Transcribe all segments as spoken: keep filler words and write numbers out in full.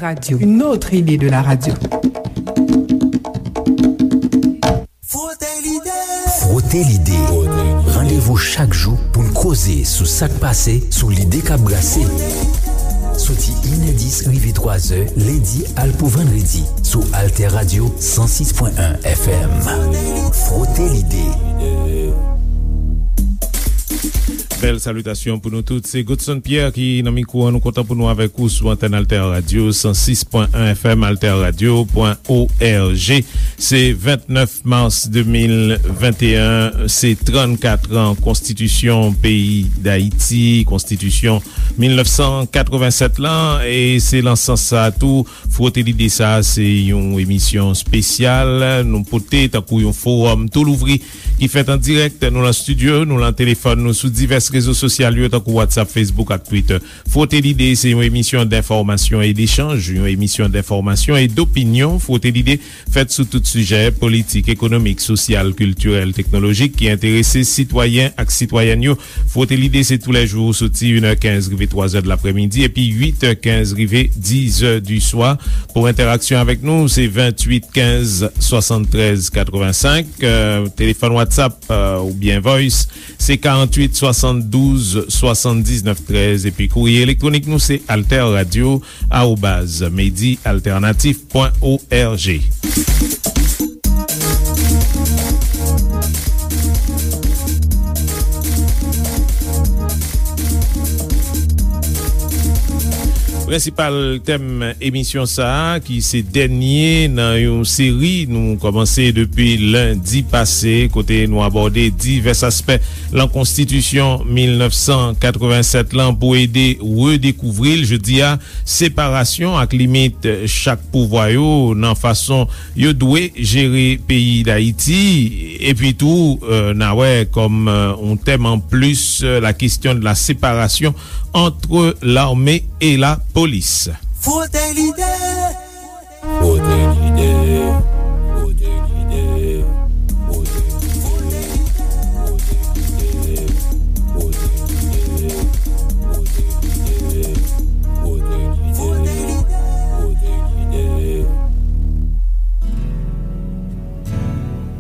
Radio, une autre idée de la radio. Frote l'idée. Frote l'idée. Randevou chak jou pou n koze sou sa k pase, sou lide k ap brase. Soti inè dis rive twazè, lendi al pou vandredi, sou Alter Radio san sis pwen en F M. Frote l'idée. Bèl salitasyon pou nou tout. Se Godson Pierre ki nan mikwo an. Nou kontan pou nou avèk ou sou antèn Alter Radio san sis pwen en F M, alterradio pwen org. Se vennèf mas de mil venteyen, se trannkat an konstitisyon peyi Dayiti, konstitisyon mil nèf san katrevennsèt lan, e se lan sans sa a tou, Frote Lide sa a, se yon emisyon espesyal nou pote tankou yon fowòm tou louvri ki fèt an dirèk. Nou lan estidyo, nou lan telefòn, nou sou divès rezo sosyal yo, tankou WhatsApp, Facebook ak Twitter. Frote Lide se yon emisyon denfòmasyon e dechanj, yon emisyon denfòmasyon e dopinyon. Frote Lide fèt sou tout sijè politik, ekonomik, sosyal, kiltirèl, teknolojik ki enterese sitwayen ak sitwayèn yo. Frote Lide se toulèjou soti inè kenz rive twazè de laprèmidi epi uitè kenz rive dizè di swa. Pou entèraksyon avèk nou, se venntuit kenz swasanntrèz katrevensenk, euh, telefòn WhatsApp, euh, oubyen Voice, se karanntuit swasanndouz swasanndiznèf trèz, epi kourye elektwonik nou se alterradio arobaz medi altènatif pwen org. Prensipal tèm emisyon sa a, ki se dènye nan yon seri nou kòmanse depi lendi pase, kote nou abòde divès aspè lan konstitisyon mil nèf san katrevennsèt lan pou ede redekouvri l. Jodi a, separasyon ak limit chak pouvwa yo nan fason yo dwe jere peyi Dayiti, epi tou, euh, n a wè kòm, euh, yon tèm anplis, euh, la question de la séparation entre l'armée et la police. Frote Lide. Frote Lide. Frote Lide. Frote Lide. Frote Lide. Frote Lide. Frote Lide. Frote Lide. Frote Lide.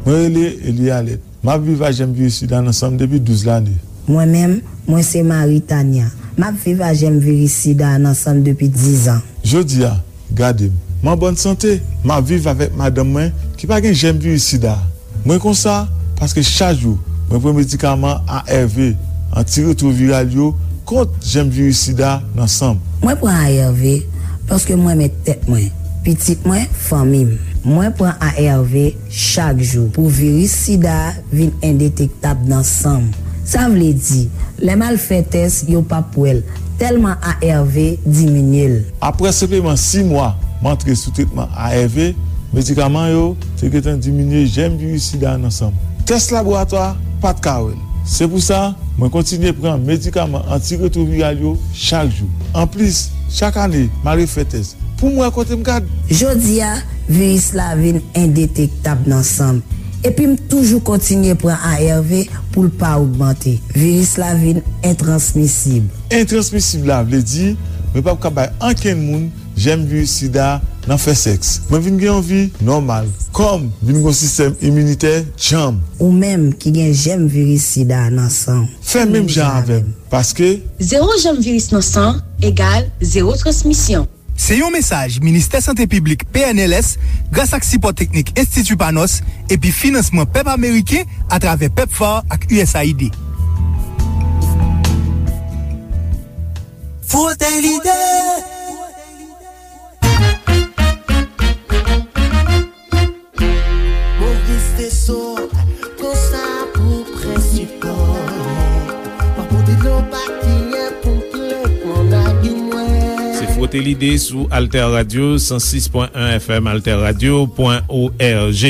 Mwen rele Eli Alèt. M ap viv ak jèm viris sida nan san m depi douz lane. Mwen menm, mwen se Marie Tania. M ap viv ak jèm viris sida a nan san m depi diz an. Jodi a, gade m. M an bòn sante. M ap viv avèk madanm mwen ki pa gen jèm viris sida a. Mwen konsa paske chak jou mwen pran medikaman A R V, antiretwoviral yo, kont jèm viris sida nan san m. Mwen pran A R V paske m renmen tèt mwen, pitit mwen, fanmi m. Mwen pran A R V chak jou pou viris sida a vin endetektab nan san m. Sa vle di, lè m al fè tès, yo p ap wè l, tèlman A R V diminye l. Apre senpleman sis mwa m antre sou tretman A R V, medikaman yo te gentan diminye jèm viris sida a nan san m. Tès laboratwa pa t ka wè l. Se pou sa, mwen kontinye pran medikaman antiretwoviral yo chak jou. Anplis, chak ane, m al refè tès pou m wè kote m gad. Jodi a, viris la vin endetektab nan san m. Epi m toujou kontinye pran A R V pou l pa ogmante. Viris la vin entransmisib. Entransmisib la vle di mwen p ap ka bay ankenn moun jèm viris sida nan fè sèks. Mwen vin gen yon vi nòmal. Kò m vin gen yon sistèm iminitè djanm. Ou menm ki gen jèm viris sida nan san w, fè menm jan avè m, paske zewo jèm viris nan san egal zewo transmisyon. Se yon mesaj Ministè Sante Piblik, P N L S, gras ak sipò teknik Enstiti Panos epi finansman pèp ameriken atravè pepfar ak U S A I D. Frote Lide. Moris Desot, konsa pou prensipal. Pa pote dlo pa kiyen pou m plen nan lagim mwen. Se Frote Lide sou Alter Radio, san sis pwen en F M, alterradio pwen org.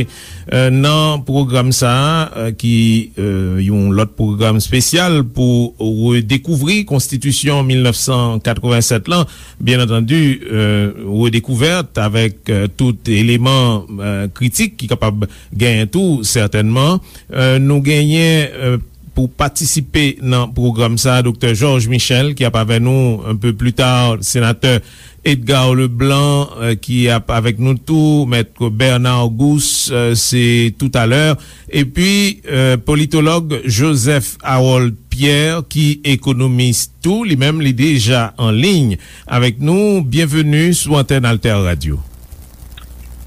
Euh, nan pwogram sa a, euh, ki, euh, yon lòt pwogram espesyal pou redekouvri Konstitisyon mil nèf san katrevennsèt lan, byen antandi, euh, redekouvèt avèk, euh, tout eleman, euh, kritik ki kapab genyen tou, sètènman. Euh, nou genyen, euh, pou patisipe nan pwogram sa, Doktè Georges Michel, ki ap avè nou un peu plus tard, Senatè Edgar Leblanc, euh, ki ap avèk nou tou, Mèt Bernard Gousse, euh, se toutalè. Epi, euh, politològ Joseph Harold Pierre, ki ekonomis tou, li menm, li deja an liy avèk nou. Byenveni sou antèn Alter Radio.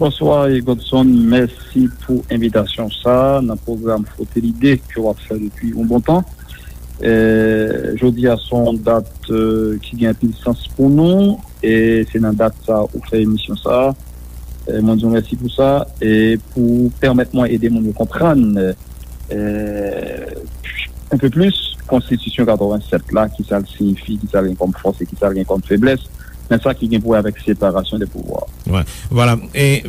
Bonswa, Godson. Mèsi pou envitasyon sa nan pwogram Frote Lide ke w ap fè depi yon bon tan. Eh, jodi a se yon dat, eh, ki gen anpil sans pou nou, e se nan dat sa ou fè emisyon sa. Eh, mwen di w mèsi pou sa, e pou pèmèt mwen ede moun yo konprann, eh, un peu plus, Konstitisyon katrevensèt la, ki sa l siyifi, ki sa l gen kòm fòs e ki sa l gen kòm feblès, nan sa ki gen pou wè avèk separasyon de pouvwa. Wi, vwala. E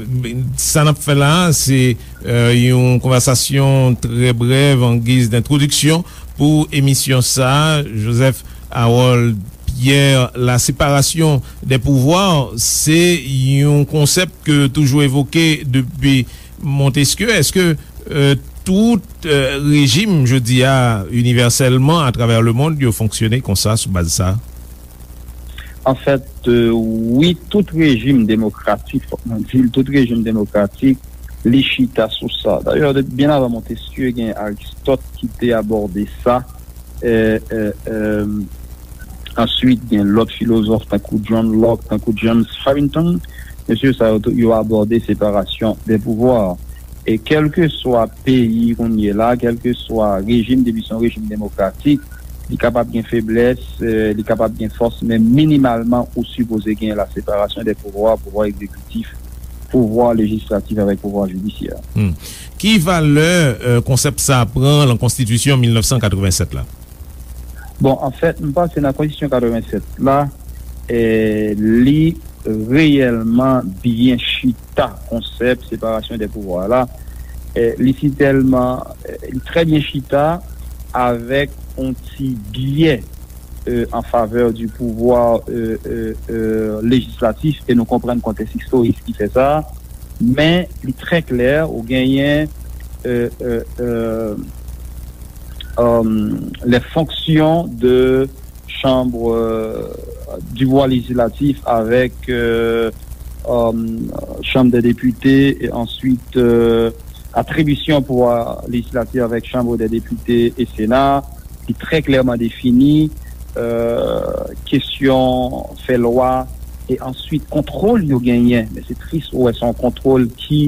sa n ap fè la a, se, eh, yon konvèsasyon trè brèv an giz dentwodiksyon pou emisyon sa a. Joseph Harold Pierre, la séparation des pouvoirs, se yon konsèp ke toujou evoke depi Montesquieu. Èske, eh, tout, eh, rejim, jodi a, inivèsèlman, atravè lemonn, yo fonksyone konsa, sou baz sa? Anfèt, eh, wi, tout rejim demokratik, fòk mwen di l, tout rejim demokratik, li chita sou sa. Dayè, de, byen avan Montesquieu, gen Aristote ki te abòde sa. Eh, eh, eh, answit, gen lòt filozòf tankou John Locke, tankou James Harrington. Mesye sa yo tou, yo abòde separasyon de pouvwa. E kèlkeswa peyi kounye la, kèlkeswa rejim, depi se yon rejim demokratik, li kapab gen feblès, eh, li kapab gen fòs, men minimalman, ou sipoze gen la separasyon de pouvwa, pouvwa egzekitif, pouvwa lejislatif avèk pouvwa jidisyè. Hmm. Ki valè, eh, konsèp sa a pran lan Konstitisyon mil nèf san katrevensèt la? Bon, anfèt, m panse nan Konstitisyon katrevensèt la, eh, li reyèlman byen chita konsèp separasyon de pouvwa la. Eh, li sitèlman, eh, li trè byen chita avèk yon ti byè, eh, an favè di pouvwa, eh, eh, eh, lejislatif, e nou konprann kontèks istorik ki fè sa. Men li trè klè, ou genyen, eh, eh, eh, euh, les fonctions de chambre, euh, du pouvoir législatif avec, euh, euh, Chambre des députés et ensuite, euh, attribution pouvoir législatif avec Chambre des députés et Sénat, ki trè klèman defini, euh, kesyon fè lwa, e answit kontwòl yo genyen. Men se tris, ou wè, se yon kontwòl ki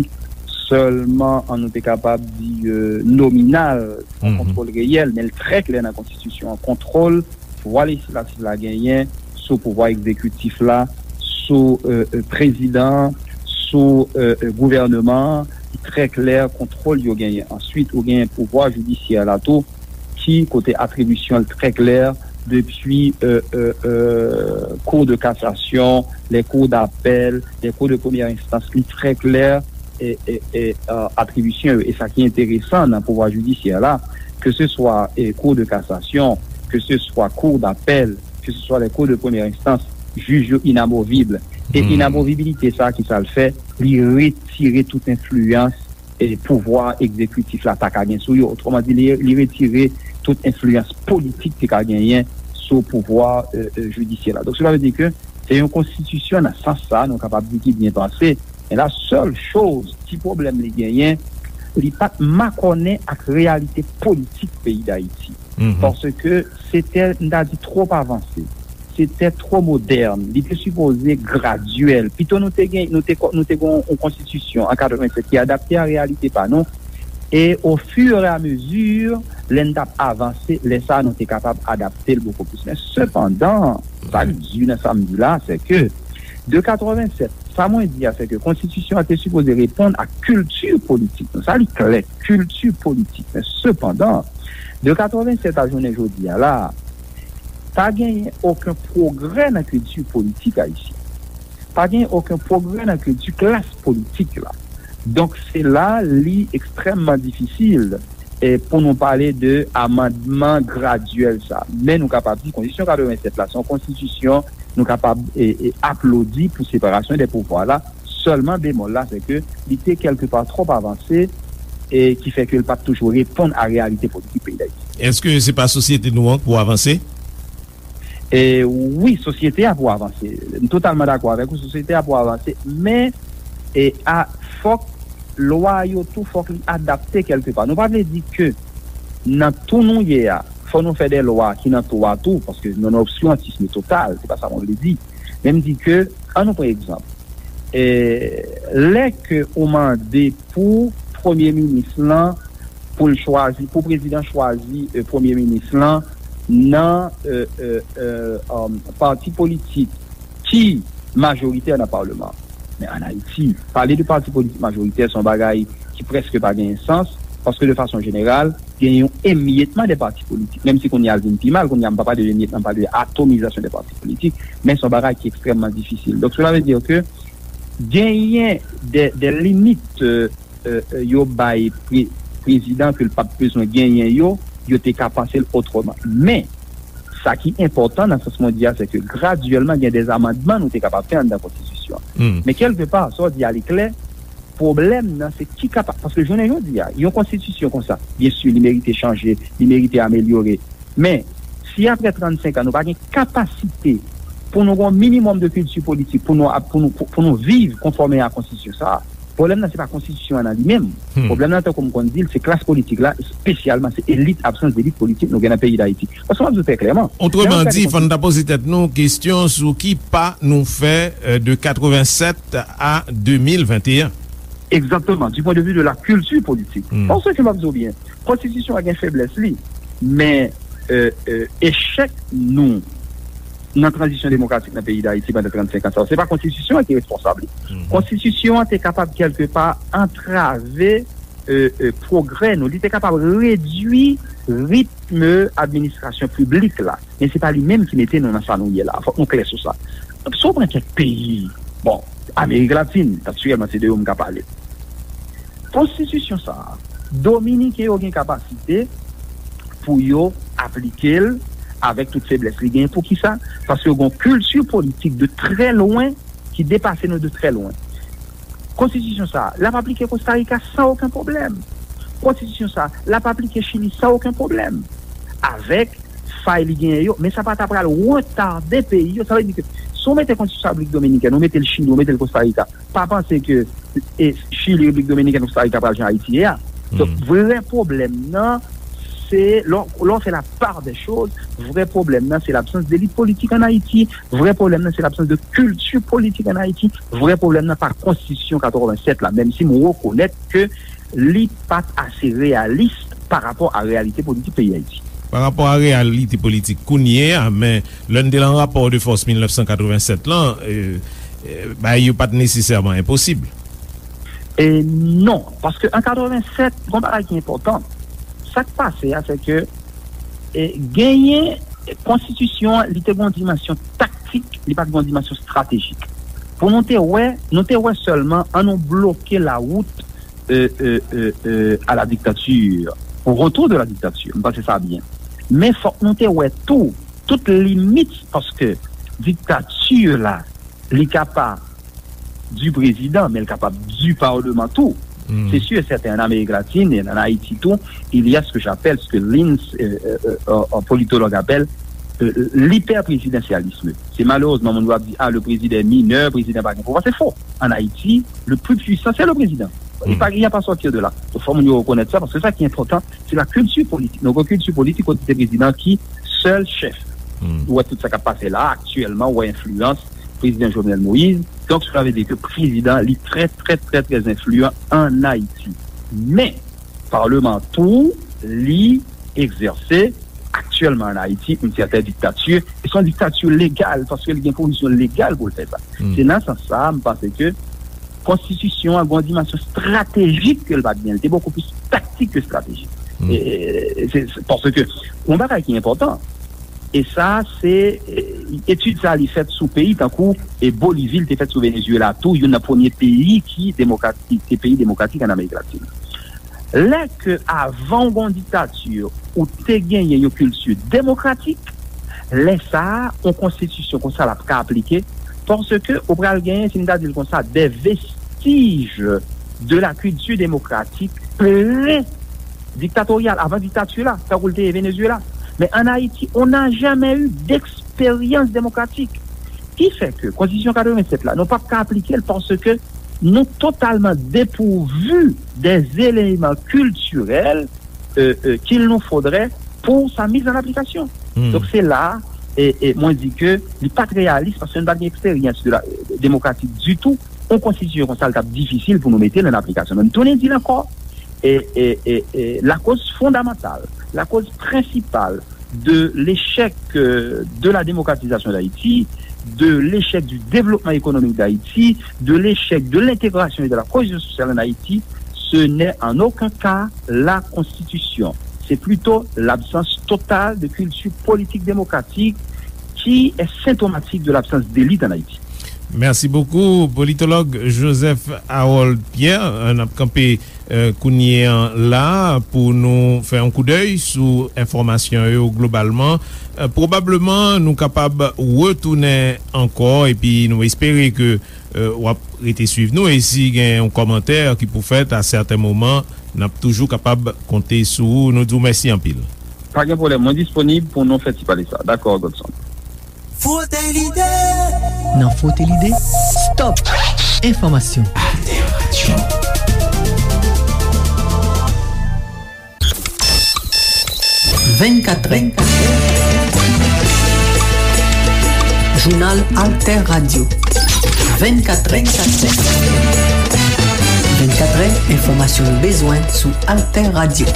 sèlman, an nou te kapab di, euh, nominal, yon kontwòl reyèl, men l trè klè nan konstitisyon an. Kontwòl pouvwa lejislatif la genyen sou pouvwa egzekitif la, sou, euh, euh, prezidan, sou, euh, euh, gouvèneman an, li trè klè, kontwòl yo genyen. Answit, ou genyen pouvwa jidisyè la tou, ki kote atribisyon l trè klè, depi, euh, euh, euh, Cour de cassation, les cours d'appel, les cours de première instance, li trè klè, e, e, e, euh, atribisyon yo. E sa ki enteresan nan pouvwa jidisyè la, ke se swa, e, Cour de cassation, ke se swa Cour d'appel, ke se swa les cours de première instance, jij yo inamovib. E inamovibilite sa, ki sa l fè? Li retire tout enfliyans, e, pouvwa egzekitif la ta ka gen sou yo. Otreman di, li, li retire tout enfliyans politik te ka genyen sou pouvwa, e, e, jidisyè la. Donk, sela vle di ke se yon konstitisyon nan sans sa, nou kapab di ki byen panse. Men la sèl choz, ti pwoblèm li genyen, li pa t makònen ak reyalite politik peyi Dayiti. Paske se te, m ta di, twòp avanse. Se te twò modèn. Li te sipoze gradyèl. Pito nou te gen, nou te, nou te gen yon konstitisyon an katrevensèt ki adapte a reyalite pa nou. E o fur e a mezi, lè n t ap avanse, lè sa a nou te kapab adapte l bokou plis. Men sepandan, sa k di nan sa m di la, se ke de katrevensèt, sa mwen di a, se ke konstitisyon an te sipoze reponn ak kilti politik nou. Sa li klè, kilti politik. Men sepandan, de katrevensèt a jounen jodi a la, pa genyen okenn pwogrè nan kilti politik ayisyen. Pa genyen okenn pwogrè nan kilti klas politik la. Donk, se la li ekstrèmman difisil, e, pou nou pale de amandman gradyèl sa. Men nou kapab di konstitisyon katrevensèt la, se yon konstitisyon nou kapab, e, e, aplodi pou separasyon de pouvwa la. Sèlman bemòl la, se ke li te kèlkepa twòp avanse, e ki fè ke l pa t toujou reponn a reyalite politik peyi Dayiti. Èske se pa sosyete nou an k pou avanse? E, wi, sosyete a pou avanse. M totalman dakò avèk ou, sosyete a pou avanse, men e, a, fòk lwa yo tou, fòk li adapte kèlkepa. Nou pa vle di ke nan tou nou ye a, fò nou fè de lwa ki nan tou a tou, paske nan obskirantism total, se pa sa mwen vle di. Men m di ke, an nou pran egzanp, e, lè ke ou mande pou premye minis lan, pou l chwazi, pou prezidan chwazi e, premye minis lan nan e, e, e, um, pati politik ki majoritè nan palman. Men ann Ayiti, pale de pati politik majoritè se yon bagay ki prèske pa genyen sans, paske de fason jeneral, genyen yon emyetman de pati politik. Menm si kounye a l vin pi mal, kounye a m pa pale de emyetman, m pale de atomizasyon de pati politik, men se yon bagay ki ekstrèmman difisil. Donk, cela veut dire que genyen de, de limit e, e, yo bay pre, prezidan ke l p ap bezwen genyen yo, yo te ka panse l otreman. Men, sa ki enpòtan nan sans mwen di a, se ke gradyèlman gen de amandman nou te kapab fè anndan konstitisyon an. Men kèlkepa, sa w di a li klè, pwoblèm nan se ki kapab, paske jounen jodi a, yon konstitisyon konsa, byen si, li merite chanje, li merite amelyore. Men, si apre trannsenk an, nou pa gen kapasite pou nou gen yon minimòm de kilti politik, pou nou, pou nou, pou, pou nou viv konfòme a konstitisyon sa a, pwoblèm nan se pa konstitisyon an nan li menm. Pwoblèm nan, tankou m konn di l, se klas politik la, espesyalman se elit, absans delit politik nou gen nan peyi Dayiti. Paske m ap di w trè klèman, lè yon Otreman gade di, fò n ta poze tèt nou kesyon sou ki pa nou fè, e, de katrevennsèt a de mil venteyen. Egzakteman, du point de vue de la culture politique. Paske m ap di w byen, konstitisyon an gen feblès li, men e, e, echèk nou nan tranzisyon demokratik nan peyi Dayiti pandan trannsenk an sa yo, se pa konstitisyon an ki responsab li. Konstitisyon an te kapab kèlkepa antrave e, e, pwogrè nou. Li te kapab redui ritm administrasyon piblik la. Men se pa li menm ki mete nou nan sa nou ye la. Fòk nou klè sou sa. Si w pran kèk peyi, bon, Amerik Latin, natirèlman, se de yo m ka pale. Konstitisyon sa a, Dominiken yo gen kapasite pou yo aplike l avèk tout feblès li genyen. Poukisa? Paske yo gen yon kilti politik de trè lwen ki depase nou de trè lwen. Konstitisyon sa a, l ap aplike Kosta Rika san okenn pwoblèm. Konstitisyon sa a, l ap aplike Chili san okenn pwoblèm. Avèk fay li genyen yo, men sa pa ta pral retade peyi yo. Sa vle di ke si w mete konstitisyon sa a Repiblik Dominikèn, ou mete l Chili, ou mete l Kosta Rika, pa panse ke e, Chili, Repiblik Dominikèn, Kosta Rika pral jan Ayiti ye a. Donk, vrè pwoblèm nan, se, lè w, lè w fè la part des choses, vrè pwoblèm nan, se labsans delit politik ann Ayiti. Vrè pwoblèm nan, se labsans de kilti politik ann Ayiti. Vrè pwoblèm nan, pa konstitisyon katrevennsèt la, menm si m rekonèt ke li pa t ase reyalis pa rapò a reyalite politik peyi Ayiti. Pa rapò a reyalite politik kounye a, men lè n te lan rapò de fòs mil nèf san katrevennsèt lan, e, e, bagay yo pa t nesesèman enposib. E non, paske an katrevennsèt, gen yon bagay ki enpòtan. Sa k pase a, se ke e, genyen, e, konstitisyon an, li te gen yon dimansyon taktik, li pa t gen yon dimansyon estratejik. Pou nou te wè, nou te wè sèlman, an nou bloke la wout e, e, e, e, à la dictature, au retour de la dictature. M panse sa byen. Men fòk nou te wè tou, tout limit, paske diktati la, li ka pa du président, men l kapab du parlement tou. Se sûr et certain, en Amérique latine et en Haïti tou, il y a ce que j'appelle, ce que Lins, euh, euh, euh, un politologue appelle, euh, l'hyperprésidentialisme. Se malerezman, moun yo ap di, ah, le président est mineur, prezidan pa gen pouvwa. Se fo. An Ayiti, le plus puissant, c'est le président. Il pa, il n'y a pas sortir de là. Donk, fò moun yo rekonèt sa, paske sa ki enpòtan, se la kilti politik. Nou gen kilti politik kote se prezidan ki sèl chèf. Ou wè tout sa k ap pase la, aktyèlman, ou wè enfliyans prezidan Jovenel Moïse. Donk, sa vle di ke prezidan, li trè, trè, trè, trè enfliyan ann Ayiti. Men, palman tou, li egzèse aktyèlman ann Ayiti, yon sèten diktati, e se yon diktati legal, paske li gen pozisyon legal pou l fè sa. Se nan sans sa a, m panse ke konstitisyon an gen yon dimansyon estratejik ke l pa t gen. Li te bokou plis taktik ke estratejik. E, e, se, se, paske yon bagay ki enpòtan, e sa, se, e, etid sa a, li fèt sou peyi tankou, e, Bolivi, li te fèt sou Venezuela tou, youn nan premye peyi ki demokratik, ki peyi demokratik ann Amerik Latin. Lè ke avan w gen yon diktati, ou te genyen yon kilti demokratik, lè sa a, yon konstitisyon konsa l ap ka aplike, paske ou pral genyen, si m ta di l konsa, des vestiges de la culture démocratique près diktatoryal, avan diktati la, tankou l te ye Venezuela. Men ann Ayiti, on n'a jamais eu d'expérience démocratique. Ki fè ke Konstitisyon katrevennsèt la, nou p ap ka aplike l paske nou totalman depouvu des éléments culturels euh, euh, qu'il nous faudrait pour sa mise en application. Donk, se la, e, e mwen di ke li pa t reyalis paske nou pa t gen eksperyans de la, demokratik ditou. Yon konstitisyon konsa, li t ap difisil pou nou mete l an aplikasyon. Men m tounen di l ankò, e, e, e, e lakoz fondamantal, lakoz prensipal de l'échec euh, de la démocratisation d'Haïti, de l'échec du développement économique d'Haïti, de l'échec de l'intégration et de la cohésion sociale en Haïti, ce n'est en aucun cas la Constitution. C'est plutôt l'absence totale de culture politique démocratique qui est symptomatique de l'absence d'élite en Haïti. Mèsi bokou, politològ Joseph Harold Pierre. N ap kanpe, eh, kounye an la pou nou fè yon koudèy sou enfòmasyon yo globalman. Eh, pwobableman, nou kapab retounen ankò, epi nou espere ke, eh, w ap rete swiv nou. E si gen yon kòmantè ki pou fèt a sèten moman, n ap toujou kapab konte sou ou. Nou di w mèsi anpil. Pa gen pwoblèm, mwen disponib pou nou fè ti pale sa. Dakò, Godson. Frote Lide. Nan Frote Lide, stop enfòmasyon. Alter Radio. Vennkatrè. Jounal Alter Radio. Vennkatrè. Vennkatrè, enfòmasyon nou bezwen sou Alter Radio.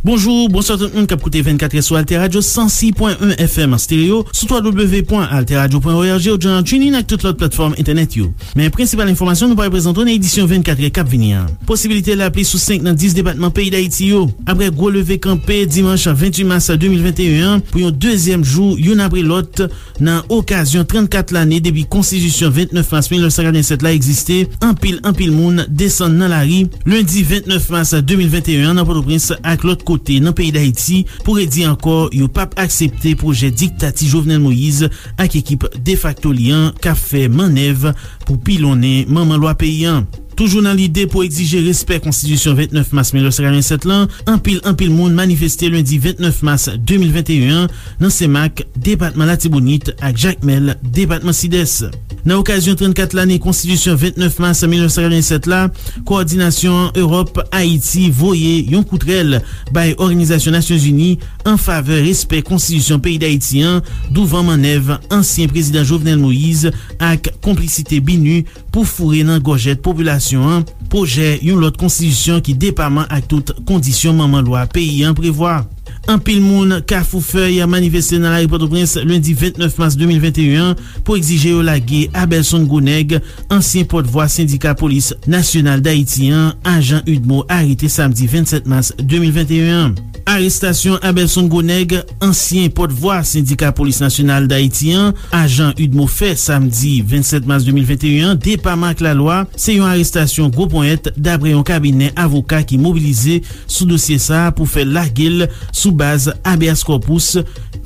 Bonjou, bonswa tout moun k ap koute vennkatrè sou Alter Radio san sis pwen en F M an stereo, sou twa W pwen alter radio pwen org, ou jan TuneIn ak tout lòt platfòm entènèt yo. Men prensipal enfòmasyon nou pral prezante w nan edisyon vennkatrè k ap vini an. Posibilite lapli sou senk nan dis depatman peyi Dayiti yo. Apre gwo leve kanpe dimanch venntuit mas de mil venteyen an pou yon dezyèm jou youn apre lòt, nan okazyon trannkat lane depi Konstitisyon vennèf mas mil nèf san katrevennsèt la egziste, anpil, anpil moun desann nan lari lendi vennèf mas de mil venteyen an nan Pòtoprens ak lòt kote nan peyi Dayiti pou redi ankò yo p ap aksepte pwojè diktati Jovenel Moïse ak ekip defakto li an k ap fè mannèv pou pilonnen manman lwa peyi an. Toujou nan lide pou egzije respè Konstitisyon vennèf mas mil nèf san katrevennsèt lan, anpil, anpil moun manifeste lendi vennèf mas de mil venteyen an nan Senmak, depatman Latibonit, ak Jakmèl, depatman Sidès. Nan okazyon trannkat lane Konstitisyon vennèf mas mil nèf san katrevennsèt la, Kowòdinasyon Ewòp Ayiti voye yon kout rèl bay Òganizasyon Nasyonzini an favè respè Konstitisyon peyi Dayiti an, douvan mannèv ansyen prezidan Jovenel Moïse ak konplisite BINUH pou foure nan gòjèt popilasyon an pwojè yon lòt konstitisyon ki depaman ak tout kondisyon manman lwa peyi an prevwa. Anpil moun Kafou Fèy manifeste nan lari Pòtoprens lendi vennèf mas de mil venteyen an pou egzije yo lage Abelson Gwonèg, ansyen pòtvwa sendika polis nasyonal Dayiti an, ajan udmo, arete samdi vennsèt mas de mil venteyen an. Arestasyon Abelson Gwonèg, ansyen pòtvwa sendika polis nasyonal Dayiti an, ajan udmo, fè samdi vennsèt mas de mil venteyen an, depaman ak lalwa, se yon arestasyon gwo ponyèt, daprè yon kabinè avoka ki mobilize sou dosye sa a pou fè lage l sou baz habeas corpus,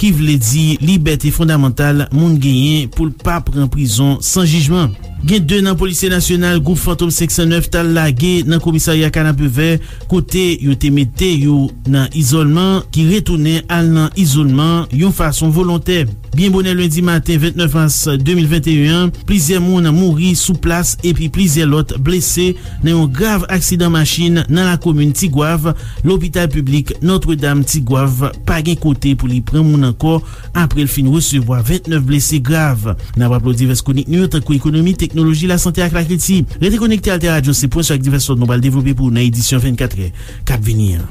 ki vle di libète fondamantal moun genyen pou l pa pran prizon san jijman. Gen de nan polisye nasyonal gwoup Fantom senk san nèf t al lage nan komisarya Kanapevè, kote yo te mete yo nan izòlman, ki retounen al nan izòlman yon fason volontè. Byen bonè lendi maten vennèf mas de mil venteyen an, plizyè moun mouri sou plas epi plizyè lòt blese nan yon grav aksidan machin nan lakomin Tigwav. Lopital piblik Nòtredam Tigwav pa gen kote pou li pran moun ankò apre l fin resevwa vennèf blese grav. N ap raple w divès kwonik nou yo, tankou ekonomi, teknoloji, lasante ak lakilti. Rete konekte Alter Radio, se pwen sou ak divès lòt nou pral devlope pou ou nan edisyon vennkatrè k ap vini an.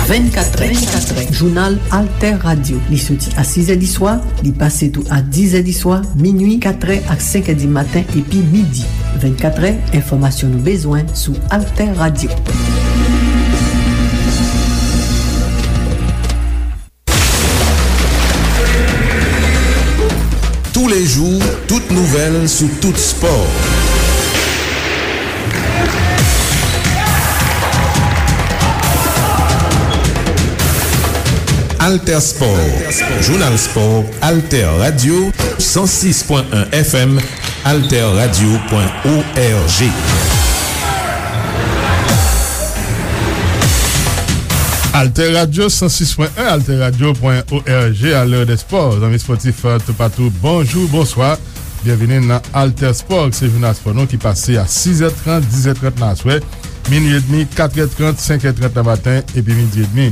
Vennkatrè, vennkatrè, jounal Alter Radio. Li soti a sizè di swa, li pase tou a dizè di swa, minui, katrè ak senkè di maten epi midi. Vennkatrè, enfòmasyon nou bezwen sou Alter Radio. Tous les jours, toute nouvelle sous tout sport. Alter Sport, jounal spò, Alter Radio, san sis pwen en F M, alter radio pwen org. Alter Radio san sis pwen en, alterradio pwen org, a lè dè spò. Zanmi spòtif, euh, toupatou, bonjou, bonswa. Byenvini nan Alter Sport, se jounal spò nou ki pase a sis è trant, dis è trant nan aswè, minui edmi, kat è trant, senk è trant nan maten, epi midi edmi.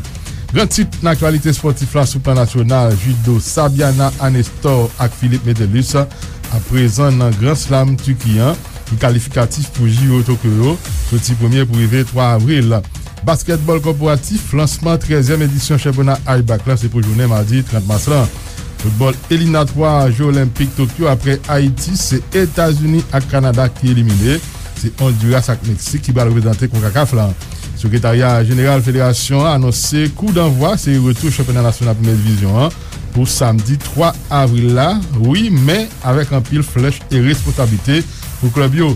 Gran tit nan aktyalite spòtif la sou plan nasyonal, jido, Sabiana Anestor ak Philippe Metellus, aprezan nan Gran Slam Tiki an, ki kalifikatif pou J O Tokyo yo, soti premye pou rive twa avril. Baskètbòl kòporatif, lansman trèzyèm edisyon chanpyona I B A C la, se pou jounen madi trant mas lan. Foutbòl eliminatwa Jeux Olympiques Tokyo, apre Ayiti, se Etazini ak Kanada ki elimine. Se Ondiras ak Meksik ki pral reprezante konkakaf la. Sekretarya Jeneral Federasyon an anonse kou danvwa seri retou chanpyona nasyonal premyè divizyon an pou samdi twa avril la. Wi, men avèk anpil flèch e responsablite pou klèb yo.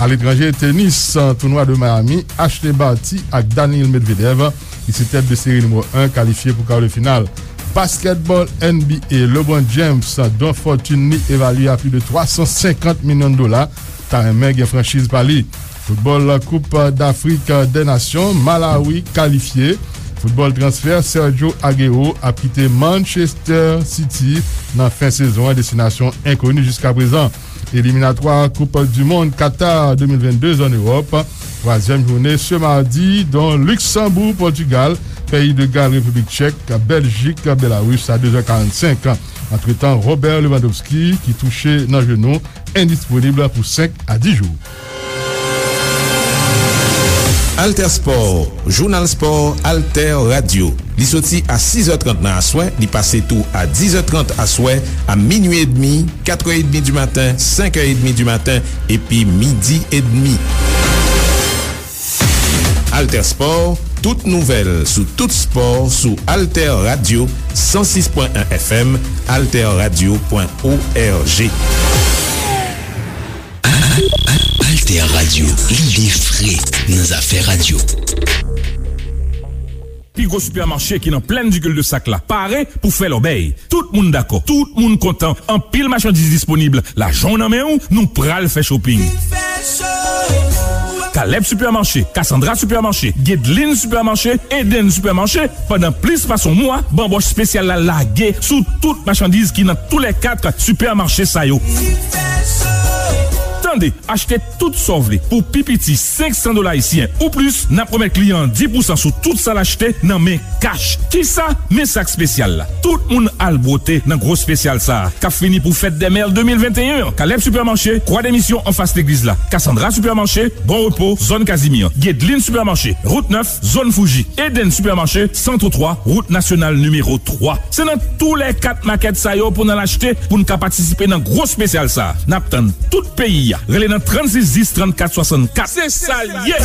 Aletranje, tenis, tounwa de Miami, Ashleigh Barty ak Daniil Medvedev, ki se tèt de seri nimewo en, kalifye pou kar de final. Baskètbòl N B A, LeBron James, don fòtin li evalye a plis de twa san senkant milyon dola, ta renmen gen franchiz pa li. Foutbòl Koup Dafrik dè Nasyon, Malawi kalifye. Foutbòl transfè, Sergio Aguero ap kite Manchester City nan fen sezon an, destinasyon enkoni jiskaprezan. Eliminatwa Koup di Mond Qatar de mil vennde an Ewòp, twazyèm jounen se madi, don Luksanboug, Pòtigal, Peyi de Gal, Repiblik Tchèk, Bèljik, Belarus a de zè karannsenk. Antretan, Robert Lewandowski, ki touche nan jenou, endisponib pou senk a dis jou. Alter Sport, jounal spò Alter Radio. Li soti a sis è trant nan aswè, li pase tou a dis è trant aswè, a minui edmi, kat è edmi di maten, senk è edmi di maten, epi midi edmi. Alter Sport, tout nouvèl sou tout spò sou Alter Radio san sis pwen en F M, alterradio pwen org. Alter Radio, lide fre nan zafè radyo. Pi gwo sipèmache ki nan plèn di Cul-de-Sac la pare pou fè lòbèy. Tout moun dakò, tout moun kontan, anpil machandiz disponib, lajan w nan men w, nou pral fè shopping. Caleb Supermarché, Cassandra Supermarché, Guedeline Supermarché, Eden Supermarché, pandan plis pase yon mwa, banbòch espesyal la lage sou tout machandiz ki nan toulèkat sipèmache sa yo. Tande, achte tout sa w vle pou pi piti senk san dola ayisyen ou plis, n ap remèt kliyan an dis pousan sou tout sa l achte nan men kach. Kisa? Men sak espesyal la. Tout moun al bwote nan gwo espesyal sa a, k ap fini pou Fèt dè Mè de mil venteyen an. Caleb Supermarché, Kwa de Misyon anfas legliz la. Cassandra Supermarché, Bon Repo, zòn Kazimi an. Guedeline Supermarché, Wout nèf, zòn Fouji. Eden Supermarché, Santotwa, Wout Nasyonal nimewo twa. Se nan toulèkat makèt sa yo pou n al achte, pou n ka patisipe nan gwo espesyal sa a. N ap tann tout peyi a. Rele nan trannsis dis, trannkat swasannkat. Se sa l ye!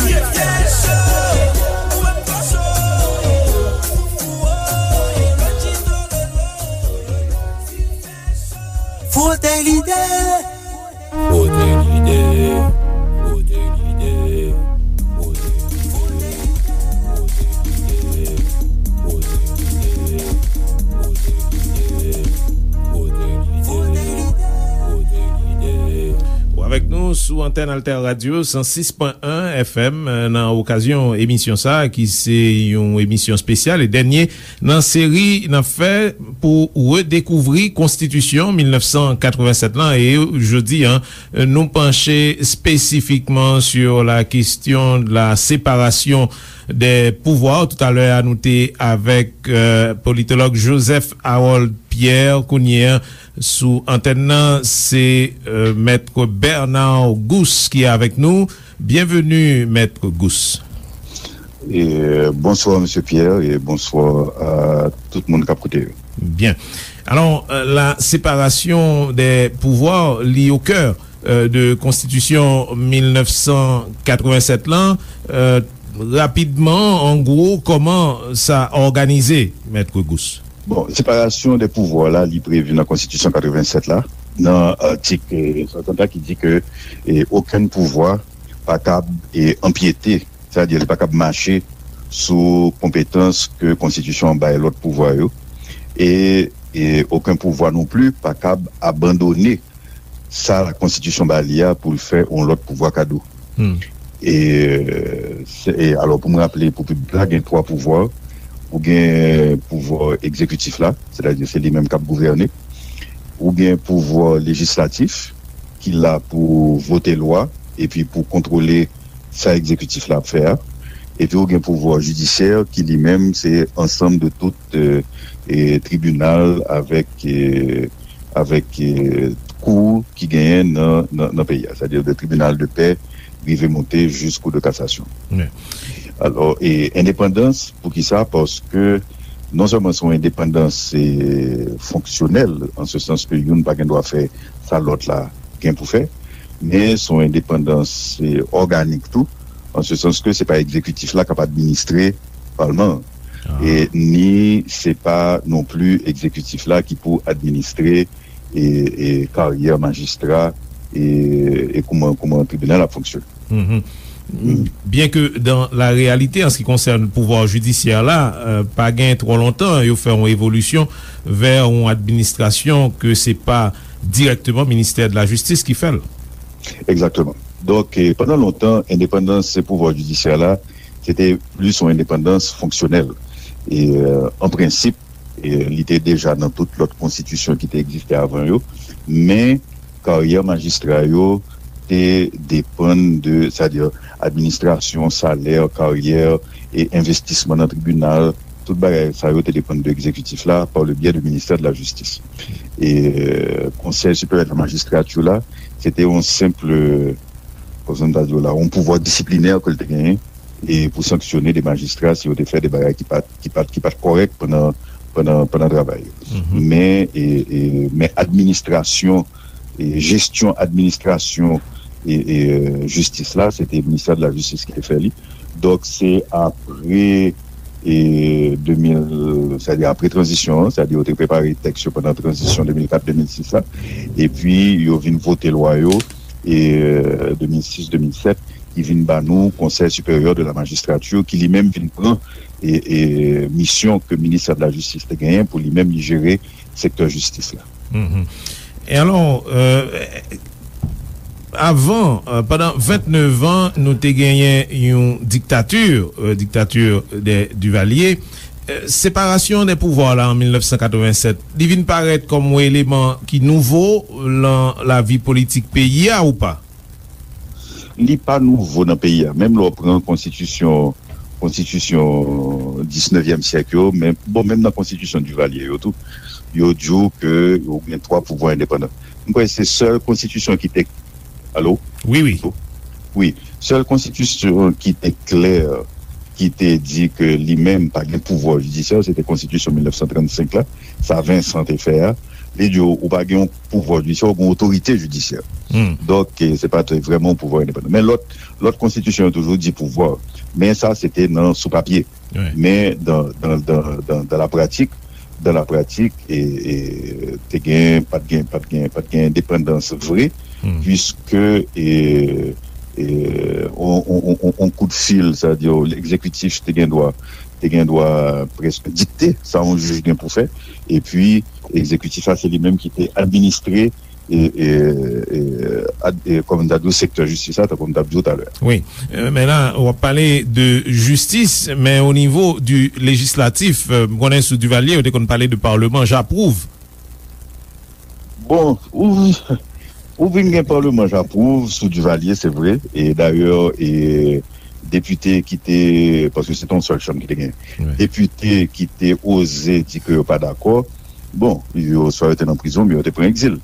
Frote lide! Frote lide, frote lide, frote lide, frote lide, frote lide, frote lide, frote lide. Ou avèk nou sou antèn Alter Radio san sis pwen en F M, nan okazyon emisyon sa a, ki se yon emisyon espesyal e dènye nan seri n ap fè pou redekouvri Konstitisyon mil nèf san katrevennsèt lan, e jodi a, nou panche spesifikman sur la question de la séparation des pouvoirs. Toutalè a, nou te avèk, euh, politològ Joseph Harold Pierre. Kounye a, sou antèn nan, se, euh, Mèt Bernard Gousse ki avèk nou. Byenveni, Mèt Gousse. E, bonswa, Mesye Pierre, e bonswa a tout moun k ap koute yo. Byen. Alò, euh, la séparation des pouvoirs, li o kè, euh, de Konstitisyon mil nèf san katrevennsèt lan. Euh, rapidman, an gwo, kòman sa òganize, Mèt Gousse? Bon, séparation des pouvoirs la, li previ nan Konstitisyon katrevennsèt la, nan atik, euh, swasant la ki di ke, eh, okenn pouvwa pa kab, eh, anpyete, sètadi li pa kab mache sou konpetans ke Konstitisyon an bay lòt pouvwa yo, e, e okenn pouvwa non pli pa kab abandone sa Konstitisyon ba li a pou l fè yon lòt pouvwa kado. Hmm. E, se, e alò, pou m raple pou piblik la, gen twa pouvwa. Ou gen pouvwa egzekitif la, sètadi se li menm k ap gouvène. Ou gen pouvwa lejislatif, ki la pou vote lwa, epi pou kontwole sa egzekitif la ap fè a. Epi ou gen pouvwa jidisyè, ki li menm se ansanm de tout, e, e, tribinal avèk, e, avèk, e, kou ki genyen nan, nan, nan peyi a, sètadi de tribinal de pè rive monte jis kou de kasasyon. Alò, e, endepandans, poukisa? Paske non sèlman se yon endepandans, e, fonksyonèl, an se sans ke youn pa gen dwa fè sa lòt la gen pou fè, men se yon endepandans, e, òganik tou, an se sans ke se pa egzekitif la k ap administre palman an, e ni se pa non pli egzekitif la ki pou administre, e, e karyè majistra, e, e kouman, kouman tribinal ap fonksyone. Byen ke dan la reyalite, an se ki konsène pouvwa jidisyè la, pa gen twò lontan yo fè yon evolisyon vè yon administrasyon ke se pa dirèkteman ministè de la jistis ki fè l. Egzakteman. Donk, pandan lontan, endepandans pouvwa jidisyè la, se te plis yon endepandans fonksyonèl. E, an prensip, e, li te deja nan tout lòt konstitisyon ki te egziste avan yo, men karyè majistra yo te depann de, sètadi administrasyon, salè, karyè, e envestisman nan tribinal, tout bagay sa yo te depann de egzekitif la, par le biais du ministère de la Justice. E, e, Konsèy Siperyè de la Majistrati la, se te yon senp, kòmsi m ta di w la, yon pouvwa disiplinè ke l te genyen, e pou sanksyone de majistra si yo te fè de bagay ki pa t, ki pa t, ki pa t kòrèk pandan, pandan, pandan travay yo. Men, e, e, men administrasyon, e, jesyon administrasyon, e, e, jistis la, se te ministè de la jistis ki te fè li. Donk, se apre, e, de mil, sètadi apre tranzisyon an, sètadi yo te prepare tèks yo pandan tranzisyon de mil kat de mil sis la, epi yo vin vote lwa yo, e, de mil sis de mil sèt, ki vin ba nou Conseil Supérieur de la Magistrature, ki li menm vin pran, e, e, misyon ke ministè de la jistis te genyen pou li menm li jere sektè jistis la. E alò, e, avan, e, pandan vennnev an, nou te genyen yon diktati, e, diktati de Duvalier. E, separasyon de pouvwa la an mil nèf san katrevennsèt, li vin parèt kòm yon eleman ki nouvo lan lavi politik peyi a ou pa? Li pa nouvo nan peyi a. Menm lè w pran konstitisyon, konstitisyon disnevyèm syèk yo, men, bon, menm nan konstitisyon Duvalier yo tou, yo di w ke yo gen twa pouvwa endepandan. M kwè se sèl konstitisyon ki te, alo? Wi, wi. Wi. Sèl konstitisyon ki te klè, ki te di ke li menm pa gen pouvwa jidisyè, se te konstitisyon mil nèf san trannsenk la, sa Vincent te fè a. Li di w, ou pa gen yon pouvwa jidisyè, ou gen yon otorite jidisyè. Donk, e, se pa te vrèman yon pouvwa endepandan. Men lòt, lòt konstitisyon yo toujou di pouvwa. Men sa, se te nan, sou papye. Men dan, dan, dan, dan, dan la pratik, dan la pratik, e, e, te gen, pa t gen, pa t gen, pa t gen endepandans vre, piske, e, e, on, on, on, on, on kout fil, sa di, egzekitif te gen dwa, te gen dwa prèske dikte sa yon jij gen pou fè, epi egzekitif la, se li menm ki te administre e, e, e, ad, e, kòm m ta di w, sektè jistis la, tankou m t ap di w talè a. Wi. E, men la, w ap pale de jistis, men o nivo di lejislatif, e, m konnen sou Duvalier, yo te konn pale de parlement, j'approuve. Bon, ou, ou vin gen parlement, j'approuve, sou Duvalier, se vre. E dayè, e, depite ki te, paske se te yon sèl chanm ki te gen. Depite ki te oze di ke yo pa dakò, bon, yo, swa yo te nan prizon, oubyen yo te pran egzil.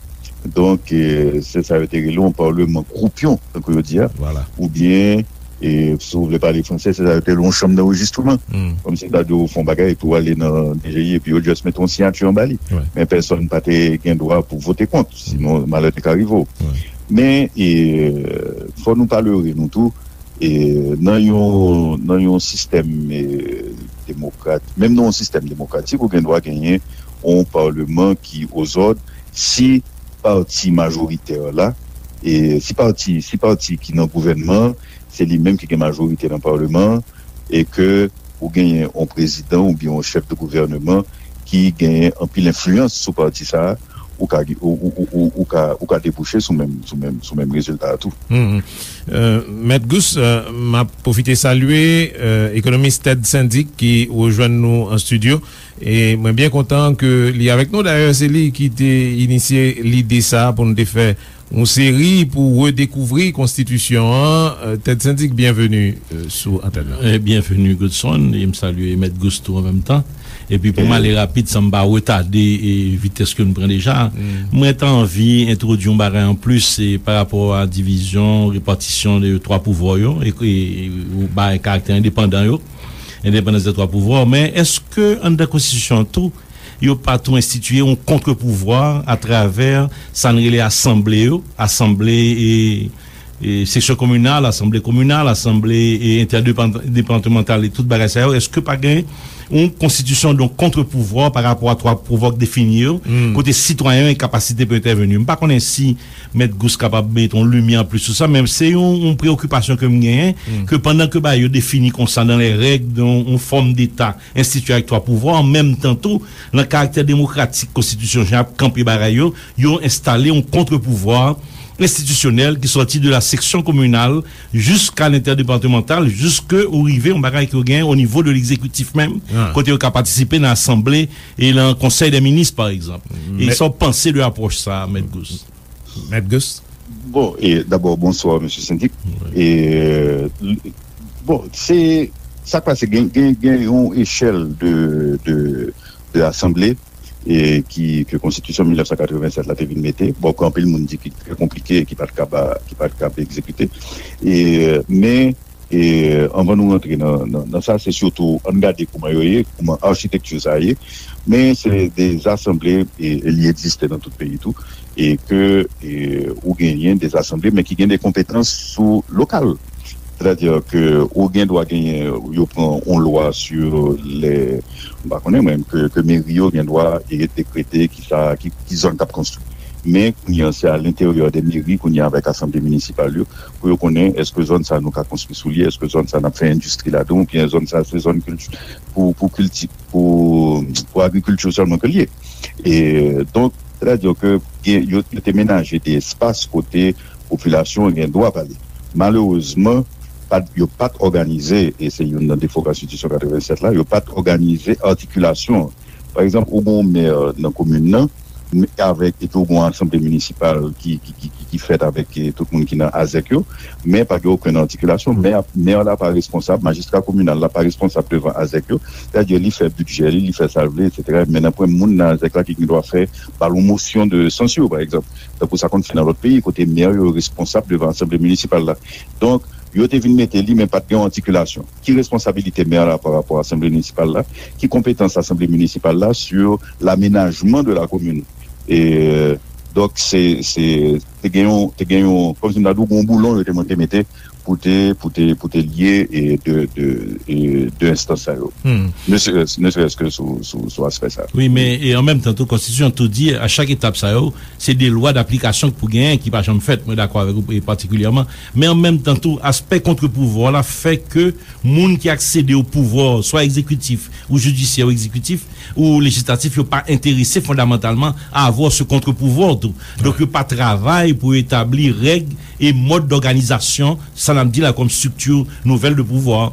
Donk, e, se sa yo te rele yon parlement croupion, tankou yo di a. Oubyen, e, si w vle pale fransè, se sa yo te rele yon chanm d'enregistrement. Kòmsi ta di w fè yon bagay, epi w ale nan D G I, epi yo just mete yon siyati anba li. Men pèsonn pa te gen dwa pou vote kont, sinon malè te ka rive w. Men, e, fò nou pa lere nou tou, e, nan yon, nan yon sistèm, e, demokrat, menm nan yon sistèm demokratik, ou gen dwa genyen yon parleman ki ozòd si pati majoritè la, e, si pati, si pati ki nan gouvènman an, se li menm ki gen majorite nan parleman an, e ke ou genyen yon prezidan oubyen yon chèf de gouvèneman ki genyen anpil enfliyans sou pati sa a, ou ka, ou, ou, ou, ou, ou ka, ou ka debouche sou menm, sou menm, sou menm rezilta a tou. Mhm. Euh, Mèt Gous, euh, m ap pwofite salye, euh, ekonomis Ted Syndic ki rejwenn nou an estidyo. E mwen byen kontan ke li avèk nou. Dayè, se li ki te inisye lide sa a pou nou te fè yon seri pou redekouvri konstitisyon an. Euh, Ted Syndic, byenveni, euh, sou antèn nan. Eh, byenveni, Godson, e m salye Mèt Gous tou an menm tan. Epi pou m ale rapid, san m pa retade, e, vitès ke n pran deja, mwen ta anvi entwodui yon bagay anplis, e, pa rapò a divizyon, repatisyon de twa pouvwa yo, e, e, ou bay karaktè endepandan yo, endepandans de twa pouvwa, men èske anndan konstitisyon an tou, yo pa tou enstitiye yon kontrpouvwa atravè sa n rele asanble yo, asanble, e, e, seksyon kominal, asanble kominal, asanble, e, entèdepatmantal e tout bagay sa yo, èske pa gen yon konstitisyon, donk, kontrpouvwa pa rapò a twa pouvwa k defini yo, kote sitwayen yo gen kapasite pou entèveni? M pa konnen si Mèt Gous kapab mete yon limyè anplis sou sa, men se yon, yon preyokipasyon ke m genyen, ke pandan ke bagay yo defini konsa dans les règles, yon, yon fòm deta enstitiye avèk twa pouvwa, an menm tan tou, nan karaktè demokratik konstitisyon jan ap kanpe bagay yo, yo enstale yon kontrpouvwa enstitisyonèl ki sòti de la seksyon kominal jiska lentèdepatmantal, jiske ou rive yon bagay ke w gen o nivo de legzekitif menm, kote yo ka patisipe nan asanble e nan konsèy dè minis, pa egzanp. E sa w panse de apwòch sa a, Mèt Gous? Mèt Gous? Bon, e dabò, bonswa, mesye Sendik. E, bon, se, sa k pase, gen, gen, gen yon echèl de, de, de asanble, e ki, ke konstitisyon mil nèf san katrevennsèt la te vin mete, bon, ke anpil moun di ki trè konplike, ki pa t kab, ki pa t kab egzekite. E, men, e, anvan nou rantre nan, nan, nan sa, se sitou, ann gade kouman yo ye, kouman achitekti sa ye, men se de asanble, e, e li egziste nan tout peyi tou, e ke, e, ou genyen de asanble, men ki gen de konpetans sou lokal. Sètadi ke ou gen dwa genyen, yo pran yon lwa sou lè, m pa konnen mwen, ke, ke meri yo gen dwa e dekrete ki sa, ki, ki zòn k ap konstwi. Men, kounye a, se a lenteryè de meri, kounye a, avèk asanble minisipal yo, pou yo konnen èske zòn sa nou ka konstwi sou li, èske zòn sa n ap fè endistri ladan, oubyen zòn sa se zòn kilti-, pou, pou kilti-, pou, pou agrikilti sèlman ke l ye. E, donk, sètadi ke gen, yo, yo te menaje de espas kote popilasyon an gen dwa pale. Malerezman, pa t, yo pa t òganize, e se youn nan defo konstitisyon katrevennsèt la, yo pa t òganize atikilasyon an. Pa egzanp, ou gen yon mè nan komin nan, m-, avèk, epi ou gen yon asanble minisipal ki, ki, ki, ki, ki fèt avèk, e, tout moun ki nan azèk yo, men pa gen okenn atikilasyon. Mè a, mè la pa responsab, majistra kominal la pa responsab devan azèk yo, sètadi li fè bidjè li, li fè sa l vle, etsetera. Men nan pwen moun nan azèk la ki gen dwa fè, ba l yon mosyon de sansyon, pa egzanp. Tankou sa konn fèt nan lòt peyi, kote mè yo responsab devan asanble minisipal la. Donk, yo te vin mete li, men pa t gen yon atikilasyon. Ki responsabilite mè la pa rapò a asanble minisipal la? Ki konpetans asanble minisipal la sur l'aménagement de la commune? E, donk, se, se, te gen yon, te gen yon, kòmsi m ta di w, yon boulon yo te monte mete pou te, pou te, pou te lye, e, de, de, e, de enstans sa yo. Ne serait-ce, ne serait-ce que sou, sou, sou aspè sa. Wi, men, e an menm tan tou, konstitisyon tou di, a chak etap sa yo, se de lwa daplikasyon k pou genyen ki pa janm fèt, mwen dakò avèk ou, e patikilyèman. Men an menm tan tou, aspè kontrpouvwa la fè ke moun ki aksede o pouvwa, swa egzekitif, ou jidisyè, ou egzekitif, ou lejislatif, yo pa enterese fondamantalman a avoir ce contre-pouvoir tou. Donk, yo pa travay pou etabli règ e mòd dòganizasyon, sa n ap di la, kòm strikti nouvèl de pouvwa.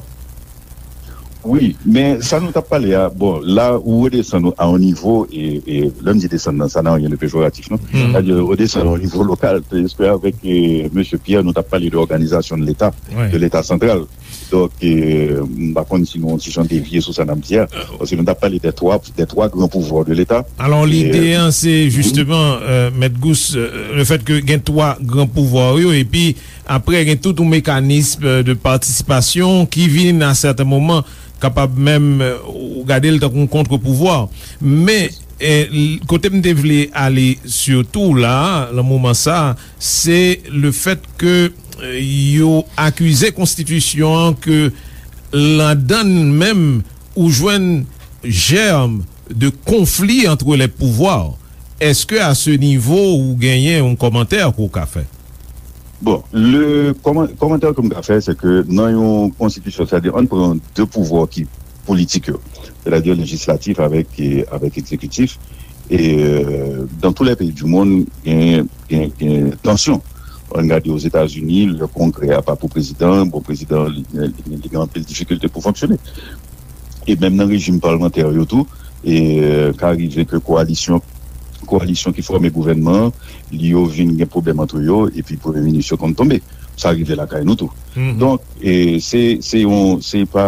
Wi, men sa nou t ap pale a, bon, la ou redesann a yon nivo, e, e lè m di desann nan, ça n'a rien de péjoratif, non? Sètadi, redesann a yon nivo lokal, paske avèk, e, mesye Pierre, nou t ap pale de òganizasyon de Leta, de Leta santral. Donk, e, m pa konn si nou yon ti jan devye sou sa n ap di a, paske nou t ap pale de twa, de twa gran pouvwa de Leta. Alò, e, lide an, se jisteman, e, Mèt Gous, e, le fèt ke gen twa gran pouvwa yo, epi apre, gen tout yon mekanis, e, de patisipasyon ki vin a sèten moman kapab menm, e, ou gade l tankou yon kontrpouvwa. Men, e, l-, kote m te vle ale sitou la, nan moman sa, se le fèt ke, e, yo akize konstitisyon an ke ladan l menm, ou jwenn jèm de konfli entre les pouvoirs. Èske a se nivo ou genyen yon kòmantè ke w ka fè? Bon, le kòman-, kòmantè ke m ka fè, se ke nan yon konstitisyon, sètadi, ann pran de pouvwa ki politik yo, sètadi lejislatif avèk, e, avèk egzekitif, E, euh, dans tous les pays du monde, gen, gen, gen tansyon. Ann gade Ozetazini, lè kongrè a pa pou prezidan, bon, prezidan li, li, li gen anpil difikilte pou fonksyone. E menm nan rejim palmantè yo tou, e, euh, ka rive ke koalisyon, koalisyon ki fòme gouvènman an, li yo vin gen pwoblèm ant yo, epi premye minis yo konn tonbe. Sa rive lakay nou tou. Donk, e, se, se yon, se pa,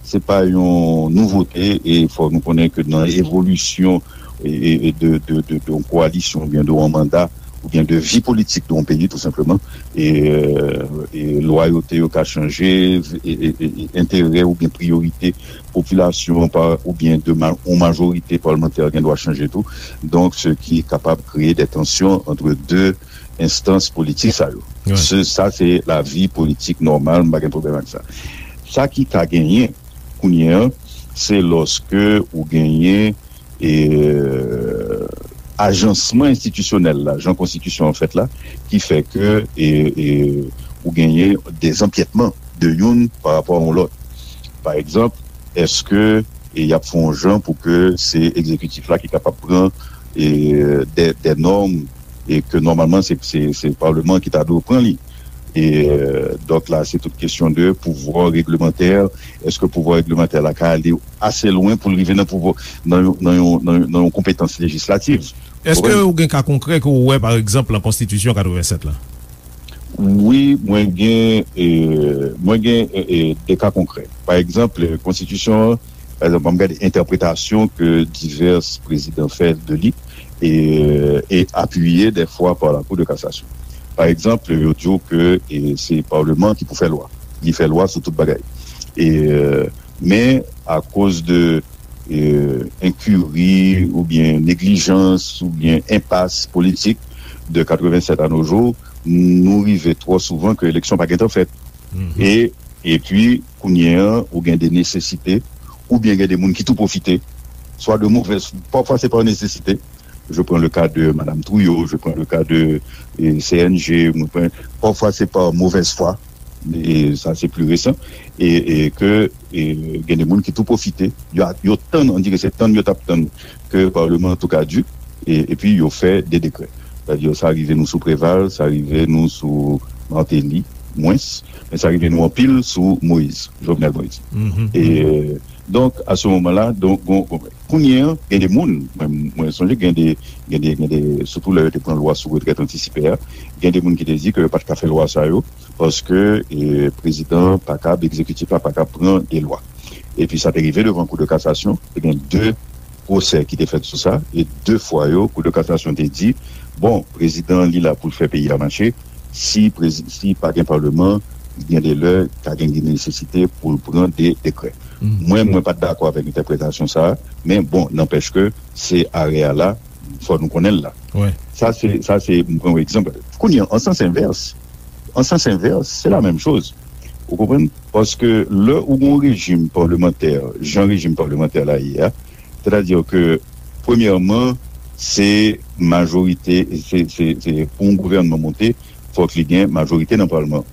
se pa yon nouvote, e fò nou konnen ke nan evolisyon, e, e, e de, de, de, de yon koalisyon oubyen de yon manda, oubyen de vi politik de yon peyi, tou senpleman, e, euh, e lwayote yo ka chanje, e, e, e, e enterè oubyen priyorite popilasyon pa, oubyen de ma-, yon majorite palmantè gen dwa chanje tou. Donk, se ki kapab kreye de tansyon ant de enstans politik sa yo. Se, sa se lavi politik nòmal, m pa gen pwoblèm ak sa. Sa ki ka genyen kounye a, se lòske ou genyen, e, ajansman enstitisyonèl la, jan konstitisyon an fèt la, ki fè ke, e, e, ou genyen dezanpyètman de youn pa rapò a yon lòt. Pa egzanp, èske, e, y ap fè yon jan pou ke se egzekitif la ki kapab pran, e, de, de nòm, e ke nòmalman se, se, se palman ki ta dwe pran li? E, euh, donk la, se tout kesyon de pouvwa reglemantè. Èske pouvwa reglemantè la ka ale ase lwen pou l rive nan pouvwa, nan yon, nan yon, nan yon, nan yon konpetans lejislatif? Èske ou gen ka konkrè ke w wè, pa egzanp, nan konstitisyon katrevennsèt la? Wi, mwen gen, e, mwen gen, e, e, de ka konkrè. Pa egzanp, konstitisyon an, pa egzanp, an m gade entèpretasyon ke divès prezidan fè de li, e, e apiye dèfwa pa la Cour de cassation. Pa egzanp, yo di w ke, e, se palman ki pou fè lwa. Li fè lwa sou tout bagay. E, e, men, akoz de, e, enkiri oubyen neglijans oubyen enpas politik de katrevennsèt à nos jours, nou rive twò souvan ke eleksyon pa gentan fèt. E, epi, kounye a, ou gen de nesesite, oubyen gen de moun ki tou pwofite, swa de movèz, pafwa se pa nesesite. Je prends le cas de Madame Trouillot, je prends le cas de, e, C N G, mwen pran, pafwa se pa movèz fwa, e sa se pli resan, e, e ke, e, gen de moun ki tou pwofite, yo, yo tann, on dirait se tann yo t ap tann ke palman an tou kaduk, e, epi yo fè de dekrè. Sètadi, sa rive nou sou Preval, sa rive nou sou Martelly, mwens, men sa rive nou anpil sou Moïse, Jovenel Moïse. E, donk, à ce moment-là, donk, gon, gon, kounye a, gen de moun, mwen, mwen sonje gen de, gen de, gen de, sitou lè yo te pran lwa sou retrèt antisipe a, gen de moun ki te di ke yo pa t ka fè lwa sa yo, paske, e, prezidan pa kab, egzekitif la pa kab pran de lwa. Epi sa te rive devan Kou de kasasyon, te gen de pwosè ki te fèt sou sa, e de fwa yo, Kou de kasasyon te di, bon, prezidan li la pou l fè peyi a mache, si prezi-, si pa gen palman, gen de lè, ka gen, gen nesesite pou l pran de dekrè. Mwen, mwen pa t dakò avèk entèpretasyon sa a, men bon, nanpèch ke se arè a la, fò nou konnen l la. Sa se, sa se, m pran yon egzanp. Kounye a, an sans envès, an sans envès, se la menm choz. Ou konprann? Paske lè ou gen yon rejim palmantè, jan rejim palmantè la ye a, sètadi ke, premyèman, se majorite, se, se, se pou yon gouvènman monte, fòk li gen majorite nan palman.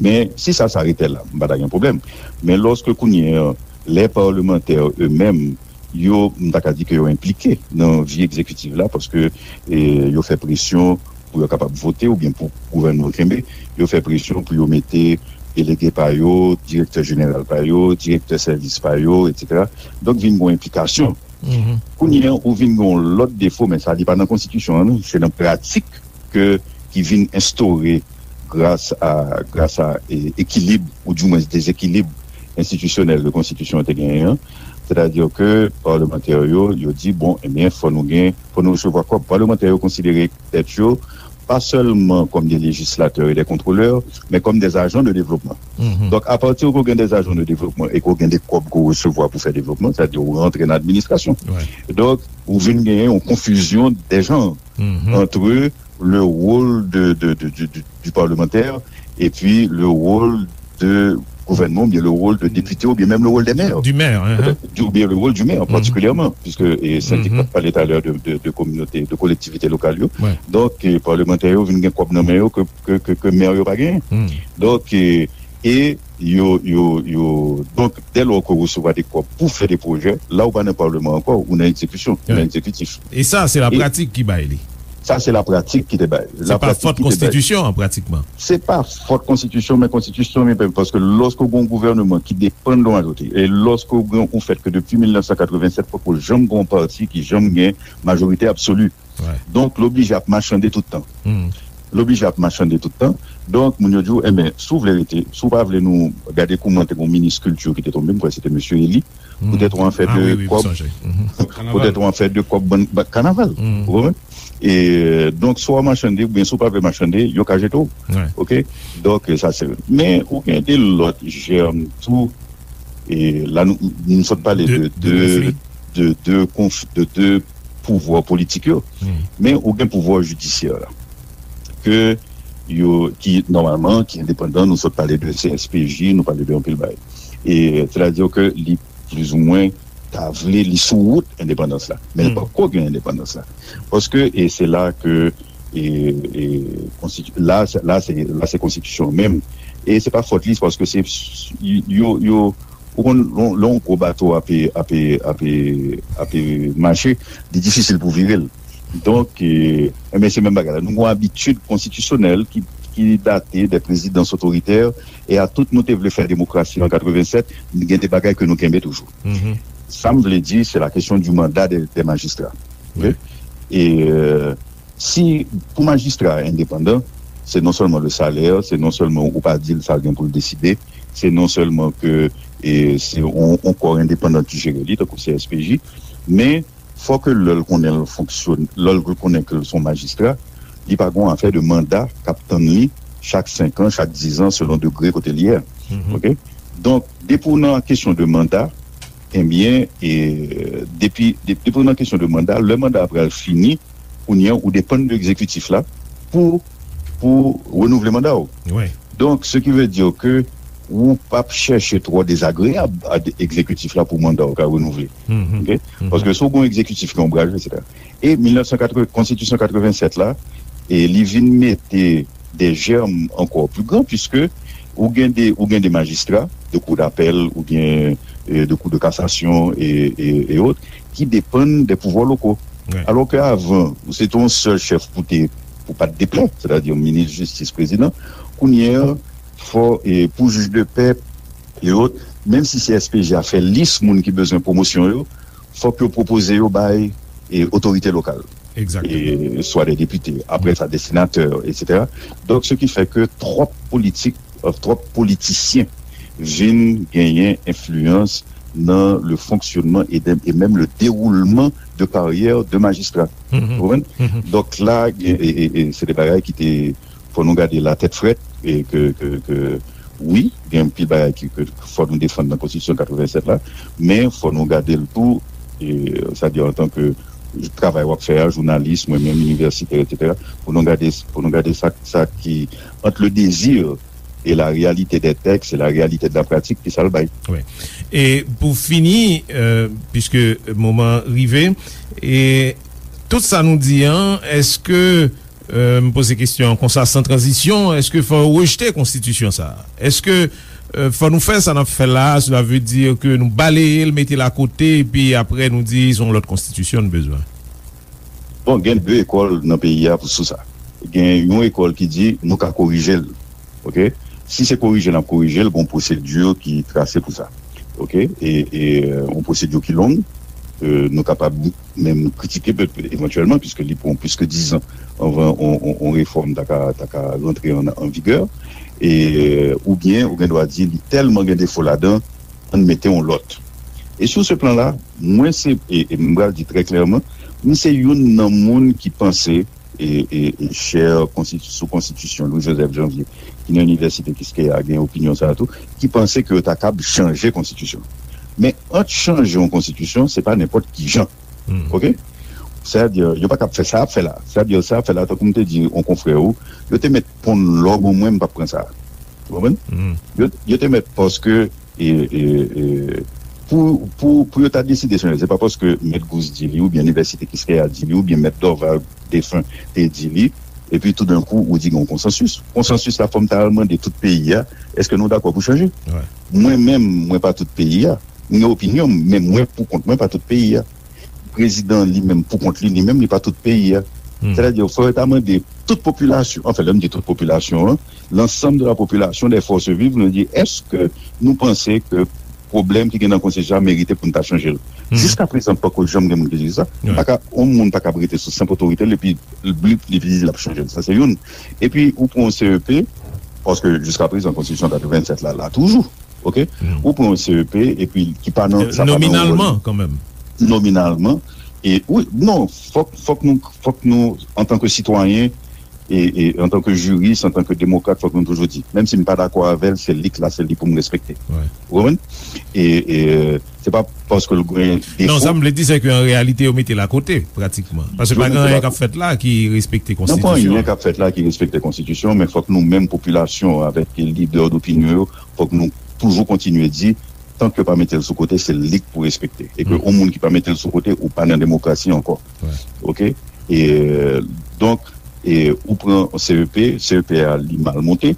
Men, si sa, sa rete la, m pa ta gen pwoblèm. Men lòske kounye a, lè palmantè yo menm, yo, m ta ka di ke yo enplike nan vi egzekitif la, paske, e, yo fè presyon pou yo kapab vote oubyen pou gouvènman kenbe, yo fè presyon pou yo mete delege pa yo, direktè jeneral pa yo, direktè sèvis pa yo, etsetera. Donk, vin gen yon enplikasyon. Kounye a, ou vin gen yon lòt defo, men sa, li pa nan konstitisyon an, non, se nan pratik ke, ki vin enstore gras a, gras a, e, ekilib, oudimwens dezekilib enstitisyonèl ke konstitisyon an te genyen an. Sètadi ke palmantè yo, yo di, bon, ebyen, fò nou gen, fò nou resevwa kòb. Palmantè yo konsidere tèt yo pa sèlman kòm de lejislatè e de kontwolè, men kòm de ajan de devlopman. Donk, apati ke w gen de ajan de devlopman e ke w gen de kòb ke w resevwa pou fè devlopman, sètadi ou rantre nan administrasyon. Donk, ou vin genyen yon konfizyon de janr entre le rôle de, de, de, de, de, du parlementaire et puis le rôle de gouvènman, oubyen le rôle de député, oubyen menm le rôle des maires. Du maire, hein. Oubyen le rôle du maire, particulièrement, puisque, e, Cynthia t ap pale talè de, de, de kominote, de kolektivite lokal yo. Donk, e, palmantè yo vin gen kòb nan men yo ke, ke, ke, ke mè yo pa genyen. Donk, e, E yo, yo, yo, donk, dè lò ke w resevwa de kòb pou fè de pwojè, la ou pa nan palman ankò, ou nan egzekisyon, ou nan egzekitif. E sa, se lapratik ki bay li. Sa, se lapratik ki te bay. Se pa fòt konstitisyon an, pratikman. Se pa fòt konstitisyon, men konstitisyon, men paske lòske w gen yon gouvènman ki depann de yon majorite, e lòske w gen yon fèt ke depi mil nèf san katrevennsèt, poko janm gen yon pati ki janm gen majorite absoli. Donk, l oblije ap machande tout tan. L oblije ap machande tout tan. Donk, moun yo di w, enben, si w vle rete, si w pa vle nou gade kouman te gen yon minis kilti ki te tonbe, m kwè se te mesye Eli, poutèt yon afè de kòb, poutèt yon afè de kòb bann kanaval. Ou konprann? E, donk, si w ap machande, oubyen si w pa vle machande, yo ka jete w. Oke? Donk, sa se. Men, ou gen de lòt jèm tou. E la, nou, nou sot pale de, de, de, de, konf, de, de pouvwa politik yo. Men ou gen pouvwa jidisyè la. Ke yo, ki, nòmalman, ki endepandan, nou sot pale de C S P J, nou pale de anpil bagay. E, sètadi ke li plizoumwen ta vle li sou wout endepandans la. Men li poko gen endepandans la. Paske, e se la ke, e, e, konstiti-, la, se- la, se, la, se konstitisyon menm. E se pa fòt li, se paske se, yo, yo, ou konn, lè yon gwo bato ape, ape, ape, ape mache, li difisil pou vire l. Donk, e, enben, se menm bagay la. Nou gen yon abitid konstitisyonèl ki, ki date de prezidans otoritè, e a tout nou te vle fè demokrasi an katrevennsèt, gen de bagay ke nou kenbe toujou. Sa m vle di, se la kesyon di manda de, de majistra. Oke? E, e, si, pou majistra endepandan, se non sèlman le salè, se non sèlman ou pa di l sa l gen pou l deside, se non sèlman ke, e, se yon, yon kò endepandan ki jere li, tankou C S P J, men fò ke lè l konnen l fonksyone, lè l konnen ke l se yon majistra, li pa gen yon afè de manda k ap tann li chak senk an, chak diz an, selon degre kote l ye a. Oke? Donk, depi w nan kesyon de manda, ebyen, e, depi, de- depi w nan kesyon de manda, lè manda a pral fini, kounye a, ou depann de egzekitif la pou, pou renouvle manda w. Donk, ce qui veut dire que ou p ap chèche twò dezagreyab a de- egzekitif la pou manda w ka renouvle. Oke? Paske si w gen yon egzekitif ki onbraje, etsetera. E mil nèf san katreven, konstitisyon katrevennsèt la, e li vin mete de jèm ankò pli gran, piske ou gen de, ou gen de majistra de kou dapèl oubyen, e, de kou de kasasyon e, e, e ot, ki depann de pouvwa loko. Alò ke avan, ou se te yon sèl chèf pou te, pou pa t deplè, sètadi minis jistis, prezidan. Kounye a, fò, e, pou jij de pè e ot, menm si C S P J a fè lis moun ki bezwen pwomosyon yo, fòk yo pwopoze yo bay, e, otorite lokal. E, swa de depite, apre sa de senatè, etsetera. Donk, ce qui fait que twòp politik, e, twòp politisyen vin genyen enfliyans nan le fonctionnement et, de- et même le déroulement de carrière de magistrat. Ou konprann? Donk la, e, e, e, se de bagay ki te, fò nou gade la tèt frèt, e ke, ke, ke, wi, gen anpil bagay ki, ke fò nou defann nan konstitisyon katrevennsèt la, men fò nou gade l tou, e, sa di an tan ke travay w ap fè a, jounalis, mwen menm, inivèsitè, etsetera, pou nou gade, pou nou gade sa, sa ki, entre le désir et la réalité des textes et la réalité de la pratique, ki sa l bay. Wi. E pou fini, e, piske moman rive, e tout sa nou di an, èske, e, m poze kesyon an konsa, san tranzisyon, èske fò yo rejte konstitisyon sa a? Èske, e, fò nou fè sa n ap fè la a, cela veut dire que nou baleye l, mete l akote, epi apre nou di se yon lòt konstitisyon n bezwen? Bon, gen de ekòl nan peyi a pou sou sa. Gen yon ekòl ki di nou ka korije l. Oke? Si se korije n ap korije l, gen yon pwosedi ki trase pou sa. Oke? E, e, yon pwosedi ki long, e, nou kapab menm kritike pe- evantyèlman, piske li pran plis ke diz an anvan yon, yon, yon refòm ta ka, ta ka rantre an, an vigè. E, oubyen, ou gen dwa di, li tèlman gen defo ladan, ann mete yon lòt. E sou se plan la, mwen se, e, e m pral di trè klèman, m se youn nan moun ki panse, e, e, e chè konstiti- sou konstitisyon Louis Joseph Janvier, ki nan inivèsite Kiskeya, gen opinyon sa a tou, ki panse ke yo ta kab chanje konstitisyon. Men ant chanje yon konstitisyon, se pa nenpòt ki jan. Oke? Sètadi, yo pa kab fè sa y ap fè la. Sètadi, sa y ap fè la, tankou m te di yon konfrè ou, yo te mèt ponn lòg ou mwen, m p ap pran sa. Ou konprann? Yo, yo te mèt paske e, e, e, pou, pou, pou yo ta deside chanje, se pa paske Mèt Gous di li, oubyen Inivèsite Kiskeya di li, oubyen Mèt Dorval defen te di li, Epi toudenkou, ou di gen yon konsansis. Konsansis la, fò m ta al mande tout peyi a, èske nou dakò pou chanje? Mwen menm, mwen pa tout peyi a. M gen opinyon m, men mwen pou kont mwen pa tout peyi a. Prezidan an li menm pou kont li, li menm li pa tout peyi a. Sètadi, fò yo ta mande tout popilasyon, anfen, lè m di tout popilasyon an, l'ensemble de la population, des forces vives, nou di, èske nou panse ke pwoblèm ki gen nan konstitisyon an merite pou n ta chanje l? Jiskaprezan, poko janm gen moun ki di sa. Pa ka, yon moun pa ka rete sou senp otorite l epi li, li, li di l ap chanje l. Sa se youn. Epi, ou pran yon C E P, paske jiskaprezan, konstitisyon katrevennsèt la, la toujou. Oke? Ou pran yon C E P, epi ki pa nan, sa pa nan yon ròl. Nominalman, kanmenm. Nominalman. E, wi, non, fòk, fòk nou, fòk nou, antanke sitwayen, e, e antanke jiris, antanke demokrat, fòk nou toujou di, menm si m pa dakò avè l, se li k la, se li pou m respekte. Ou konprann? E, e, se pa paske l gen defo. Non, sa m vle di, se ke an reyalite, yo mete l akote, pratikman. Paske pa gen anyen k ap fèt la ki respekte konstitisyon an. Nan pa anyen k ap fèt la ki respekte konstitisyon, men fòk nou menm, popilasyon, avèk lidè dopinyon yo, fòk nou toujou kontinye di, tank yo pa mete l sou kote, se li k pou respekte. E ke yon moun ki pa mete l sou kote, ou pa nan demokrasi ankò. Oke? E, donk, e, ou pran C E P, C E P a, li mal monte,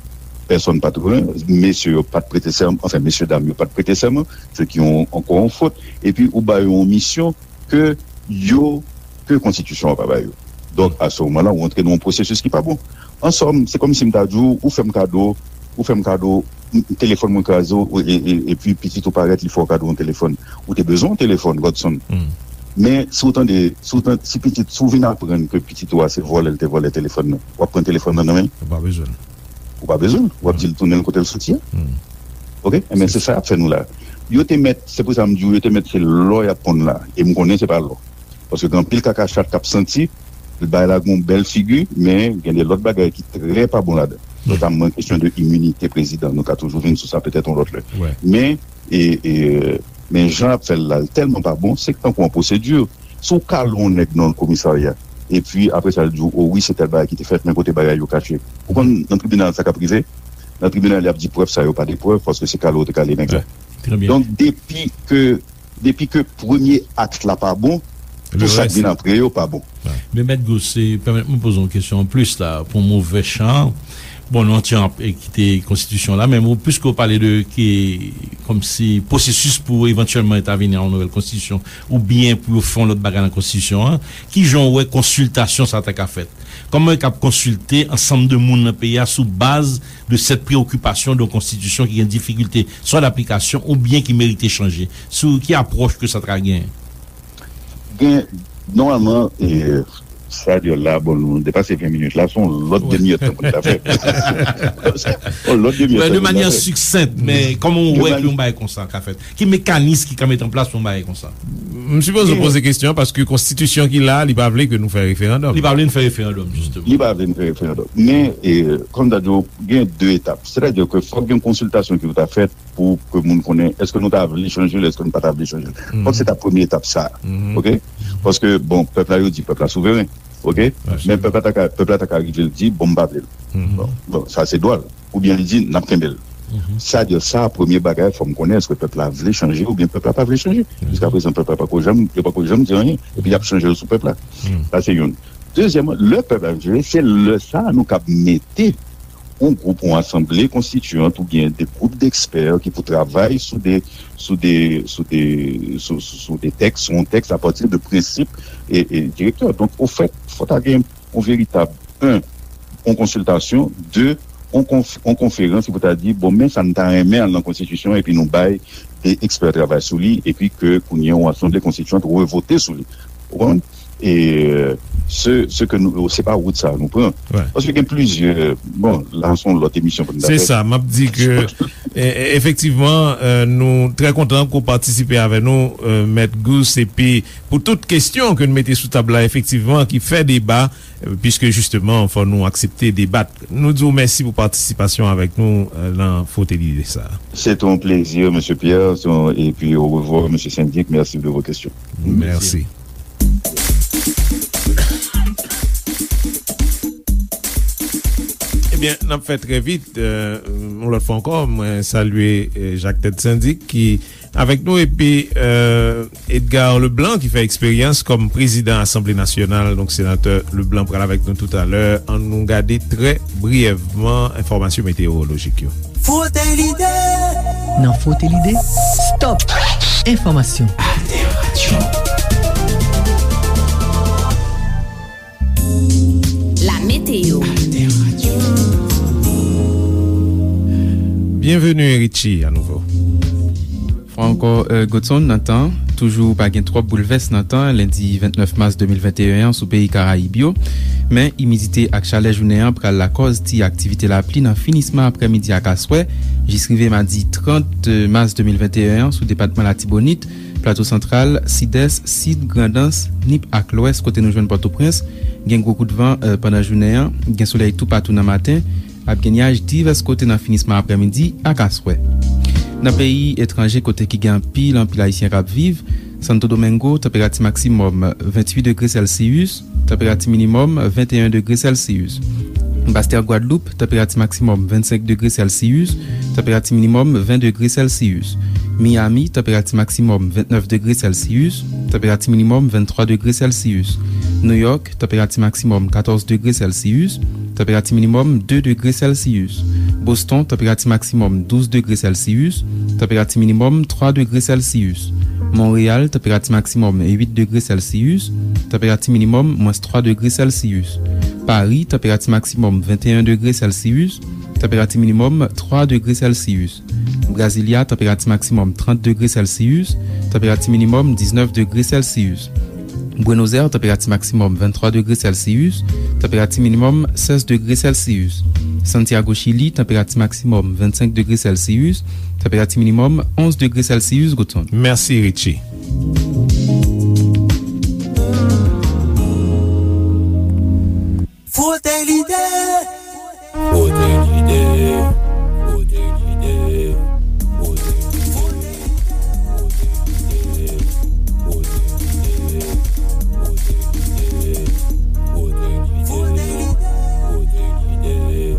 pèsonn pa t renmen, mesye yo pa t prete sèman, anfen, mesye dam yo pa t prete sèman, se ki yon, ankò yon fot, epi ou ba yo yon misyon ke yo, ke konstitisyon an pa ba yo. Donk, a se moman la, ou antre nan yon pwosesis ki pa bon. An sòm, se kòmsi m ta di w, ou fè m kado, ou fè m kado, m, telefòn mwen kraze, ou, e, e, epi pitit ou parèt, li fè w kado yon telefòn. Ou te bezwen yon telefòn, Godson. Men, si w tande, si w tande, si pitit, si w vin aprann ke pitit ou a se vòlè l te vòlè telefòn nan, w ap pran telefòn nan nan men l? Ou pa bezwen l. Ou pa bezwen l. W ap di l tounen l kote l soti a. Oke? Enben, se sa y ap fè nou la. Yo te mèt, se pou sa m di w, yo te mèt se lò y ap ponn la. E m konnen se pa lò. Paske gen anpil kaka chat k ap santi, bagay la gen yon bèl figi, men gen de lòt bagay ki trè pa bon ladan. Notamman kesyon de iminite prezidan. Nou ka toujou vin sou sa petèt yon lòt lè. Men, e, e, men jan y ap fè l la, l tèlman pa bon, se tankou yon pwosedi. Si w kale yon nèg nan yon komisarya, epi apre sa, l di w, o wi, se tèl bagay ki te fèt, men kote bagay yo kache. Ou konn nan tribinal sa k ap rive? Nan tribinal, y ap di prèv sa yo pa de prèv, paske se kale w te kale nèg la. Donk, depi ke, depi ke premye akt la pa bon, tout sa k vin apre yo pa bon. Men Mèt Gousse, pèmèt mwen poze yon kesyon anplis la, pou movè chan. Bon, nou antre an, e, kite konstitisyon la, men ou, piske ou pale de, ki, kòmsi, pwosesis pou evantyèlman entèvini a yon nouvèl konstitisyon, oubyen pou yo fè yon lòt bagay nan konstitisyon an, kijan w wè konsiltasyon sa ta ka fèt? Kòman yo kab konsilte ansanm de moun nan peyi a sou baz de sèt preyokipasyon de yon konstitisyon ki gen difikilte swa daplikasyon oubyen ki merite chanje? Sou ki apwòch ke sa ta ka genyen? Gen, nòmalman, e, sa di la, bon, nou depase ven minit la, se yon lòt demi èdtan pou n ta fè. Yon lòt demi èdtan pou n ta fè. De manyè siksent, men kòman w wè ke yon bagay konsa ka fèt? Ki mekanis ki ka met an plas pou yon bagay konsa? M sipoze w poze kesyon an paske konstitisyon ki la, li pa vle ke nou fè referandòm. Li pa vle n fè referandòm, jisteman. Li pa vle n fè referandòm. Men, e, kòm m ta di w, gen de etap. Sètadi ke fòk gen konsiltasyon ki pou ta fèt pou ke moun konnen èske nou ta vle chanje l, èske nou pa ta vle chanje l. Fòk se ta premye etap sa. Oke? Paske, bon, pèp la, yo di pèp la souveren. Oke? Men pèp la ta ka, pèp la ta ka rive l di, bon, m pa vle l. Bon, bon, sa se dwa l. Oubyen li di, n ap kenbe l. Sa di sa, premye bagay, fò m konnen èske pèp la vle chanje oubyen pèp la pa vle chanje. Jiskaprezan, pèp la pako janm, yo pako janm di anyen. Epi y ap chanje l sou pèp la. Sa se youn. Dezyèmman, lè pèp la vle chanje, se lè sa a nou kab mete yon gwoup, yon asanble konstitiyant oubyen de gwoup dekspè ki pou travay sou de, sou de, sou de, sou, sou, sou de tèks, sou yon tèks apati de prensip e, e direktè. Donk, ofèt, fò ta gen yon veritab, en, yon konsiltasyon, de, yon konf-, yon konferans ki pou ta di, bon, men sa n ta renmen al nan konstitisyon, epi nou bay de ekspè travay sou li, epi ke kounye a yon asanble konstitiyant revote sou li. Ou konprann? E, se, se ke nou, se pa wout sa a nou pran. Paske gen plizyè, bon, la se yon lòt emisyon pou nou ta fè. Se sa, m ap di ke, e, e, efektivman, e, nou trè kontan ke w patisipe avè nou, e, Mèt Gousse, epi pou tout kesyon ke n mete sou tab la, efektivman, ki fè deba, e, piske jisteman, fò nou aksepte debat. Nou di w mèsi pou patisipasyon avèk nou, e, nan Frote Lide sa. Se te yon plezi, mesye Pierre, se yon, epi orevwa, mesye Sendik, merci de vos questions. Mèsi. Byen, n ap fè trè vit. Euh, yon lòt fwa ankò, mwen salye, euh, Jacques Ted Syndic ki avèk nou, epi, euh, Edgar Leblanc ki fè eksperyans kòm prezidan Asanble Nasyonal. Donk, senatè Leblanc pral avèk nou toutalè. Ann nou gade trè briyèvman enfòmasyon meteyowolojik yo. Frote lide. Nan Frote lide, stop enfòmasyon. Alter Radio. La météo. Byenveni, Richie, anouvo. Fwa ankò, euh, Godson, nan tan, toujou pa gen twòp boulvès nan tan, lendi vennèf mas de mil venteyen an sou peyi Karayib yo. Men, imidite ak chalè jounen an pral lakòz ti aktivite lapli nan finisman aprèmidi ak aswè, jis rive madi trant mas de mil venteyen an sou depatman Latibonit, Plato Santral, Sidès, Sid, Grandans, Nip ak Lwès, kote nou jwenn Pòtoprens. Gen gwo kout van, euh, pandan jounen an. Gen solèy toupatou nan maten. Ap gen nyaj divès kote nan finisman aprèmidi ak aswè. Nan peyi etranje, kote ki gen anpil, anpil Ayisyen k ap viv, Santo Domingo, tanperati maksimòm venntuit degre Sèlsiyis, tanperati minimòm venteyen degre Sèlsiyis. Bastè Gwadloup, tanperati maksimòm vennsenk degre Sèlsiyis, tanperati minimòm ven degre Sèlsiyis. Miami, tanperati maksimòm vennèf degre Sèlsiyis, tanperati minimòm venntwa degre Sèlsiyis. Nouyòk, tanperati maksimòm katòz degre Sèlsiyis, tanperati minimòm de degre Sèlsiyis. Boston, tanperati maksimòm douz degre Sèlsiyis, tanperati minimòm twa degre Sèlsiyis. Monreyal, tanperati maksimòm uit degre Sèlsiyis, tanperati minimòm mwens twa degre Sèlsiyis. Pari, tanperati maksimòm venteyen degre Sèlsiyis, tanperati minimòm twa degre Sèlsiyis. Brasilia, tanperati maksimòm trant degre Sèlsiyis, tanperati minimòm diznèf degre Sèlsiyis. Buenos Aires, tanperati maksimòm venntwa degre Sèlsiyis, tanperati minimòm sèz degre Sèlsiyis. Santiago, Chili, tanperati maksimòm vennsenk degre Sèlsiyis, tanperati minimòm onz degre Sèlsiyis, Godson. Mèsi, Richie. Frote lide. Frote lide. Frote lide. Frote, frote lide. Frote lide. Frote lide. Frote lide. Frote lide.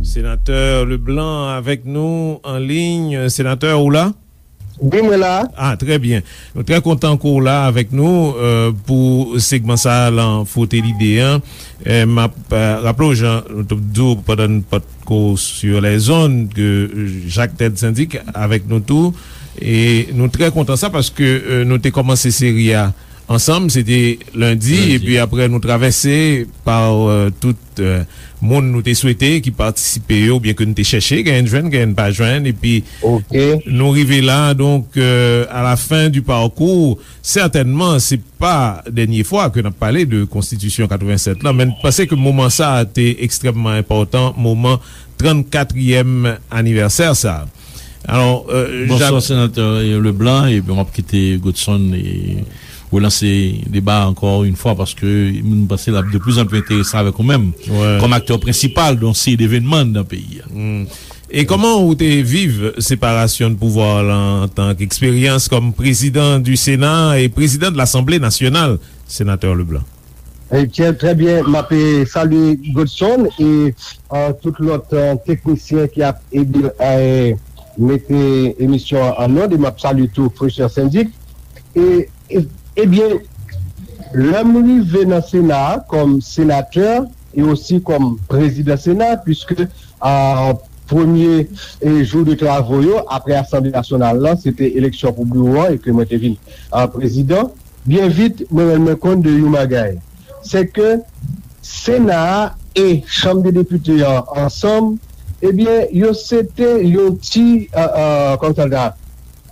Senatè Leblanc avèk nou an liy. Senatè, ou la? Wi, mwen la. Ah, trè byen. Nou trè kontan ke w la avèk nou, euh, pou segman sa a lan Frote Lide an. Eh, m ap, euh, raple w, jan nou t ap di w pandan n pa t ko sur les ondes, ke Jacques Ted Syndic avèk nou tou. E nou trè kontan sa paske, euh, nou te kòmanse seri a ansanm, se te lendi, lendi, epi apre nou travèse pa, euh, tout, euh, moun nou te swete ki patisipe yo, oubyen ke nou te chèche, genyen n jwenn, genyen n pa jwenn, epi, ok, nou rive la. Donk, euh, à la fin du parcours, sètènman, se pa dènye fwa ke n ap pale de Konstitisyon katrevennsèt lan, men n panse ke moman sa a te ekstrèmman enpòtan, moman trannkatriyèm anivèsè sa a. Alò, euh, Bonswa, Jacques. Senatè Leblanc, epi m ap kite Godson e relanse deba ankò yon fwa, paske m panse l ap de plus en plus enteresan avèk ou menm, wè, kòm aktè prensipal de yon seri devènman nan peyi a. Hmm. E kòman ou te viv separasyon de pouvwa la antan ke eksperyans kòm président du Sénat et président de l'Assemblée nationale, senatè Leblanc? Ebyen, trè byen. M ap, eh, salye Godson e, eh, tout lòt, eh, teknisyen ki ap ede, eh, mete emisyon an an nòd, e m ap salye tou frè Syndic. E, e, ebyen, lè m rive nan Sena a kòm senatè e osi kòm prezidan Sena, piske, eh, premye, eh, jou de travo yo, apre Asanble Nasyonal lan, se te eleksyon pou biwo an e ke mwen te vin, eh, prezidan. Byen vit, mwen rann mwen kont de yon bagay. Se ke Sena a e Chanm de Depite an ansanm, ebyen, yo se te yon ti, eh, eh, kòman sa, eh,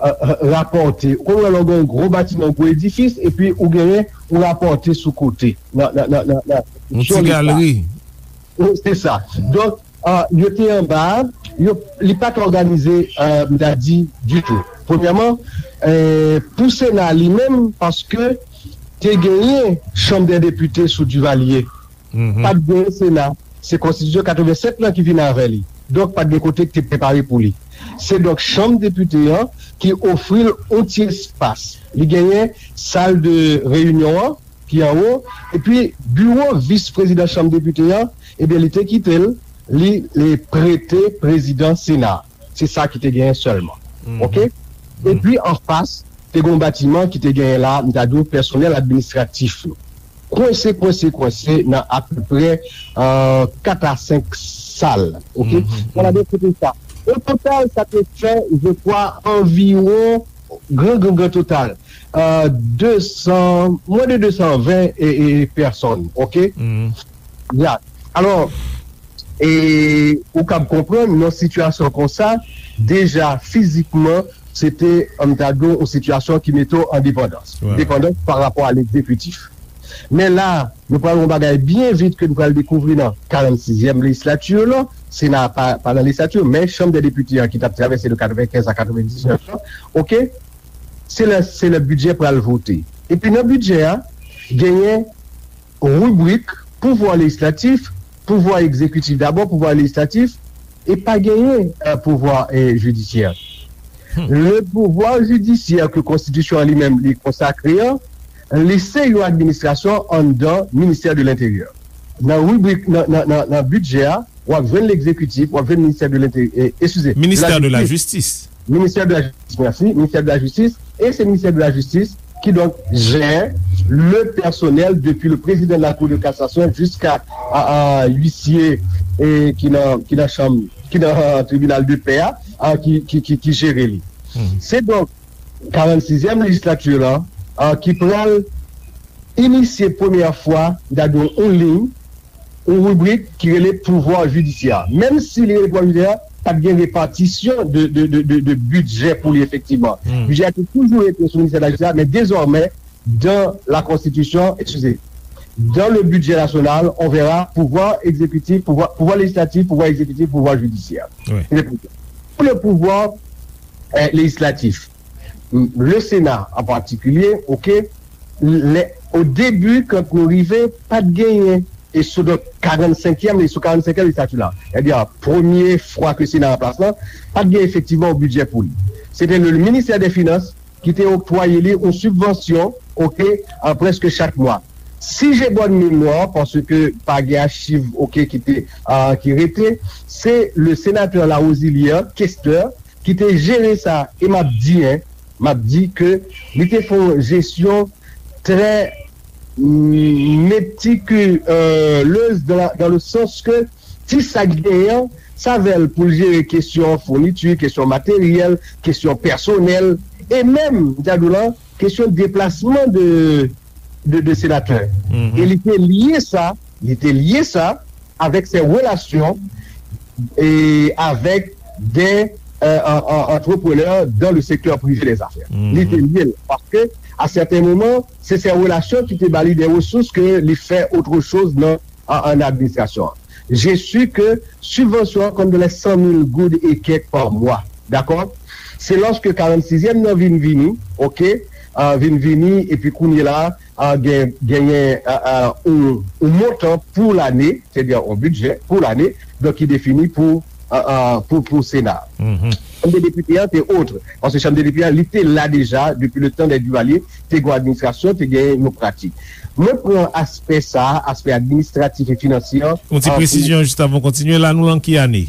eh, rapòte. Ou konprann, lè w gen yon gwo batiman, yon gwo edifis, epi ou genyen yon rapòte sou kote, nan, nan, nan, nan, nan, yon ti galeri. Wi, se sa. Donk, ah, yo te anba, yo, li pa t òganize, ah, m ta di, ditou. Premyèman, eh, pou Sena li menm, paske te genyen Chanm dè Depite sou Duvalier. Mhm. Pa t genyen Sena. Se Konstitisyon katrevennsèt lan ki vin avè li. Donk, pa t gen kote ki te prepare pou li. Se donk Chanm Depite an ki ofri l yon ti espas. Li genyen sal de reyinyon an, ki anwo, epi biwo vis prezidan Chanm Depite an, ebyen, li te kite l, li, li prete prezidan Sena. Se sa ki te genyen sèlman. Oke? Epi, anfas, te gen yon batiman ki te genyen la, m ta di w, pèsonèl administratif yo. Kwense, kwense, kwense nan apeprè, euh, kat a senk sal. Oke? Bon, la, de kote sa. O total, sa te fè, je crois, anviwon, gran, gran, gran total, euh, de san, mwens de de san ven e, e, pèsòn. Oke? Ya. Alò, e ou kab konprann, nan sitiyasyon konsa, deja fizikman, se te, an ta di w, yon sitiyasyon ki mete w an depandans. Depandans pa rapò a legzekitif. Men la, nou pral yon bagay byen vit ke nou pral dekouvri nan karannsizyèm lejislati lan. Sena pa, pa nan lejislati, men Chanm dè Depite an ki t ap travèse de katrevenkenz a katrevendiznèf lan, oke? Se lè, se lè bidjè pral vote. Epi nan bidjè a, genyen ribrik pouvwa lejislatif, pouvwa egzekitif dabò, pouvwa lejislatif, e pa genyen, euh, pouvwa, euh, jidisyè. Le pouvwa jidisyè ke konstitisyon an li menm li konsakre an, li se yon administrasyon anndan ministè de lenteryè. Nan ribrik, nan, nan, nan, nan bidjè a, w ap jwenn legzekitif, w ap jwenn ministè de lenteryè, eskize, Ministè de la jistis. Ministè de la jistis, mèsi, ministè de la jistis, e se ministè de la jistis ki donk jè le pèsonèl depi le président de la Cour de cassation jiska a, a, huissier, e ki nan, ki nan chanm, ki nan tribinal de pè a, a, ki, ki, ki, ki jere li. Se donk karannsizyèm lejislati lan, a, ki pral inisye premyè fwa, m ta di w, yon liy, yon ribrik ki rele pouvwa jidisyè. Menm si li rele pouvwa jidisyè, pa t gen repatisyon de, de, de, de, de bidjè pou li efektivman. Bidjè a te toujou rete sou ministè de la jistis, men dezòmè, dans la Constitution, excusez, dans le budget national, on verra pouvoir exécutif, pouvoir, pouvoir législatif, pouvoir exécutif, pouvoir judiciaire. Pour le pouvoir, euh, législatif, le Sénat en particulier, ok, les, au début, quand nou rive, pa t genyen, e sou donk karannsenkyèm, e sou karannsenkyèm lejislati la, sètadi premye fwa ke Sena an plas lan, pa t gen efektivman yon bidjè pou li. Se te le ministè de finans ki te oktwaye li yon sibvansyon, ok, a, prèske chak mwa. Si j'ai bonne mémoire, paske pa gen achiv, ok, ki te, a, ki rete, se le sénateur Larosilière, Kester, ki te jere sa, e m ap di, en, m ap di ke li te fè yon jesyon trè metikulez dan, dan le sans ke ti sa k genyen an, sa avè l pou l jere kesyon founiti, kesyon materyèl, kesyon pèsonèl, e menm, m ta di w la, kesyon deplasman de, de, de senatè. E li te lye sa, li te lye sa avèk ses relations et avec des, euh, en, en, entrepreneurs dans le secteur privé des affaires. Li te lye l, paske, à certains moments, se ses relations ki te ba li des ressources ke li fè autre chose nan, an, an administrasyon an. Je suis que subvansyon an konn de les cent mille goud et quelques par mois. Dakò? Se lòske karannsizyèm nan vin vini, ok, a, vin vini, epi kounye la, a, gen, genyen, a, a, yon, yon montan pou lane, sètadi yon bidjè pou lane, donk ki defini pou, a, a, pou, pou Sena. Chanm de depite an te otre, paske chanm de depite an, li te la deja depi le tan dè Duvalier, te gen yon administrasyon, te gen yon pratik. Mwen pran aspè sa, aspè administratif e finansye an, yon ti presizyon jis avan w kontinye, la nou lan ki ane?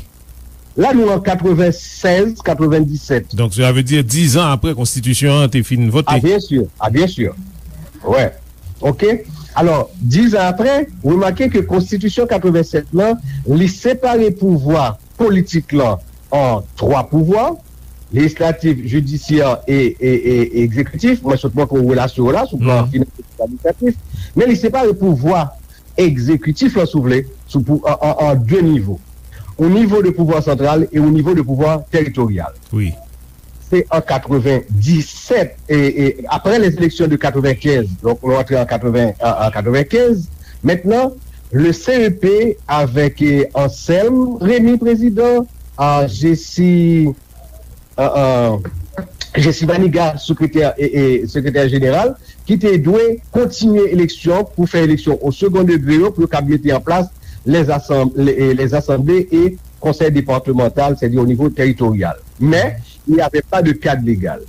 La nou an katrevensèz, katrevendiset. Donk, sa vle di dizan apre konstitisyon an te fin vote. A, byen si. A, byen si. Wè. Ok. Alò, dizan apre, remake ke konstitisyon katrevensèt lan, li separe pouvwa politik lan an twa pouvwa, lejislatif, jidisyè e, e, e, e egzekitif. Mwen sot montre w relasyon yo la, sou plan finansye, administratif. Men li separe pouvwa egzekitif lan, si w vle, sou pou, an, an, an de nivo. Yon nivo de pouvwa santral e yon nivo de pouvwa teritoryal. Wi. Se an katrevendisèt, e, e, apre les élections de katrevenkenz, donk nou antre an katreven, an, an katrevenkenz, mentnan, le C E P avèk, e, Anselme Remy, prezidan, a, Jessie, a, a, Jessie Manigat, sekretè, e, e, sekretè jeneral, ki te dwe kontinye eleksyon pou fè eleksyon o second degré yo, pou yo kab mete an plas les assemblées, les, les assemblées et conseils départementaux, c'est-à-dire au niveau territorial. Mais il n'y avait pas de cadre légal.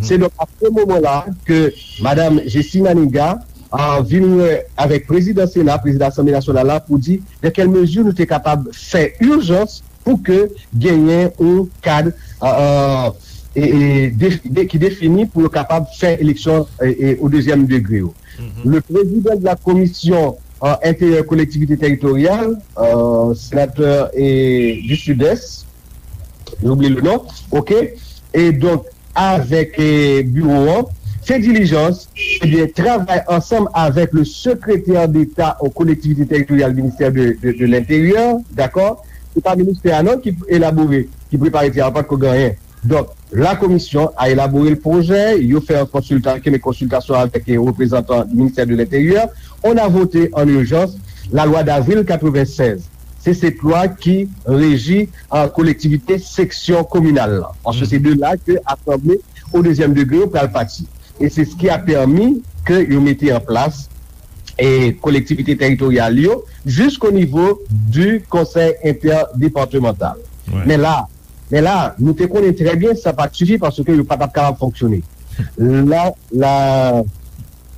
Se donk a se moman la ke Madam Jessie Manigat, euh, vin wè avèk prezidan Sena, prezidan Asanble Nasyonal la, pou di dans quelle mesure nou te kapab fè ijans pou ke genyen yon kad, euh, e, e, de, de, ki defini pou yo kapab fè eleksyon e, e, o dezyèm degre yo. Le président de la commission euh, intérieure collectivité territoriale, euh, sénateur et du Sud-Est, j'ai oublié le nom, ok, et donc avec eh, bureau an, fè dilijans, ebyen, travay ansanm avèk le secrétaire d'État aux collectivités territoriales, ministère de, de, de l'Intérieur, dakò? Se pa ministè a non ki elabore, ki prepare ti a, pa t ko gen anyen. Donk, la commission a élaboré le projet, yo fè yon konsilta, kene konsiltasyon avèk eh, reprezantan du ministère de l'Intérieur. On a voté en urgence la loi d'avril quatre-vingt-seize. Se se lwa ki reji an kolektivite seksyon kominal la. Paske se de la ke asanble o dezyèm degre yo pral pati. E se ce qui a permis ke yo mete an plas e kolektivite teritoryal yo jusqu'au niveau du conseil interdepartemental. Men la, men la, nou te konnen trè byen sa pa t sifi paske yo pa t ap kapab fonksyone. La, la,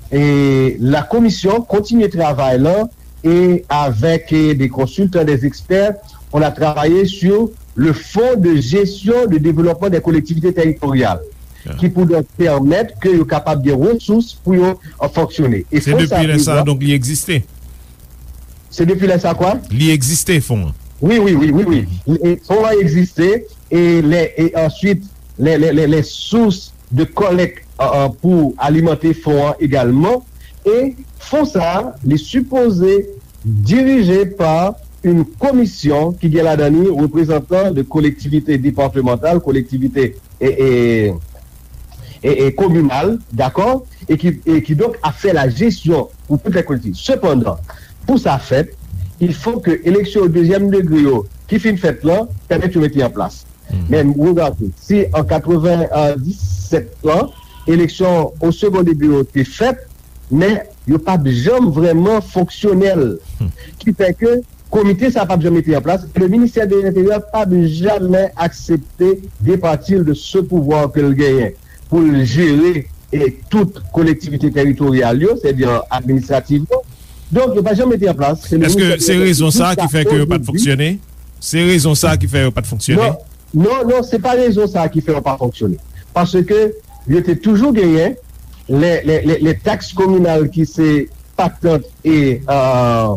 e la komisyon kontinye travay lan e avèk eh, des consultants, des experts, on a travaillé sur le fonds de gestion de développement des collectivités territoriales, ki pou donk pèmèt ke yo kapab gen resous pou yo euh, fonksyone. E Se fon sa depi lè sa, prevwa donk, li egziste. Se depi lè sa kwa? Li egziste, fon an. Wi, wi, wi, wi, wi. E fon an egziste e lè e answit lè, lè, lè, lè sous de kòlèk euh, euh, pou alimante fon an egalman. E fon sa a, li sipoze dirije pa yon komisyon ki gen ladan li reprezantan de kolektivite departemantal, kolektivite e, e, e, e kominal, dakò? E ki, e ki donk ap fè la jesyon pou tout lè kolektivite. Sepandan, pou sa fèt, il faut que eleksyon dezyèm degre yo ki fin fèt lan pèmèt yo mete an plas. Men regade, si an katrevenndisèt lan, eleksyon o segon degre yo te fèt, men yo p ap janm vrèman fonksyonèl. Ki fè ke komite sa p ap janm mete an plas, e le ministère de l'Intérieur p ap jamè aksepte departi l de ce pouvoir ke l genyen pou l jere e tout kolektivite teritoryal yo, sètadi administrativman. Donk, yo pa janm mete an plas. Se le Èske ministè de se rezon sa ki fè ke yo pa t fonksyone? Se rezon sa ki fè yo pa t fonksyone? Non, non, non, se pa rezon sa ki fè yo pa fonksyone. Paske yo te toujou genyen lè, lè, lè, lè taks kominal ki se patant e, euh,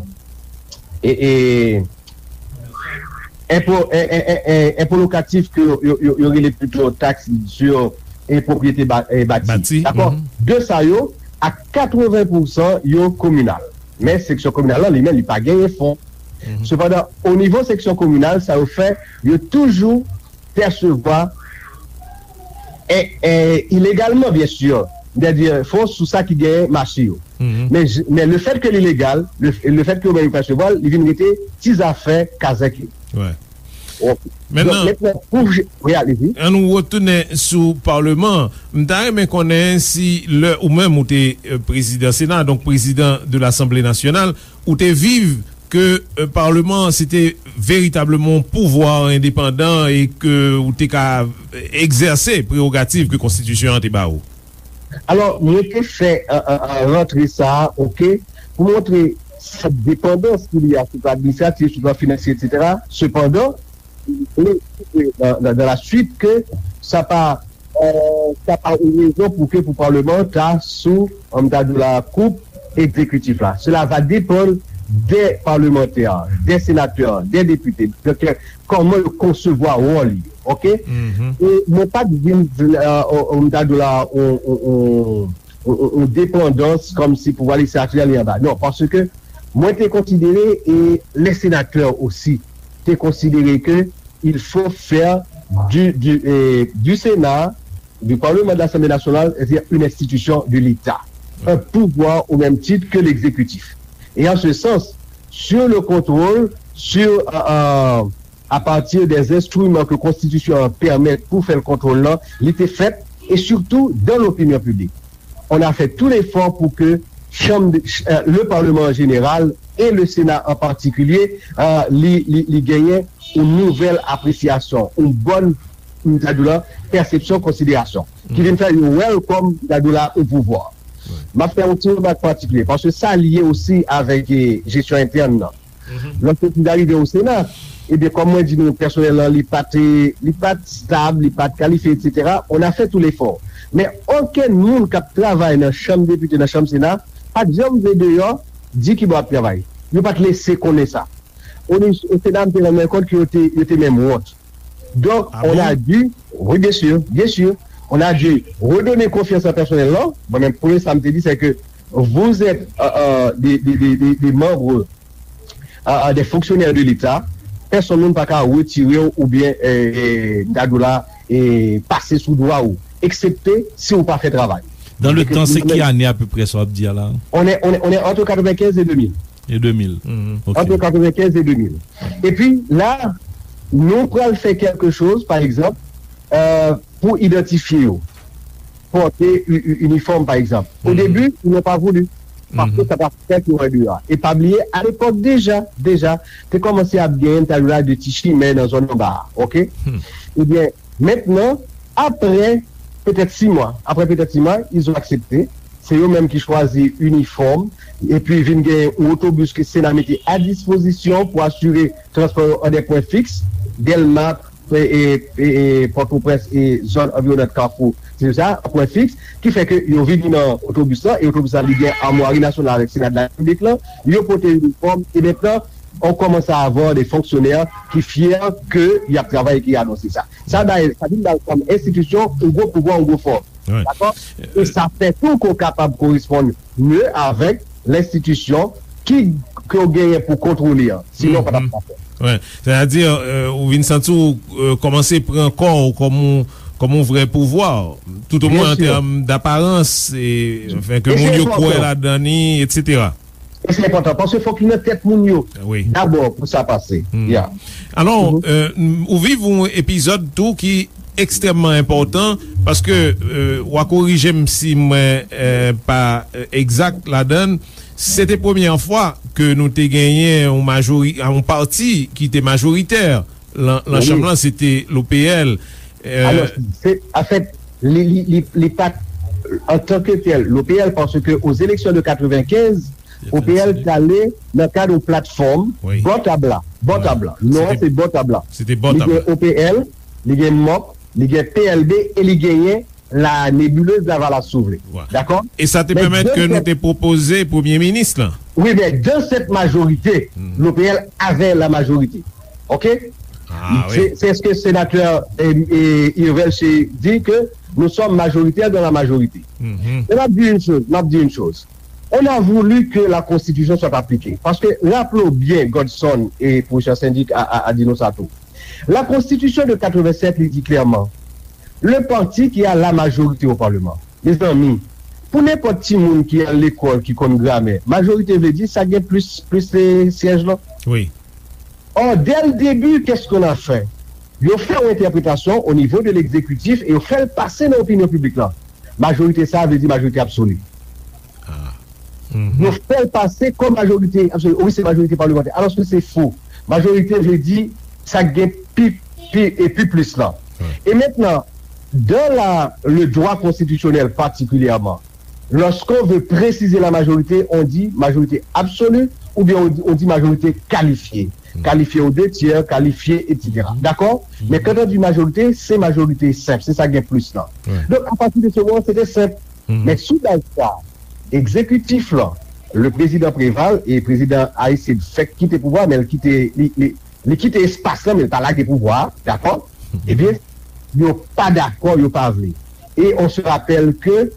e, e enpo, en, en, en, en, enpo lokatif ke yo, yo, yo, yo rele pito taks sou e pwopriyete ba, e bati. Bati, dakò? Mhm. De sa yo, a katreven pousan yo kominal. Men seksyon kominal lan, li menm, li pa genyen fon. Mhm. Sepandan, o nivo seksyon kominal, sa yo fè, yo toujou pèsevwa e, e, ilegalman, byen si, sètadi fon sou sa ki genyen mache yo. Mhm. Men, men le fèt ke li legal, le, le fèt ke yo menm yo pèsevwa l, li vin rete ti zafè kazèk yo. Wè. Ok. Donk, mentnan, pou je, wi, alezi. An nou retounen sou Paleman an. M ta renmen konnen si lè ou menm ou te euh, prezidan Sena, donk prezidan de Lasanble Nasyonal, ou te viv ke euh, Paleman an se te veritableman yon pouvwa endepandan e ke ou te ka euh, egzèse prerogativ ke konstitisyon an te ba ou. Alò, mwen te fè an, an, an rantre sa a, ok, pou montre sèt depandans ki li a sou plan administratif, sou plan finansye, etsetera. Sepandan, mwen espere dans, dans, dans la suite ke sa pa, euh, sa pa yon rezon pou ke pou Paleman an ta sou, an ta di w la, koup egzekitif la. Cela va dépendre des parlementaires, des sénateurs, des députés. Donk, kòman yo konsevwa wòl yo, ok? E mwen pa t vin, euh, on, on, on, on, on, on depandans kòmsi pouvwa lejislatif la li anba. Non, paske mwen te konsidere, e les sénateurs aussi, te konsidere ke il faut faire du, du, eh, du Sénat, du Parlement, de l'Assemblée nationale, c'est-à-dire une institution de l'État, un pouvoir au même titre que l'exécutif. Et en ce sens, sur le contrôle, sur, euh, euh, à partir des instruments que Constitution permet pour faire le contrôle là, il était fait, et surtout dans l'opinion publique. On a fait tout l'effort pour que chambre de, euh, le Parlement en général et le Sénat en particulier, euh, li, li, li genyen yon nouvèl apresyasyon, yon bòn, m ta di w la, pèsepsyon, konsiderasyon, ki vin fè yo wè l kòm, m ta di w la, yon pouvwa. M ap fè yon ti remak patikilye, paske sa lye osi avèk, eh, jesyon entèn nan. Lòske li rive o Sena, ebyen, kòm mwen di nou, pèsonèl lan, li pa te, li pa t stab, li pa t kalifye, etsetera. On a fait tout l'effort. Men okenn moun k ap travay nan chanm depite, nan chanm Sena, pa t janm vle deyò di ki bò y ap travay. Yo pa t lese konnen sa. O, o Sena, m te rann mwen kont ke yo te, yo te menm wont. Donc, on a dû, oui, bien sûr, bien sûr, on a dû redonner confiance à personnel là. Mwen menm, premye sa m te di, c'est que vous êtes, euh, euh, des, des, des, des, des membres, euh, euh, des fonctionnaires de l'État. Pèsonn moun pa ka retire w oubyen, euh, euh, m ta di w la, euh, pase sou dwa ou, eksepte si ou pa fè travay. Dans le temps, c'est ki ane apeprè sa w ap di a la? On est, on est, on est entre quatre-vingt-quinze et deux mille. Et deux mille. Ok. Entre quatre-vingt-quinze et deux mille. Epi la, nou pral fè quelque chose, par exemple, euh, pour identifier yo, porter u- u- uniforme, par exemple. Au début, ils n'ont pas voulu. Parce que ça va faire qu'il y aura du. E pa bliye, à l'époque déjà, déjà, te kòmanse ap gen, m ta di w la, de ti chimè nan zòn anba a, ok? Ebyen, mentnan, apre petèt sis mwa, apre petèt sis mwa, ils ont accepté. Se yo menm ki chwazi inifòm, epi vin gen yon otobis ke Sena mete à disposition pour assurer transport yo an des points fixes, Dèlma, e, e, e, e, Pòtoprens e zòn anviwonant Kafou, se sa, an pwen fiks, ki fè ke yo vini nan otobis lan, e otobis lan li gen amwari nasyonal avèk Sena de la Repiblik lan, yo pote inifòm, e mentnan, on commence à avoir des fonctionnaires qui fiers que y ap travay e ki anonse sa. Sa bay, sa vin bay kòm enstitisyon, yon gwo pouvwa, yon gwo fòs. Dakò? E sa fè tou ke w kapab koresponn mye avèk lenstitisyon ki, ke w genyen pou kontwole an. Sinon, w pa t ap ka fè. Sètadi, euh, ou vin santi w, euh, kòmanse pran kò w kòm yon, kòm yon vrè pouvwa. Tout o mwen an tèm daparans, e, anfen, ke moun yo kwè ladan li, etsetera. E se enpòtan, paske fòk li nan tèt moun yo dabò pou sa pase. Ya. Alò, euh, ou viv yon epizòd tou ki ekstrèmman enpòtan, paske, euh, w a korije m si mwen, euh, pa, euh, egzak ladan l. Se te premyè fwa ke nou te genyen yon majori-, yon pati ki te majoritè lan, lan chanm lan, se te l'O P L. Euh, Alò, se, anfèt, li, li, li, li pa t antanke tèl l'O P L, paske aux élections de quatre-vingt-quinze, O P L t ale nan kad yon platfòm bò tab la. Bò tab la. Non, se bò tab la. Li gen O P L, li gen mòp, li gen P L B e li genyen la nébuleuse Lavalas, si w vle. Dakò? E sa te pèmèt ke nou te pwopoze premye minis lan. Wi, men dans cette majorité, l'O P L avait la majorité. OK? Ah, wi. C'est, c'est ce que sénateur, euh, euh, Irvel Chéry dit, que nous sommes majoritaires dans la majorité. Men m ap di yon choz, m ap di yon choz. On a voulu que la constitution soit appliquée. Paske, raple w byen, Godson e pwofesè Sendik a, a, a di nou sa tou. La constitution de quatre-vingt-sept, li di klèman, le parti qui a la majorité au Parlement. Mezanmi, pou nenpòt timoun ki al lekòl, ki konn gramè, majorite vle di sa gen plis, plis, eh, syèj lan. Wi. Or, dès le début, qu'est-ce qu'on a fait? Yo fè yon entèpretasyon o nivo de l'exécutif e yo fè l pase nan opinyon piblik lan. Majorite sa a vle di majorite absoli. Yo fè l pase kòm majorite absoli. Wi, se majorite palmantè. Alòske se fo. Majorite vle di sa k gen pi, pi, e pi plis lan. E mentnan, dans la, le droit constitutionnel particulièrement, lorsqu'on veut préciser la majorité, on dit majorité absolue ou bien on dit, on dit majorité qualifiée. Qualifiée aux deux tiers, qualifiée, etsetera. Dakò? Men quand on dit majorité, se majorite senp, se sa k gen plis lan. Donk, apati de se moman, se te senp. Men sou baz sa, egzekitif lan, le prezidan Préval e prezidan Aristide fèk kite pouvwa, men l kite, li, li, li kite espas lan, men l pa lage pouvwa a, dakò? Ebyen, yo pa dakò, yo pa vle. E on se rapèl ke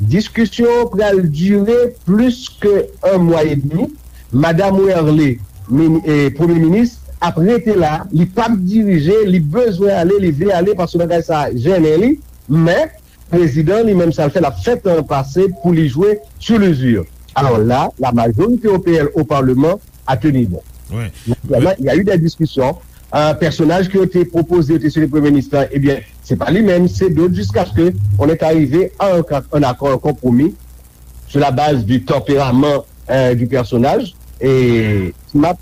diskisyon pral dire plis ke un mois et demi. Madam Werlé, mini-, eh, premye minis, ap rete la, li p ap dirije, li bezwen ale, li vle ale, paske bagay sa a jennen li, men prezidan li menm sa l fè, l ap fè tan an pase pou li jwe sur l'usure. Alors là, la majorité O P L au Parlement a tenu bon. Naturellement, il y a eu des discussions. Euh, pèsonaj ke yo te pwopoze, yo te site premye minis lan, ebyen, se pa li menm, se dòt, jusqu'à ce que on est arrivé à un, un accord, un compromis sur la base du tempérament, euh, du personnage. Et Smarth,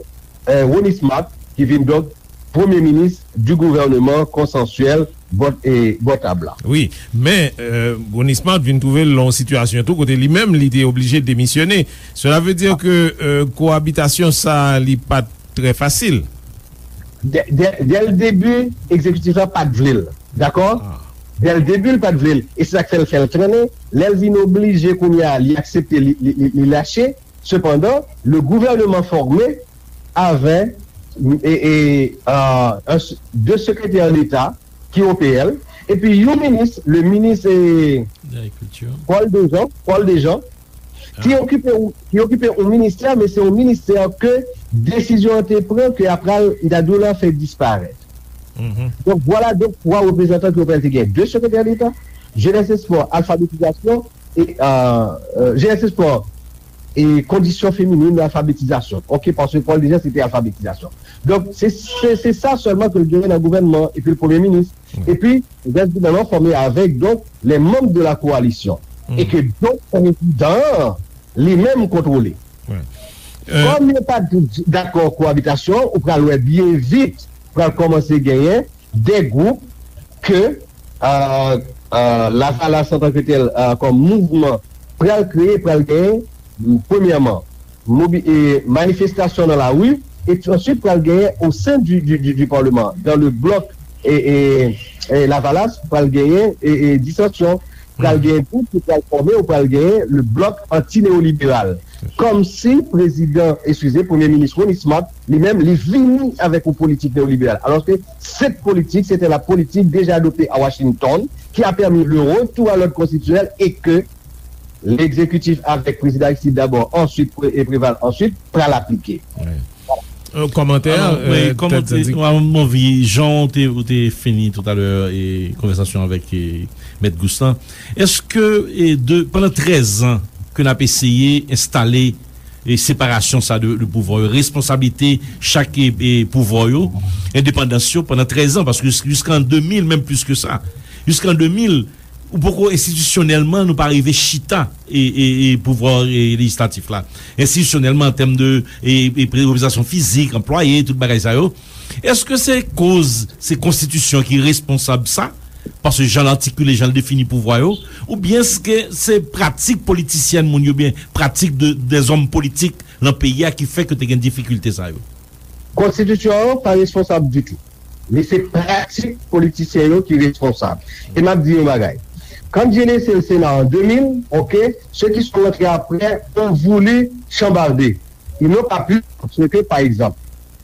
euh, Ronnie Smarth, qui vient donc Premier ministre du gouvernement consensuel bò, e, bò tab la. Wi, men, euh, Ronnie Smart vin twouve l nan yon sitiyasyon tou kote li menm li te oblije demisyone. Cela veut dire que, euh, koabitasyon sa a, li pa t trè fasil. Dè, dè, dè l debi, egzekitif la pa t vle l. Dakò? Dè l debi, l pa t vle l. E se sa k fè l fè l trennen. Lè l vin oblije kounye a, li aksepte, li, li, li, li lache. Sepandan, le gouvènman fòme avè, e, e, euh, un s-, de sekretè deta ki O P L, epi yon minis, le minis, e, Paul Dejean, Paul Dejean, ki okipe, ki okipe yon ministè, men se yon ministè ke desizyon an te pran, ke apral, m ta di w la, fè disparèt. Donk, vwala, donk, twa reprezantan ke O P L te gen. De sekretè deta, jenès, espò, alfabetizasyon, e, euh, euh, jenès, espò, e kondisyon feminin, alfabetizasyon. Oke, paske Paul Dejean, se te alfabetizasyon. Donk, se, se, se sa sèlman ke l genyen nan gouvènman, epi l premye minis. Epi, rès gouvènman fòme avèk, donk, les membres de la coalition. E ke, donk, prezidan an, li menm kontwole. Kòm yo pa t dakò koabitasyon, ou pral wè byen vit, pral kòmanse genyen de gwoup ke, euh, euh, Lavalas antanke tèl, euh, kòm mouvman, pral kreye, pral genyen, premyèman, mobi-, e, manifestasyon nan lari, e answit pral genyen au sein du, du, du, du Parlement, dans le bloc, e, e, e, Lavalas, pral genyen, e, e, disansyon, pral genyen gwoup ki pral fòme, ou pral genyen le bloc anti-néolibéral. Kòmsi prezidan, eskize, premye minis Ronnie Smart, li menm, li vini avèk yon politik neoliberal. Alòske cette politique, c'était la politique déjà adoptée à Washington, qui a permis le retour à l'ordre constitutionnel et que l'exécutif avec président Aristide d'abord, ensuite Pré-, et Préval ensuite, pral aplike. Yon kòmantè, Alò, wi, euh, kòman Ted te, Zandi. Mwen, mwen anvi, jan w te, ou te fini toutalè e konvèsasyon avèk e, Mèt Gous lan, èske e, de, pandan trèz an ke n ap eseye enstale e separasyon sa de, de pouvwa yo, responsablite chak e, e pouvwa yo, endepandans yo pandan trèz an, paske jis-, jiskan de mil, menm plis ke sa, jiskan de mil, ou poko enstitisyonèlman, nou pa rive chita e, e, e pouvwa e, lejislatif la. Enstitisyonèlman, an tèm de e, e, reprezantasyon fizik, anplwaye, tout bagay sa yo. Èske se koz se konstitisyon ki responsab sa? Paske jan l atikile, jan l defini pouvwa yo, oubyen èske se pratik politisyèn moun yo, oubyen pratik de, dèzòm politik nan peyi a ki fè ke te gen difikilte sa yo? Konstitisyon an pa responsab ditou. Men se pratik politisyen yo ki responsab. E m ap di yon bagay. Quand j'ai laissé le Sénat en deux mille, oke, ceux qui sont rentrés après ont voulu chambarder. Ils n'ont pas pu, parce que, par exemple,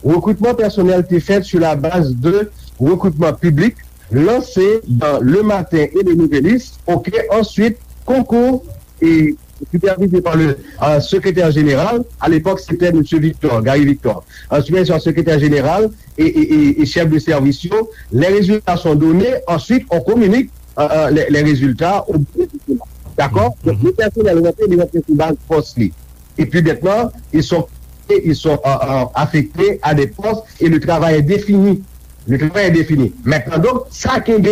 recrutement personnel était fait sur la base de recrutement public lancé dans Le Matin et Le Nouvelliste, oke, ensuite, concours et supervisé par le euh, secrétaire général, à l'époque c'était M. Victor, Gary Victor, euh, supervisé par le secrétaire général et, et, et, et chef de service. Les résultats sont donnés, ensuite on communique euh, euh, les, les résultats au bureau du Sénat. D'accord? Donc, le personnel rentré, il rentre sous base poste. Et puis maintenant, ils sont, ils sont euh, euh, affectés à des postes et le travail est défini. Le travail est défini. Maintenant, donc, sa kenbe,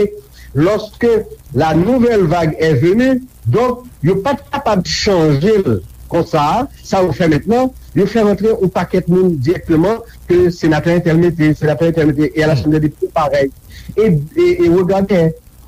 lorsque la nouvelle vague est venue, donk, yo pa t kapab chanje l konsa, sa yo fè mentnan, yo fè rantre yon pakèt moun dirèkteman ke senatè entèl mete, senatè entèl mete, e a la Chanm dè Depite parèy. E, e, e regade,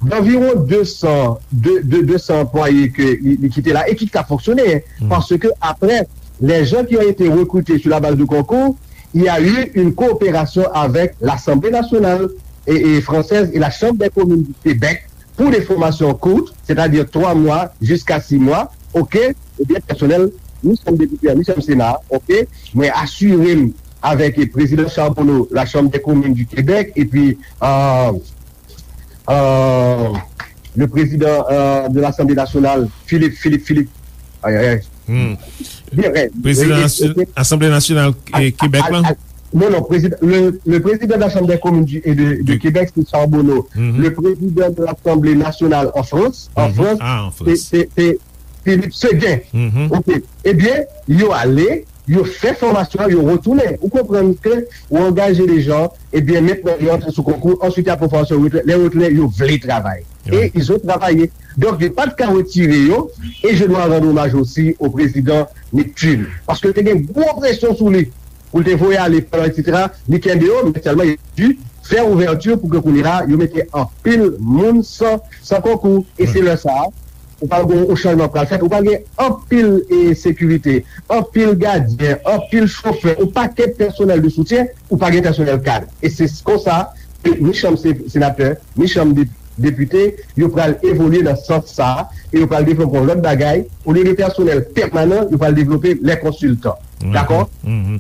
d'anviwon de san, de, de, de san anplwaye ke li, li kite la e ki ka fonksyone, paske apre, les gens qui ont été recrutés sur la base de concours, il y a eu une coopération avec l'Assemblée nationale et, et française et la Chambre des communes du Québec pour des formations courtes, c'est-à-dire trois mois jusqu'à six mois, ok, ebyen pèsonèl, nou sèm depite, nou sèm Sena, ok, mwen asire m avèk prezidan Charbonneau, la Chambre des communes du Québec, epi euh, euh, le président euh, de l'Assemblée nationale, Philippe, Philippe, Philippe. Ay, ay, ay. Hmm. Bien, ouais. Président Asanble Nasyonal Kebèk la? Non, non, président, le, le président de la Chambre des communes du, et de, de Québec, c'est Charbonneau. Mm -hmm. Le président de l'Assemblée nationale en France, en mm -hmm. France, ah, c'est Philippe Séguin. Mm -hmm. Ok. Eh bien, yo allé, yo fè fòmasyon an, yo retounen. Ou konprann ke ou angaje de jan, ebyen mentnan yo antre sou konkou, answit y ap fè fòmasyon, lè yo retounen, yo vle travay. E ils ont travaillé. Donk, yo pa t ka retire yo, e je dois rendre hommage aussi au président Neptune. Paske te gen gwo presyon sou li pou l te voye ale, etsetera. Li kenbe yo, men sèlman li di, fè ouvèti pou ke kounye la, yo mete anpil moun san, san konkou. E se lè sa a, ou pral gen yon chanjman pral fèt, ou pral gen anpil e, sekirite, anpil gadyen, anpil chofè, yon pakèt pèsonèl de soutyen, ou pa gen pèsonèl kad. E se konsa, ke ni chanm se- senatè, ni chanm de- depite, yo pral evolye nan sans sa a, e yo pral devlope yon lòt bagay, olye de pèsonèl pèmanan, yo pral devlope lè konsiltan. Dakò?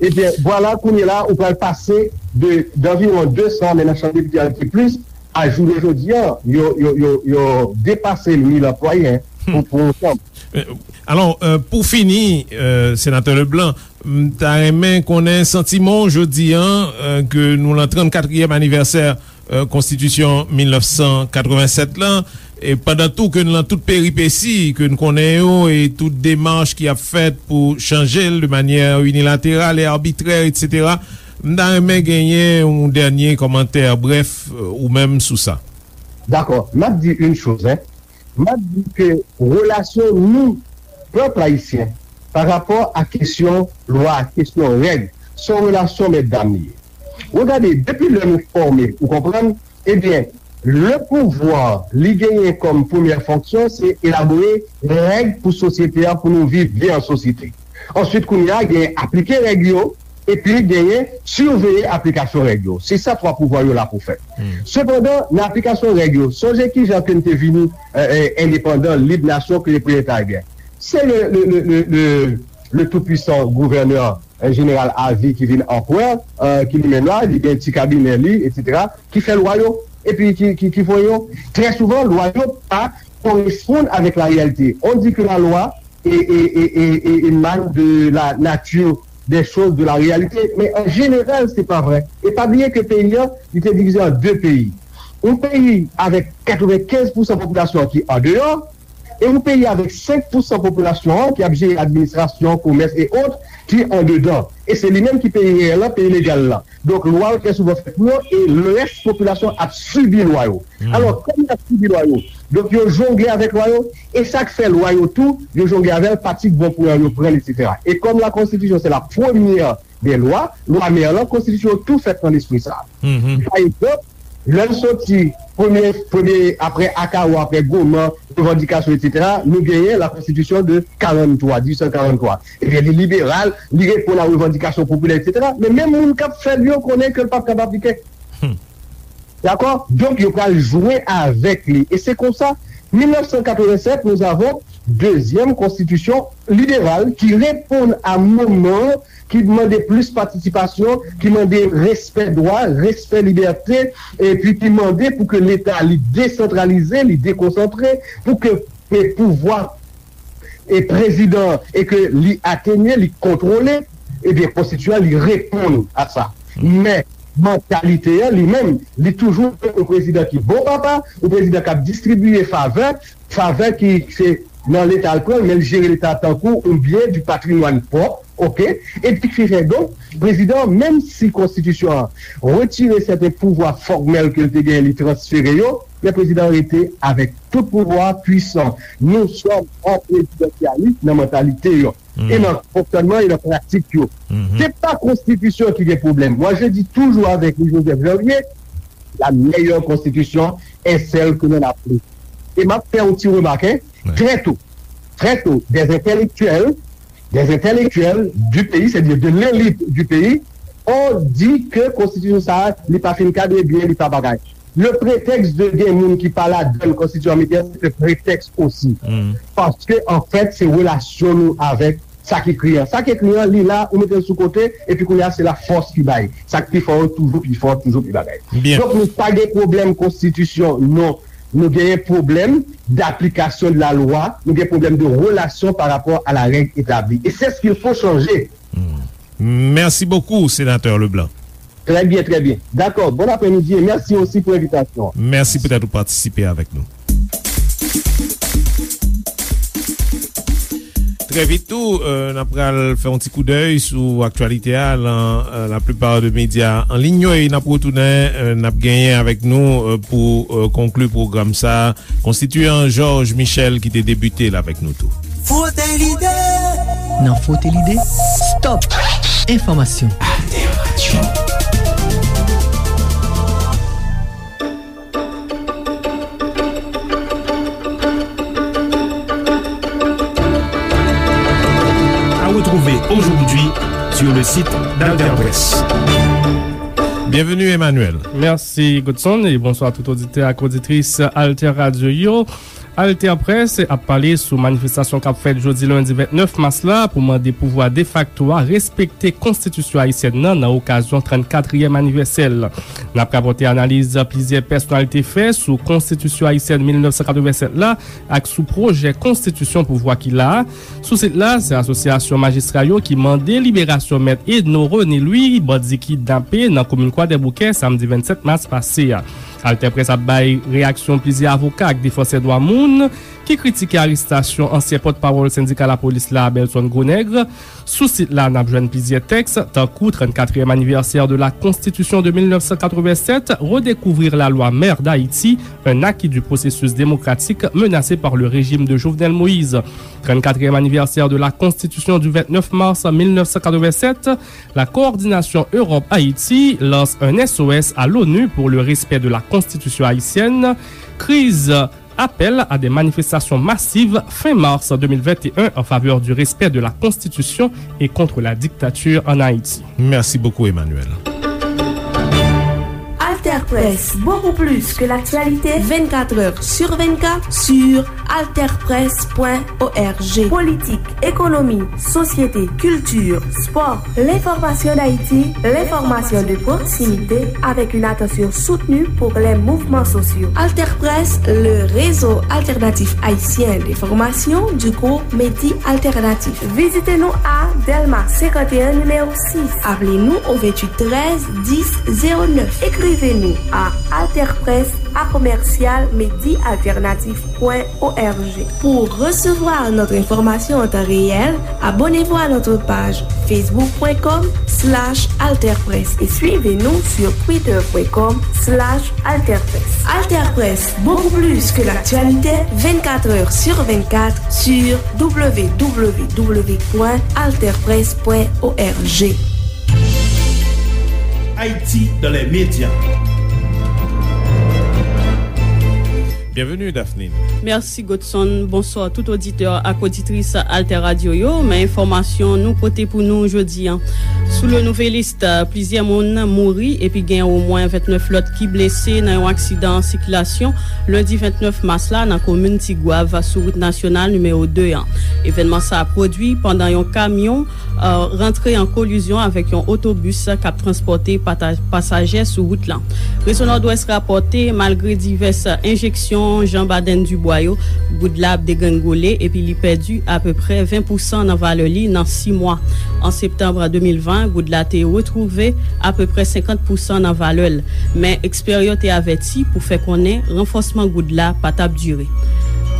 Ebyen, vwala, kounye la, ou pral pase de, d'anviwon de san, men nan chanm depite a ki plis, a jounen jodi a, yo, yo, yo, yo depase mil anplwaye, hein, pou, pou yon chanm. Alò, euh, pou fini, euh, Senatè Leblanc, m ta renmen konnen santiman w jodi a, euh, ke nou lan trannkatriyèm anivèsè, euh, Konstitisyon mil nèf san katrevennsèt lan, e pandan tou ke n lan tout peripesi ke n konnen yo e tout demach ki ap fèt pou chanje l de manyè inilateral e abitrè, etsetera, m ta renmen genyen yon dènye kòmantè brèf, euh, ou menm sou sa. Dakò, m ap di yon choz, hein. M ap di ke relasyon nou, pèp ayisyen, pa rapò a kesyon lwa, kesyon règ, se yon relasyon mètdam li ye. Regade, depi lè nou fòme, ou konprann? Ebyen, le pouvwa, li genyen kòm premyè fonksyon, se elabore règ pou sosyete a, pou nou viv byen an sosyete. Answit, kounye a, genyen aplike règ yo, epi genyen siveye aplikasyon règ yo. Se sa twa pouvwa yo la pou fè. Sepandan, nan aplikasyon règ yo, sonje kijan ke n te vini, euh, euh, endepandan, lib, nasyon, ke le proletaryè. Se le, le, le, le, le, le tou-pwisan gouvènè, euh, jeneral avi ki vin anperè, euh, ki li menm la, li gen ti kabinè li, etsetera, ki fè lwa yo, epi ki, ki, ki voye yo. Trè souvan, lwa yo pa koresponn avèk la reyalite. On dit que la loi é, é, é, é, é, émane de la nature des choses, de la réalité. Men an jeneral, se pa vrè. E pa bliye ke peyi an, li te divize an de peyi. Yon peyi avèk katrevenkenz pousan popilasyon an ki andeyò, e yon peyi avèk senk pousan popilasyon an ki ap jere administrasyon, komès e ot, ki andedan. E se li menm ki peyi reyèl lan, peyi legal lan. Donk, lwa yo trè souvan fèt pou yo, e lès popilasyon ap sibi lwa yo. Alò, kòm y ap sibi lwa yo, donk, yo jongle avèk lwa yo, e sa k fè lwa yo tou, yo jongle avè l, pati k bon pou yo, yo pran l, etsetera. E kòm la Constitution, c'est la première des lois, lwa mè lan, Konstitisyon yo tou fèt nan lespri sa a. Pa egzanp, lè n soti premye, premye, apre Akawò, apre Goman, revandikasyon, etsetera, nou genyen la Constitution de quarante-trois, dix-huit cent quarante-trois. Ebyen, li liberal, li reponn a revandikasyon popilè, etsetera. Men menm moun k ap fè l yo konnen ke l p ap kab aplike. Dakò? Donk, yo pral jwe avèk li. E se konsa, mil nèf san katrevennsèt, nous avons deuxième constitution libérale ki reponn a moman an, ki mande plis patisipasyon, ki mande respè dwa, respè libète, epi ki mande pou ke Leta li desantralize, li dekonsantre, pou ke, ke pouvwa e prezidan e ke li atenye, li kontwole, ebyen, konstitiyan li reponn a sa. Men, mantalite an, li menm, li toujou yon prezidan ki bon papa, yon prezidan k ap distribiye favè, favè ki se nan Leta l pran l, men l jere Leta tankou yon byen, du patrimoine pwòp, oke? Epi ki fè donk, prezidan an, menm si konstitisyon an retire sèten pouvwa fòmèl ke l te genyen, li transfere yo, men prezidan an rete avèk tout pouvwa pwisan. Nou sòm an prezidansyalis nan mantalite yo. E nan fonksyònman e nan pratik yo. Se pa konstitisyon ki gen pwoblèm. Moi, je dis toujours avec Louis Joseph Janvier, la meilleure constitution est celle que l'on applique. E m ap fè yon ti remak, hein, trè to, trè to, des intellectuels, des intellectuels du pays, c'est-à-dire de l'élite du pays, ont dit que konstitisyon sa a, li pa fin kadre byen, li pa bagay. Le prétexte de gen moun ki pa ladan l konstitiyon ameriken, se te pretèks osi. Paske, anfèt, se relasyon nou avèk sa k ekri an. Sa k ekri an, li la, ou mete l sou kote, epi kounye a, se la fòs ki bay. Sa k pi fò yo toujou pi fò, toujou pi bagay. Donk, nou pa gen pwoblèm konstitisyon, non. Nou genyen pwoblèm d'application de la loi, nou gen pwoblèm de relasyon pa rapò a la règ etabli. Et c'est ce qu'il faut changer. Merci beaucoup, Sénateur Leblanc. Très bien, très bien. D'accord. Bon après-midi et merci aussi pour l'invitation. Mèsi poutèt ou patisipe avèk nou. Trè vit tou, euh, n ap pral fè yon ti koudèy sou aktyalite a lan, euh, la plupart de medya an liy yo, e n ap retounen, euh, n ap genyen avèk nou, euh, pou, euh, konkli pwogram sa a, Konstitiyan Georges Michel ki te debite l avèk nou tou. Frote Lide. Nan Frote Lide, stop enfòmasyon. Alter Radio. Sur le site d'Alter Presse. Bienvenue, Emmanuel. Mèsi, Godson, e bonswa tout oditè ak oditris Alter Radio yo. Alter Presse ap pale sou manifestasyon k ap fèt jodi lendi vennèf mas la pou mande pouvwa defakto a respekte konstitisyon ayisyèn nan, nan okazyon trannkatriyèm anivèsè l. N ap rapòte analiz plizyè pèsonalite fè sou konstitisyon ayisyèn mil nèf san katrevennsèt la ak sou pwojè konstitisyon pouvwa ki la a. Sou sit la, se Asosyasyon Majistra yo ki mande liberasyon Mèt Edno René Louis, bandi kidnape nan komin Kwadèboukè, samdi vennsèt mas pase a. Alter Presse ap bay reyaksyon plizyè avoka ak defansè dwa moun ki kritike arestasyon ansyen pòtpawòl sendika lapolis la, Belson Gronèg. Sou sit la, n ap jwenn plizyè tèks, tankou trannkatriyèm anivèsè de la Constitution de mil nèf san katrevennsèt, redécouvrir la loi mère d'Haïti, un acquis du processus démocratique menacé par le régime de Jovenel Moïse. Trannkatriyèm anivèsè de la Constitution du vennèf mas mil nèf san katrevennsèt, la coordination Europe-Haïti lance un S O S à l'ONU pour le respect de la Constitution haïtienne. Kriz, appel à des manifestations massives fin mars deux mille vingt et un en faveur du respect de la Constitution et contre la dictature en Haïti. Merci beaucoup, Emmanuel. Alter Presse, beaucoup plus que l'actualité, vingt-quatre heures sur vingt-quatre sur alter presse point org. Politique, économie, société, culture, sport, l'information d'Haïti, l'information de proximité, avec une attention soutenue pour les mouvements sociaux. Alter Presse, le réseau alternatif haïtien d'information du groupe Medi Alternatif. Vizite nou a Dèlma senkant e en, nimewo sis. Aple nou o venntuit trèz dis zewo nèf. Ekrive nou a alterpresse à commercial medi alternatif point org. Pour recevoir notre information en temps réel, abonnez-vous à notre page facebook point com slash alterpresse et suivez-nous sur twitter point com slash alterpresse. Alter Presse, beaucoup plus que l'actualité, vingt-quatre heures sur vingt-quatre sur w w w point alterpresse point org. Haïti dans les médias. Bienvenue, Daphne. Mèsi, Godson. Bonswa tout oditè ak oditris Alter Radio yo. Men enfòmasyon nou pote pou nou jodi a. Sou le Nouvelliste, plizyè moun mouri epi gen omwen vennèf lòt ki blese nan yon aksidan sikilasyon lendi vennèf mas la nan komin Tigwav sou wout nasyonal nimewo de an. Evènman sa a pwodui pandan yon kamyon rantre an kolizyon avèk yon otobis k ap transpòte pata-, pasaje sou wout lan. Rezo Nòdwès rapòte, malgre divès enjeksyon Jean Baden Dubois yo, goud la ap degrengole epi li pèdi apeprè ven pousan nan valè li nan sis mwa. An septanm de mil ven, goud la te retwouve apeprè senkant pousan nan valè l, men ekspè yo te avèti pou fè konnen ranfòsman goud la pa t ap dire.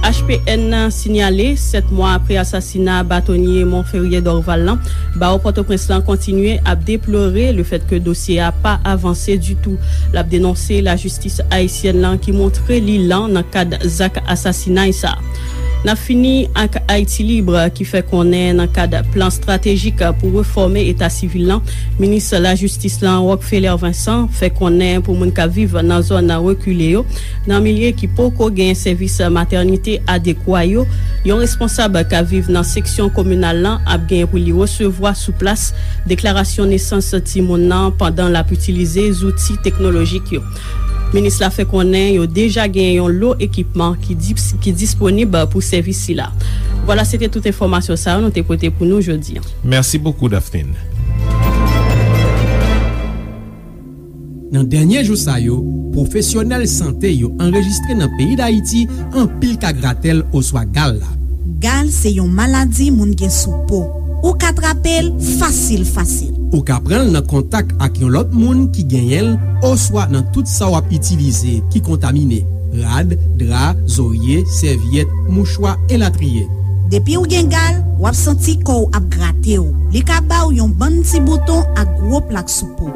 H P N sinyale, sèt mwa apre asasina batonye Monferrier Dorval lan, bawo Pòtoprens lan kontinye ap deplore lefètke dosye a pa avanse ditou. L ap denonse lajistis ayisyèn lan ki montre li lan nan kad zak asasinay sa a. N ap fini ak Haïti Libre ki fè konnen nan kad plan estratejik pou refòme eta sivil lan, minis lajistis lan Rockfeller Vincent fè konnen pou moun k ap viv nan zòn rekile yo, nan milye ki poko gen sèvis matènite adekwa yo, yon responsab k ap viv nan seksyon kominal lan ap gen pou li resevwa sou plas deklarasyon nesans timoun nan pandan l ap itilize zouti teknolojik yo. Minis la fè konnen yo deja gen yon lo ekipman ki dis-, ki disponib pou sèvis sila. Vwala, se te tout enfòmasyon sa yo nou te pote pou nou jodi a. Merci beaucoup, Daphne. Nan dènye jou sa yo, pwofesyonèl sante yo anrejistre nan peyi Dayiti anpil ka gratèl oswa gal la. Gal se yon maladi moun gen sou po. Ou ka trape l fasil, fasil. Ou ka pran l nan kontak ak yon lòt moun ki genyen l oswa nan tout sa w ap itilize ki kontamine, rad, dra, zorye, sèvyèt, mouchwa, elatriye. Depi w gen gal, w ap santi kò w ap grate w. Li ka ba w yon bann ti bouton ak gwo plak sou po.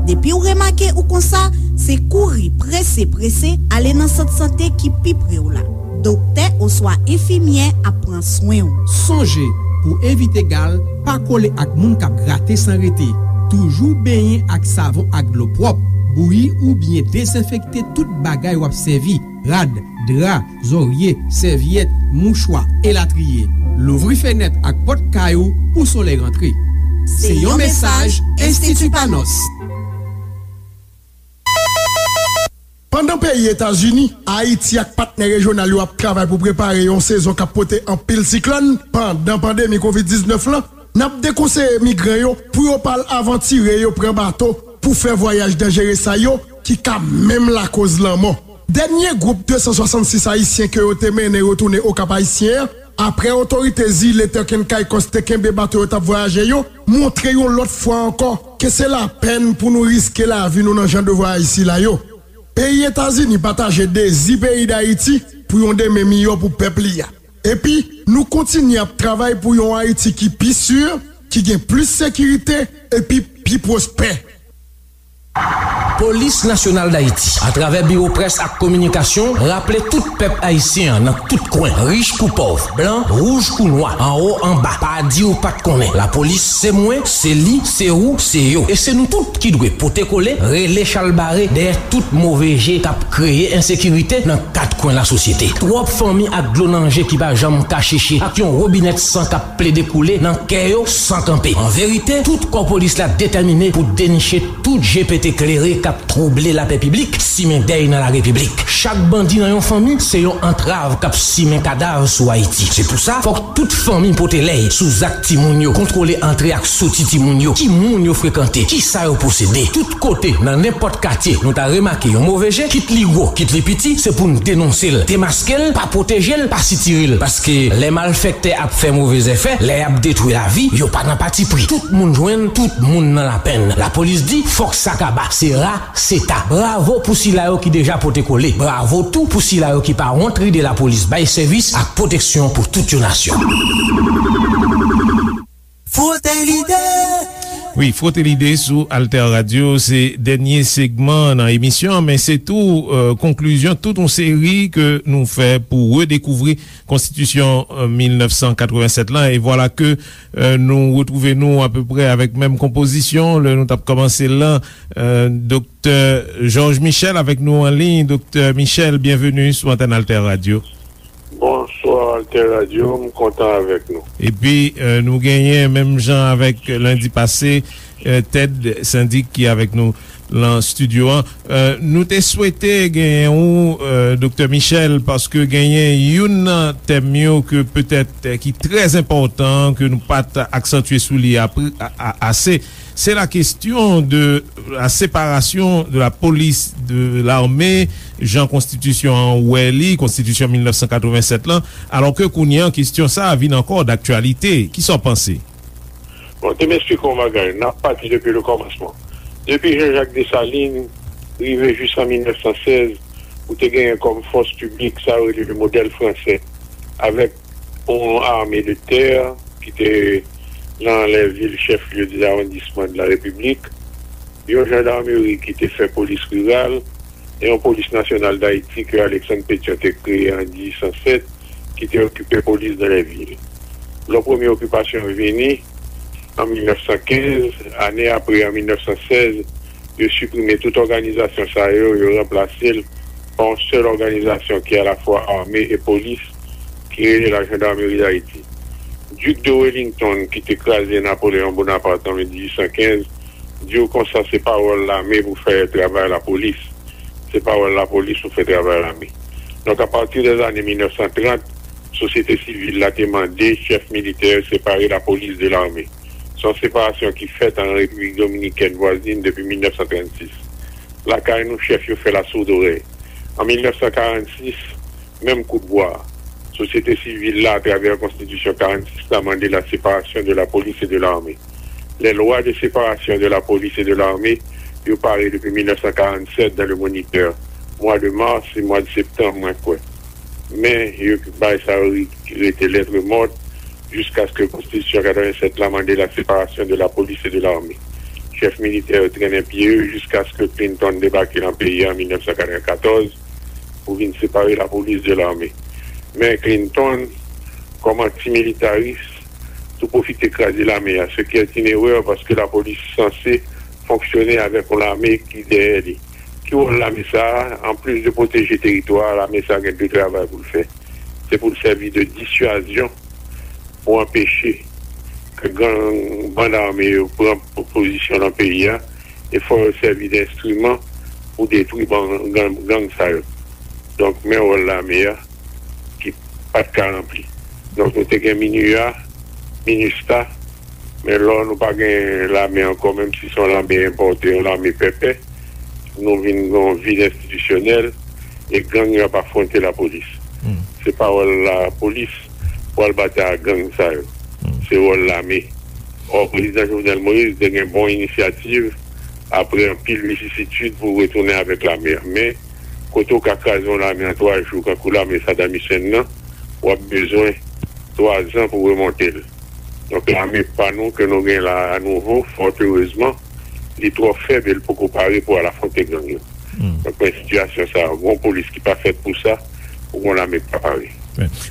Depi w remake ou konsa, se kouri prese prese ale nan sant sante ki pi pre w la. Doktè oswa enfimyè ap pran swen w. Sonje, pou evite gal, pa kole ak moun k ap grate san rete. Toujou benyen ak savon ak dlo pwòp. Bouyi oubyen dezenfekte tout bagay w ap sèvi, rad, dra, zòrye, sèvyèt, mouchwa, elatriye. Louvri fenèt ak pòt kay ou pou solèy rantre. Se yon mesaj Enstiti Panos. Pandan peyi Etazini, Ayiti ak patnè rejyonal yo ap travay pou prepare yon sezon k ap pote anpil siklòn, pandan pandemi kovid diznèf lan, n ap dekonseye migran yo pou yo pa al avantire yo pran bato pou fè vwayaj danjere sa yo ki ka menm lakoz lanmò. Dènye gwoup de san swasannsis Ayisyen ke yo te mennen retounen Okap Ayisyen an, apre otorite zile Turk and Caicos te kenbe bato yo t ap vwayaje yo, montre yon lòt fwa ankò ke se lapèn pou nou riske lavi nou nan jan de vwayaj sila yo. Peyi Etazini pataje dezi peyi Dayiti pou yon demen miyò pou pèp li a. Epi, nou kontinye ap travay pou yon Ayiti ki pi si, ki gen plis sekirite, epi pi pwospè. Polis Nasyonal Dayiti, atravè Biwo Près ak Kominikasyon, raple tout pèp ayisyen an nan tout kwen, rich kou pòv, blan, wouj kou nwa, anwo, anba, pa di w pa t konnen. Lapolis se mwen, se li, se ou, se yo. E se nou tout ki dwe pote kole, rele chalbare dèyè tout move je k ap kreye ensekirite nan kat kwen lasosyete. Twòp fanmi ak dlo nan je ki pa janm ka cheche, ak yon wobinèt san k ap plede koule nan kè yo san kanpe. An verite, tout kò polis la detèmine pou deniche tout je pete klere k ap twouble lapè piblik, simen dèy nan larepiblik. Chak bandi nan yon fanmi se yon antrav k ap simen kadav sou Ayiti. Se pou sa, fòk tout fanmi pote lèy sou zak timoun yo, kontwole antre ak soti timoun yo, ki moun yo frekante, ki sa yo posede. Tout kote, nan nenpòt katye, nou ta remake yon move je, kit li gwo, kit li piti, se pou n denonse l, demaske l, pa pwoteje l, pa sitire l. Paske lè malfèktè ap fè move zèfè, lè y ap detwi lavi, yo pa nan patipri. Tout moun jwenn, tout moun nan lapenn. Lapolis di, fòk sa kaba. Se ra, se ta. Bravo pou sila yo ki deja pote kole. Bravo tou pou sila yo ki pa wont ride lapolis bay sèvis ak pwoteksyon pou tout yon nasyon. Frote Lide! Wi, Frote Lide sou Alter Radio, se dènye segman nan emisyon an, men se tou, euh, konklizyon tout yon seri ke nou fè pou redekouvri konstitisyon, euh, mil nèf san katrevennsèt lan. E vwala ke, euh, nou retwouve nou apeprè avèk menm konpozisyon lè nou t ap kòmanse l lan. Euh, Doktè Georges Michel avèk nou an liy. Doktè Michel, byenveni sou antèn Alter Radio. Bonswa, Alter Radio, m kontan avèk nou. Epi, euh, nou genyen, menm jan avèk lendi pase, euh, Ted Syndic ki avèk nou lan estidyo an. Euh, nou te swete genyen ou, euh, Doktè Michel, paske genyen youn nan tèm yo ke petèt, euh, ki trè enpòtan, ke nou pa t aksantye sou li apre, a, a, ase. Se la kesyon de la separasyon de la polis de lame, jan konstitisyon an wè li, konstitisyon mil nèf san katrevennsèt lan, alò ke kounye an, kesyon sa a vin ankò daktyalite. Kisa w panse? Bon, te m esplike yon bagay. N ap pati depi le kòmansman. Depi Jean-Jacques Dessalines rive jis an mil nèf san sèz, ou te genyen kòm fòs piblik, sa yo rele le modèl fransè, avèk yon ame de tè ki te nan lè vil chèf lye de lawondisman de la Repiblik, yon jandarmeri ki te fè polis riral, e yon polis nasyonal Dayiti ke Alexandre Pétion te kreye an dizuit san sèt, ki te okipe polis dan lè vil. Lò premye okipasyon vini, an mil nèf san kenz, ane apre, an mil nèf san sèz, yo siprime tout òganizasyon sa yo, yo ranplase l pa yon sèl òganizasyon ki alafwa ame e polis, ki rele la Gendarmerie d'Haïti. Duc de Wellington, ki te kraze Napoléon Bonaparte an dizuit san kenz, di w konsa se pawòl lame pou fè travay lapolis, se pawòl lapolis pou fè travay lame. Donk, apati dèzane mil nèf san trant, sosyete sivil la te mande chèf militè separe lapolis de lame. Se yon separasyon ki fèt an Repiblik Dominikèn vwazin depi mil nèf san trannsis. Lakay nou, chèf yo fè lasoudorèy. An mil nèf san karannsis, menm kout bwa a, sosyete sivil la, atravè konstitisyon karannsis la, mande la séparation de la police et de l'armée. Les lois de séparation de la police et de l'armée, yo pare depi mil nèf san karanntsèt dans le Moniteur. Mwa de mas e mwa de septanm, mwen kwè. Men, yo bay sa yo ri-, rete lettre morte, jiskaske konstitisyon katrevennsèt la mande la séparation de la police et de l'armée. Chèf militè yo trennen pye yo jiskaske Clinton debake nan peyi a an mil nèf san katrevenkatòz pou vin separe lapolis de lame. Men Clinton, kòm antimilitaris, tou pwofite kraze lame a, ce qui est une erreur paske lapolis sanse fonksyone avèk yon lame ki dèyè li. Ki wòl lame sa a? Anplis de pwoteje teritwa a, lame sa a gen de travay pou l fè. Se pou l sèvi de dissuasion pou anpeche ke gang, bann ame yo pran po-, pozisyon nan peyi a, e fò yo sèvi de enstriman pou detwi ban-, gang, gang sa yo. Donk, men wòl lame a ki pa t ka ranpli. Donk, nou te gen MINUA, MINUSTAH, men lò nou pa gen lame ankò, menm si se yon lame enpòte, yon lame pèpè, nou vin gen yon vid enstitisyonèl, e gang yo ap afwonte lapolis. Se pa wòl lapolis pou al batay ak gang sa yo. Se wòl lame. Ò, Prezidan Jovenel Moïse te gen bon inisyativ apre anpil vicisitid pou retounen avèk lame a. Men, kote w ka kraze yon lame an twa jou, kankou lame Saddam Hussein nan, w ap bezwen twa zan pou remonte l. Donk, lame pa nou ke nou gen la a nouvo, fòt erezman, li twò fèb e l poko pare pou al afwonte gang yo. Donk, men sitiyasyon sa a, gon polis ki pa fèt pou sa, ou gon lame ki pa pare.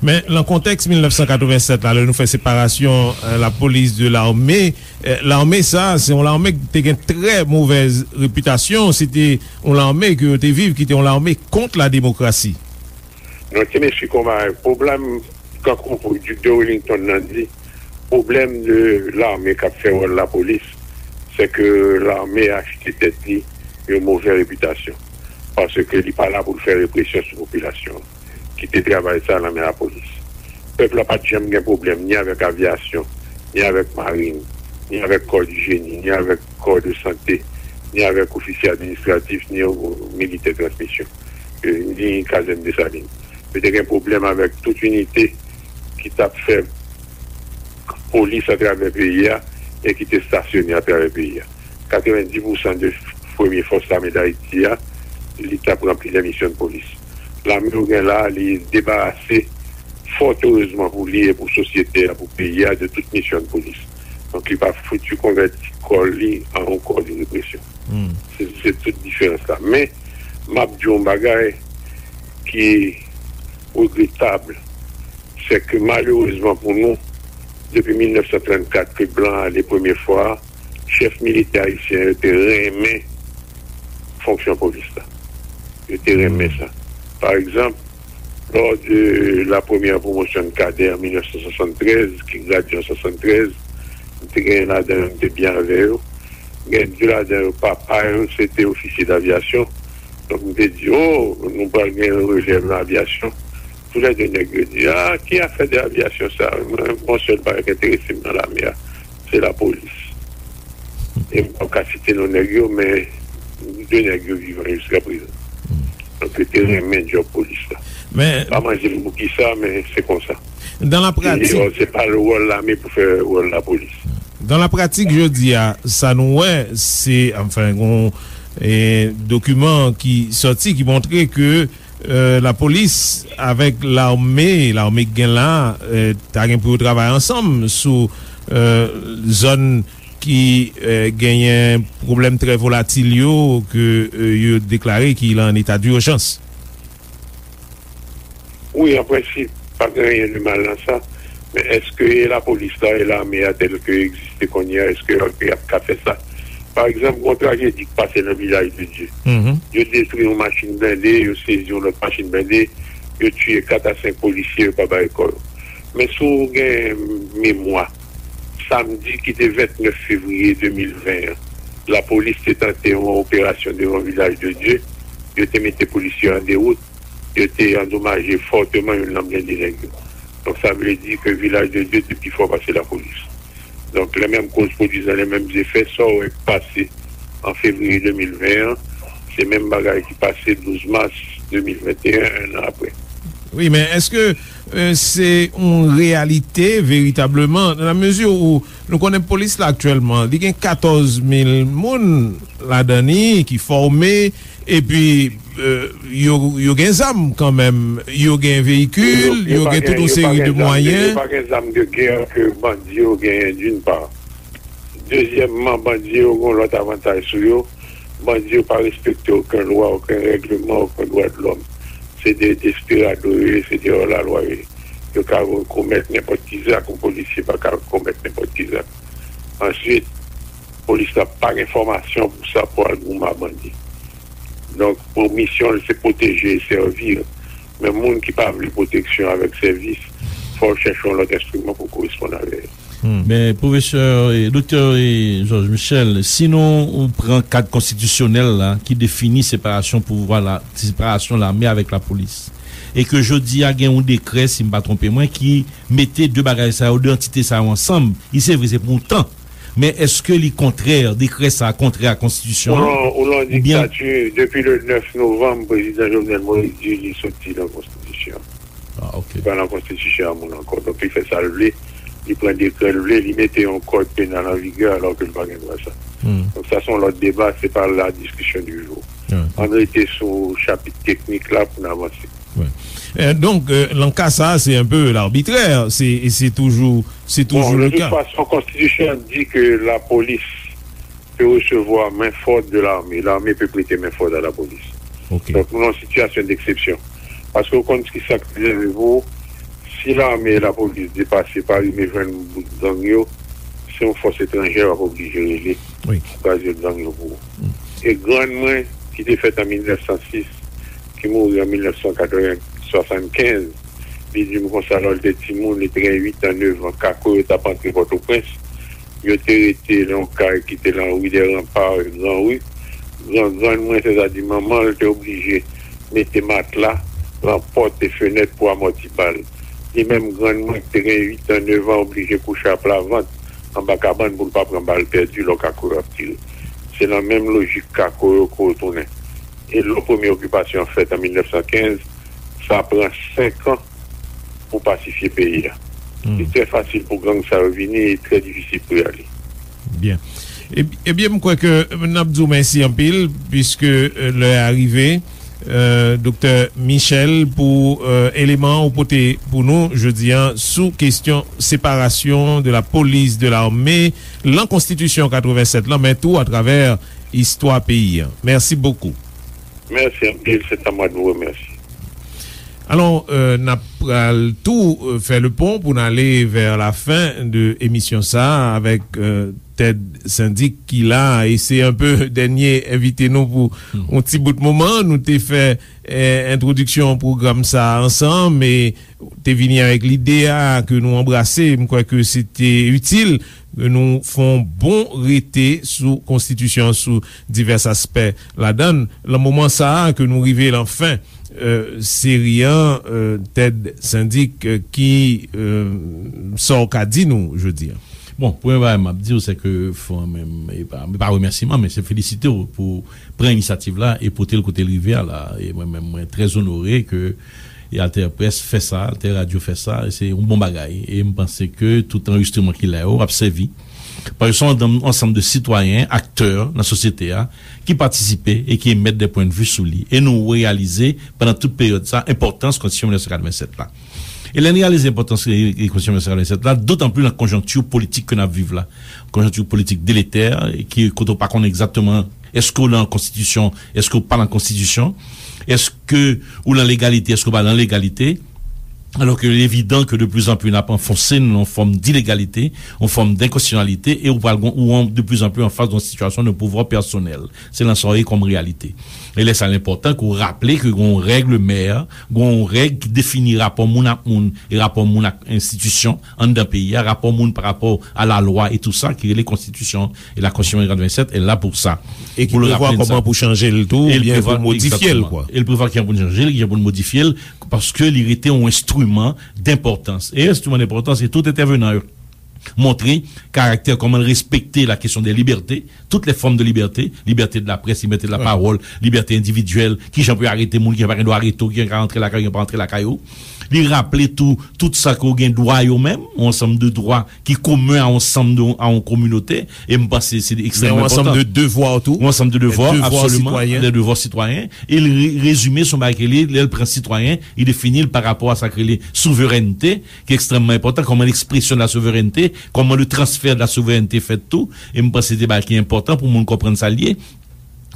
Men, nan kontèks mil nèf san katrevennsèt la, lè nou fè separasyon, euh, lapolis de lame, euh, lame sa, se yon lame ki te gen trè movèz repitasyon, se te yon lame ke yo te viv, ki te yon lame kont la demokrasi. Non, ti mesye konba, pwoblèm, kankou Duc de Wellington nan di, pwoblèm de lame k ap fè wòl lapolis, se ke lame achte tèt li yon movè repitasyon, paske li pa la pou l fè represyon sou popilasyon an. Kite travay sa nan men lapolis. Pèp la pa t janm gen pwoblèm ni avèk avyasyon, ni avèk marin, ni avèk kò di jeni, ni avèk kò de sante, ni avèk ofisye administratif, ni militè transmisyon, eh, ni kazèn Desalin. Yo te gen pwoblèm avèk tout inite ki t ap fè polis atravè peyi a e ki te estasyone atravè peyi a. Katrevenndis pousan de premye fòs lame Dayiti a, li t ap ranpli de misyon de polis. Lame yo gen la, li debarase, fòt erezman pou li e pou sosyete a, pou peyi a, de tout misyon de polis. Donk, li pa fouti konvèti kò li an yon kò de represyon. Se, se tout diferans la. Men, m ap di yon bagay ki regretab, se ke malerezman pou nou, depi mil nèf san trannkat ke blan ale premye fwa, chèf militè ayisyen yo te renmen fonksyon polis la. Yo te renmen sa. Pa egzanp, lò de la premyè pwomosyon de kadè an mil nèf san swasanntrèz, ki gradye an swasanntrèz, m te genyen ladan yo, m te byen avè yo. Gen de ladan yo, papa yo, se te ofisye davyasyon. Donk, m te di, "O, nou pral gen yon relèv nan avyasyon." Toulède nèg yo di, "A, ki afè de avyasyon sa? Mwen, gon sèl bagay ki enterese m nan lame a, se lapolis." E m p ap ka site non nèg yo, men de nèg yo vivan jiska prezan. Donk, yo te renmen djòb polis la. Men pa manje m pou kisa, men se konsa. Dan la pratik, se pa wòl lame pou fè wòl lapolis. Dan la pratik, jodi a, sa nou wè, se, anfen, gon, e, dokiman ki sòti, ki montre ke, e, lapolis avèk lame, lame k gen la, e, ta gen pou yo travay ansanm sou, e, zòn ki, e, genyen pwoblèm trè volatil yo, ke, e, yo deklare ki lan eta dijans. Wi, an prensip, pa gen anyen de mal nan sa. Men èske e lapolis la, e lame a tèl ke egziste kounye a, èske y ap, y ap ka fè sa? Pa egzanp, gon trajedi k pase nan Vilaj de Dye. Yo detwi yon machin blende, yo sezi yon lòt machin blende, yo tiye kat a senk polisye, yo pa bay kò yo. Men si w gen memwa, samdi ki te vennèf fevriye de mil ven an, lapolis te tante yon operasyon devan Vilaj de Dye, yo te mete polisye an dewout, yo te andomaje fòteman youn nan blende nèg yo. Donk, sa vle di ke Vilaj de Dye te pi fò pase lapolis. Donk, lè menm koz pwodui lè menm zefè, sa w wè k pase an fevriye de mil ven an, se menm bagay ki pase douz mas de mil venteyen, en an apre. Wi, men èske, e, se yon reyalite veritableman, nan la mezi ou nou konnen polis la aktyèlman, li gen katòz mil moun ladan li ki fòme, epi, e, yo, yo gen zam kanmenm, yo gen veyikil, yo gen tout yon seri de mwayen. Yo pa gen zam de gè ke bandi yo genyen, d'une part. Dezyèmman, bandi yo gen yon lòt avantaj sou yo. Bandi yo pa respekte okenn lwa, okenn règleman, okenn dwa de lòm. Se de desperado yo ye, se de hors la loi yo ye. Yo ka komèt nenpòt ki zak, yon polisye pa ka komèt nenpòt ki zak. Answit, polis la pa gen fòmasyon pou sa, pou al goumen ak bandi. Donk, pou misyon l, se pwoteje e sèvi. Men moun ki pa vle pwoteksyon avèk sèvis, fò l chèche yon lòt enstriman pou koresponn avè l. Men pwofesè, e, doktè, e, Georges Michel, si nou pran kad konstitisyonèl la ki defini separasyon pouvwa la, separasyon lame avèk lapolis, e ke jodi a gen yon dekrè, si m pa twonpe mwen, ki mete de bagay sa yo, de antite sa yo ansanm, li se vre se pou yon tan, men èske li kontrè, dekrè sa a kontrè a konstitisyon an? Ou lan, ou lan diktati, depi le nèf novanm, prezidan Jovenel Moïse di li soti nan konstitisyon. Ah, ok. Li pa nan konstitisyon a moun ankò. Donk, li fè sa l vle, li pran dekrè l vle, li mete yon kòd penal an vigè alò ke l pa gen dwa sa. Donk, sa se yon lòt deba, se pa la diskisyon di jou. Ann rete sou chapit teknik la pou n avanse. Wi. Eh, donk, eh, nan ka sa, se un peu l'arbitraire. Se, se toujou, se toujou le ka. Bon, de toute façon, konstitisyon an di ke lapolis pe resevwa men fòt de lame. Lame pe prete men fòt a lapolis. Ok. Donk, nou nan sitiyasyon deksepsyon. Paske ou konn ki sa k rive pou si lame e lapolis depase pa rive jwenn bout gang yo, se yon fòs etranjè w ap oblije rele pou kraze gang yo pou ou. E grann mwen, ki te fèt an mil nèf san sis, ki mouri an mil nèf san katreven, swasannkenz, li di m konsa, lò l te timoun, li te gen uit an, nèf an, kako yo t ap antre Pòtoprens, yo te rete nan yon kay ki te nan Rue des Remparts, Gran Ri. Gran, grann mwen, sètadi manman l, te oblije mete matla nan pòt e fenèt pou amòti bal. Li menm, grann mwen, ki te gen uit an, nèf an, oblije kouche aplavant anba kabann pou l pa pran bal pèdi lò kako yo ap tire. Se nan menm lojik kako yo ke w tounen. E lò premye okipasyon an fèt an mil nèf san kenz, sa pran senk an pou pasifye peyi a. Li trè fasil pou gang sa yo vini e trè difisil pou y ale. Byen. Eb-, ebyen, m kwè ke n ap di w mèsi anpil, piske, eh, lè a rive, eh, Doktè Michel, pou, eh, eleman ou pote pou nou jodi a sou kesyon séparation de la police de l'armée, lan konstitisyon katreven sèt lan, men tou atravè istwa peyi a. Mèsi bokou. Merci anpil, c'est à moi de vous remercier. Alò, euh, n ap pral tou, euh, fè le pon pou n ale vè la fen de emisyon sa a avèk, euh, Ted Syndic ki la, e se un peu dènye envite nou pou yon ti bout moman. Nou te fè, eh, entwodiksyon pwogram sa a ansanm, e te vini avèk lide a ke nou anbrase. M kwè ke se te itil ke nou fè yon bon rete sou konstitisyon an, sou divès aspè ladan l. Lan moman sa a ke nou rive lan fen, eh, seri an, eh, Ted Syndic, eh, ki, eh, sa w ka di nou jodi a? Bon, premye bagay m ap di w, se ke fò menm, e pa, e pa remèsiman, men se felisite w pou pran inisyativ la e pote l kote l rive a la. E mwen menm, mwen trè onore ke e Alter Presse fè sa, Alter Radio fè sa, e se yon bon bagay. E m panse ke tout anrejistreman ki la yo ap sèvi. Paske se yon ansanm de sitwayen, aktè nan sosyete a, ki patisipe e ki emèt de pwennvi sou li. E nou reyalize, pandan tout peryòd sa, enpòtans Konstitisyon mil nèf san katreven sèt la. E lè n reyalize enpòtans, e, e, Konstitisyon mil nèf san katreven sèt la, dotan plis nan konjonkti politik ke n ap viv la. Konjonkti politik deletè, e ki, kote w pa konnen egzakteman èske w lan konstitisyon, èske w pa lan konstitisyon, èske ou lan legalite, èske w pa lan legalite. Alò ke li evidan ke de plis an plis n ap anfonse n lan yon fòm dilegalite, yon fòm denkonstitisyonalite, e ou pral gon, ou an, de plis an plis an fas de yon sitiyasyon de pouvwa pèsonèl. Se lan sa w ye kòm reyalite. E lè sa, l enpòtan ke w raple ke gon règ mè, gon règ ki defini rapò moun ak moun e rapò moun ak enstitisyon anndan peyi a, rapò moun pa rapò a lalwa e tou sa ki rele konstitisyon. E la Constitution de quatre-vingt-sept est là pour ça. E ki prevwa kòman pou chanje l tou, oubyen pou modifye l, kwa. E l prevwa kijan pou n chanje l, kijan pou n modifye l, paske li rete yon enstriman denpòtans. E enstriman denpòtans, e tout entèvenan yo montre karaktè, kòman l respekte la kesyon de libète, tout lè fòm de libète, libète de la près, libète de la pawòl, libète endividyèl, kijan pou yo arete moun, kijan pa gen dwa arete w, kijan ka rantre lakay ou, pa rantre lakay ou. Li raple tou, tout sa ke w gen dwa yo menm, yon ansanm de dwa ki komen a yon ansanm de, a yon kominote, e m panse se ekstrèmman enpòtan. Yon ansanm de devwa tou. Yon ansanm de devwa, absoliman, de devwa sitwayen. E l re-, rezime se yon bagay ke li, lè l pran sitwayen, li defini l pa rapò a sa k rele souverènte, ki ekstrèmman enpòtan, kòman ekspresyon de la souverènte, kòman le transfè de la souverènte fèt tou, e m panse se de bagay ki enpòtan pou moun konprann sa l ye.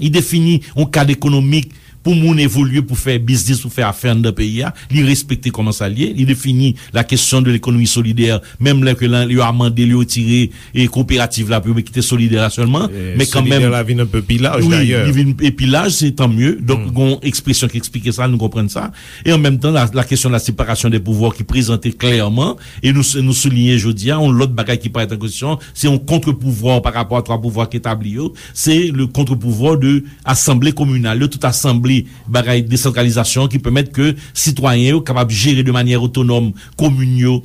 Li defini yon kad ekonomik pou moun evolye, pou fè biznis, pou fè afè anndan peyi a. Li respekte kòman sa l ye. Li defini la kesyon de lekonomi solidè, menm lè ke lan, yo amande l, yo retire e koperativ la pou yo kite solidè la sèlman. Men kanmenm, solidè la vin enpe pi laj, wi, dayè. Li vin e pi laj, se tan mye. Donk, gon ekspresyon ki eksplike sa, nou konprann sa. E an menm tan, la, la kesyon de la separasyon de pouvwa ki prezante klèman, e nou, nou souliye jodi a, yon lòt bagay ki parèt an kesyon, se yon contre-pouvoir par rapport à trois pouvoirs ki etabli yo, se le contre-pouvoir de asanble kominal yo, tout asanble bagay desantralizasyon ki pèmèt ke sitwayen yo kapab jere de manyè otonòm komin yo,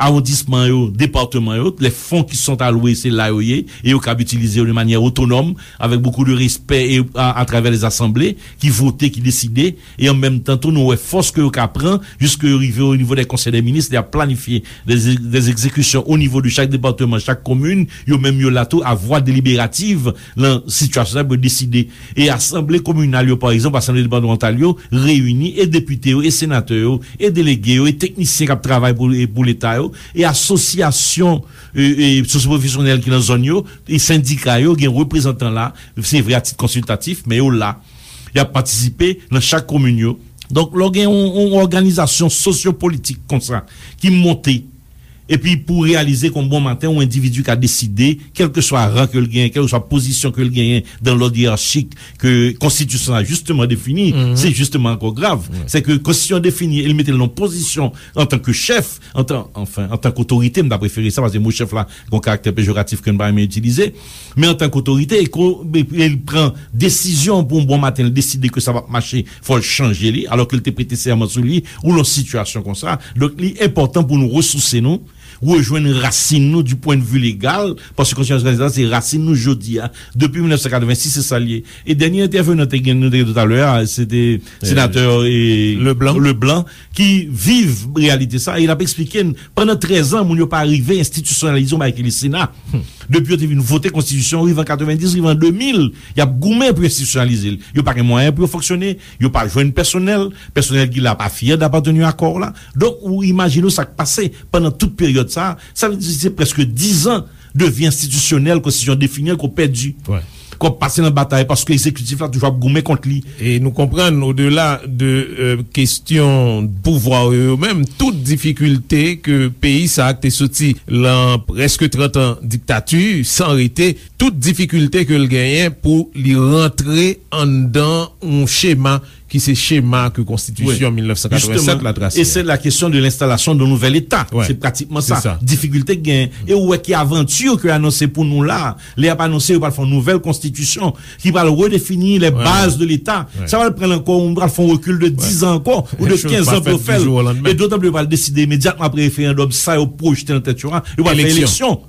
awondisman yo, depatman yo, les fonds qui sont alloués, se la yo ye, e yo kab itilize yo de manyè otonòm, avèk bokou de respè e a, atravè les asanble ki vote, ki deside, e an menm tan tou nou wè fòs ke yo ka pran, jiske yo rive o nivo dè konsèy dè minis, y ap planifye des, des exécutions au niveau de chaque département, chaque commune, yo menm yo la tou a vwa deliberativ lan sitiyasyon sa pou yo deside. E asanble kominal yo, pa egzanp, asanble depatmantal yo, reyini e depite yo, e senatè yo, e delege yo, e teknisyen k ap travay pou, e pou leta yo, e asosyasyon e, e sosyopwofesyonèl ki nan zòn yo, e sendika yo, gen reprezantan la, se vre a tit konsiltatif, men yo la. Y ap patisipe nan chak komin yo. Donk, lè w gen yon, yon òganizasyon sosyopolitik konsa ki monte, epi pou reyalize kon bon maten, yon endividi ka deside, kèlkeswa ran ke l genyen, kèlkeswa pozisyon ke l genyen dan lòd yeyarchik ke konstitisyon an jisteman defini, se jisteman ankò grav. Se ke konstitisyon an defini e l mete l nan pozisyon antanke chèf, antan, anfen, antanke otorite, m ta prefere sa, paske mo chèf la gon karaktè pejoratif ke n pa renmen itilize, men antanke otorite, e ko, e, e l pran desizyon pou yon bon maten, l deside ke sa p ap mache, fò l chanje li, alò ke l te prete sèman sou li, ou lan sitiyasyon konsa. Donk, li enpòtan pou nou resouse nou, rejwenn rasin nou du point de vue légal, paske konstitisyon sa se rasin nou jodi a. Depi mil nèf san katrevensis, se sa l ye. E dènye entèvenan te gen, nou te gen toutalè a, se te senatè, e, Leblanc. Leblanc, ki viv reyalite sa, e l ap eksplike n, pandan trèz an, moun yo pa rive enstitisyonalize yon bagay ki rele Sena. Depi yo te vin vote konstitisyon, rive an katrevenndis, rive an de mil, y ap goumen pou yo enstitisyonalize l. Yo pa gen mwayen pou yo fonksyone, yo pa jwenn pèsonèl, pèsonèl ki la pa fyè dapatenir a kò w la. Donk, ou imajine w sa k pase pandan tout peryòd sa a. Sa vle di se prèske diz an de vi enstitisyonèl, konstitisyon defini an, ke w pèdi. Ke w ap pase nan batay paske egzekitif la toujou ap goumen kont li. E nou konprann, odela de, e, kesyon pouvwa yo, yo menm, tout difikilte ke peyi sa a ki te soti lan prèske trant an diktati, san rete, tout difikilte ke l genyen pou li rantre anndan yon chema ki se chema ke konstitisyon mil nèf san katrevennsèt la trase. E se la kesyon de lenstalasyon de nouvèl Eta. Se pratikman sa. Difikilte k genyen. E ou wè ki avanti ke anonse pou nou la. Lè y ap anonse, yo pral fè yon nouvèl konstitisyon ki pral redefini les bases de l'État. Sa pral pran ankò, ou pral fè yon rekil de diz an ankò, ou de kenz an pou yo fè l. E dotan plis yo pral deside imedyatman apre referandòm sa yo pwojte nan tèt yo a, yo pral fè eleksyon.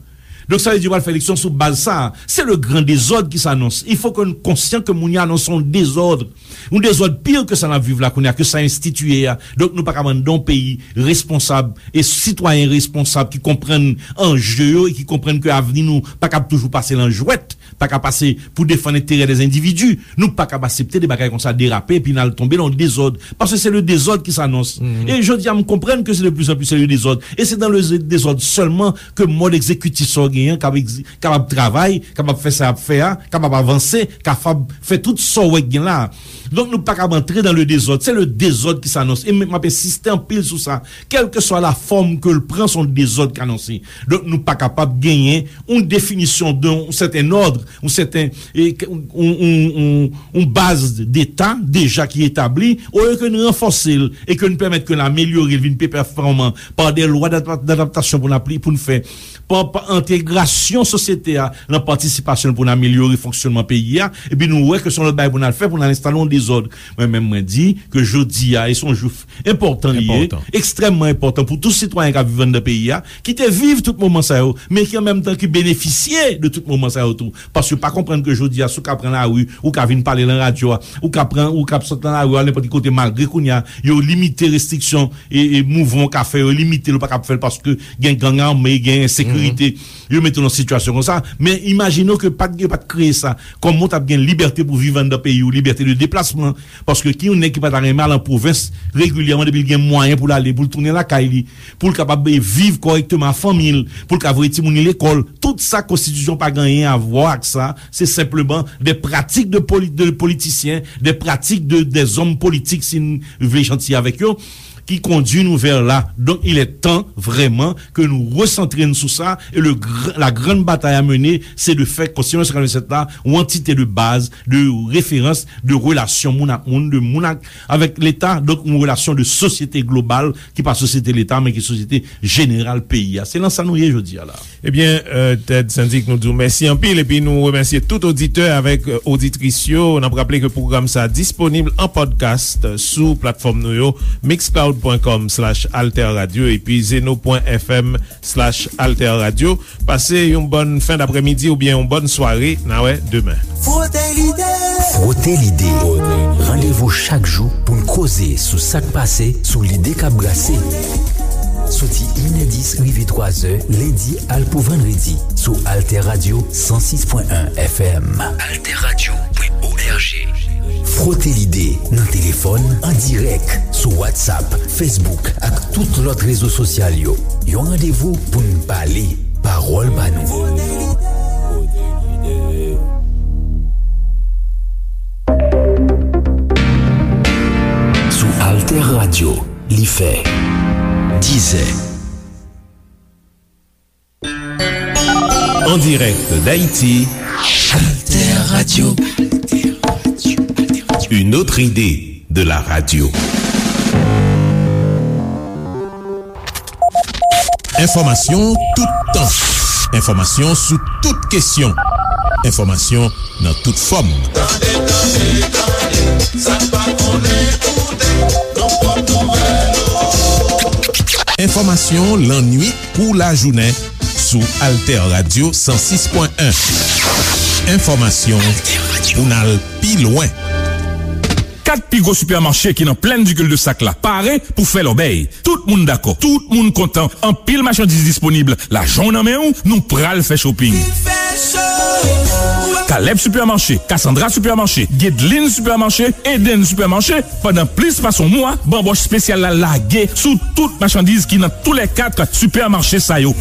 Donk, sa vle di yo pral fè eleksyon sou baz sa a. Se le gran dezòd ki s'annonce. Il faut que nou konsyan ke moun yo anonse yon dezòd. Yon dezòd pi ke sa n ap viv la kounye a, ke sa enstitiye a. Donk, nou pa ka mande yon peyi responsab e sitwayen responsab ki konprann anje yo e ki konprann ke avni nou pa kab toujou pase lan jwèt, pa ka pase pou defann enterè dè endividi. Nou pa kab aksepte de bagay konsa derape epi n al tonbe lan yon dezòd. Paske se le dezòd ki s'annonce. E jodi a, m konprann ke se de plus en plus se le dezòd. E se dan le dezòd sèlman ke mòd egzekitif sa w genyen k ap egzi-, kapab travay, kapab fè sa y ap fè a, kapab avanse, kapab fè tout sa w wè k gen la a. Donk, nou pa kab antre dan le dezòd. Se le dezòd ki s'annonce. E m, m ap ensiste anpil sou sa. Kèlkeswa la fòm ke l pran, se yon dezòd k anonse. Donk, nou pa kapab genyen yon definisyon de yon sèten òd, yon sèten, e, yon, yon, yon, yon baz deta deja ki etabli, olye ke n ranfòse l e ke n pèmèt ke n amelyore l vin pi pèfòman pa de lwa d'adap-, d'adaptasyon pou n apli-, pou n fè, pa, pa entegrasyon sosyete a nan patisipasyon l pou n amelyore fonksyònman peyi a, epi nou wè ke se yon lòt bagay pou n al fè, pou n al enstale yon dezòd. Mwen menm, mwen di ke jodi a, e se yon jou enpòtan li ye, ekstrèmman enpòtan pou tout sitwayen k ap viv anndan peyi a, ki te viv tout moman sa yo, men ki an menm tan ki benefisye de tout moman sa yo tou. Paske pa konprann ke jodi a, si w ka pran lari, ou ka vin pale lan radyo a, ou ka pran, ou ka sot lan lari a, al nenpòt ki kote, malgre kounye a, yo limite restriksyon e, e mouvman w ka fè, yo limite l, ou pa kab fè l paske gen gang ame, gen ensekirite. yo mete w nan sitiyasyon konsa. Men imajine w ke pa t, yo pa t kreye sa. Kòman w t ap gen libète pou viv anndan peyi w, libète de deplasman? Paske ki yon nèg ki pa ta renmen al an pwovens regilyèman depi l gen mwayen pou l ale, pou l tounen lakay li, pou l kapab, eh, viv kòrèkteman ak fanmi l, pou l ka voye timoun li lekòl? Tout sa konstitisyon pa gen anyen a wè ak sa. Se senpleman de pratik de poli-, de politisyen, de pratik de, de zòm politik, si n vle janti avèk yo, ki kondui nou vè la. Donk, il est temps, vrèman, ke nou resantre n sou sa, e le gr-, la grande bataille à mener, c'est de faire Constitution cent quatre-vingt-sept la yon antite de baz, de referans, de relasyon moun ak moun, de moun ak, avèk Leta, donk yon relasyon de sosyete global, ki pa sosyete Leta, men ki sosyete jeneral peyi a. Se nan sa nou ye jodi a la. Ebyen, euh, Ted Syndic, nou di w mèsi anpil, epi nou remèsye tout oditè avèk, euh, oditris yo. N ap raple ke pwogram sa a disponib an podcast sou platfòm nou yo, mixcloud.com slash alterradio epi zeno.fm slash alterradio. Pase yon bòn fen daprèmidi oubyen yon bòn sware. N a wè demen. Frote lide. Frote lide. Randevou chak jou pou n koze sou sa k pase, sou lide k ap brase. Soti inèdis rive twazè, lendi al pou vandredi, sou Alter Radio san sis pwen en F M. Alter Radio pwen O R G. Frote lide nan telefòn, an dirèk, sou WhatsApp, Facebook ak tout lòt rezo sosyal yo. Yon randevou pou n pale, pawòl pa nou. Sou Alter Radio, li fè dizè. En direct d'Haïti, Alter Radio. Une autre idée de la radio. Enfòmasyon toutan. Enfòmasyon sou tout kesyon. Enfòmasyon nan tout fòm. Tande, tande, tande, sa n pa konnen koute, nan pwòp nouvèl yo. Enfòmasyon lannuit kou lajounen sou Alter Radio san sis pwen en. Enfòmasyon pou n al pi lwen. Kat pi gwo sipèmache ki nan Plaine du Cul-de-Sac la pare pou fè lòbèy. Tout moun dakò, tout moun kontan, anpil machandiz disponib. Lajan w nan men w, nou pral fè shopping. Caleb Supermarché, Cassandra Supermarché, Guedeline Supermarché, Eden Supermarché, pandan plis pase yon mwa, banbòch espesyal la lage sou tout machandiz ki nan toulèkat sipèmache sa yo.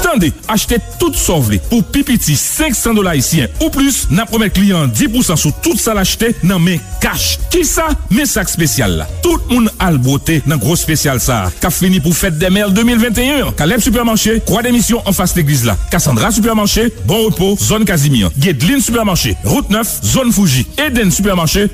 Tande, achte tout sa w vle pou pi piti senk san dola ayisyen ou plis, n ap remèt kliyan an dis pousan sou tout sa l achte nan men kach. Kisa? Men sa k espesyal la. Tout moun al bwote nan gwo espesyal sa a, k ap fini pou Fête des Mères de mil venteyen an. Caleb Supermarché, Croix des Missions anfas legliz la. Cassandra Supermarché, Bon Repos, zòn Kazimi an. Guedeline Supermarché, wout nèf, zòn Fouji. Eden Supermarché,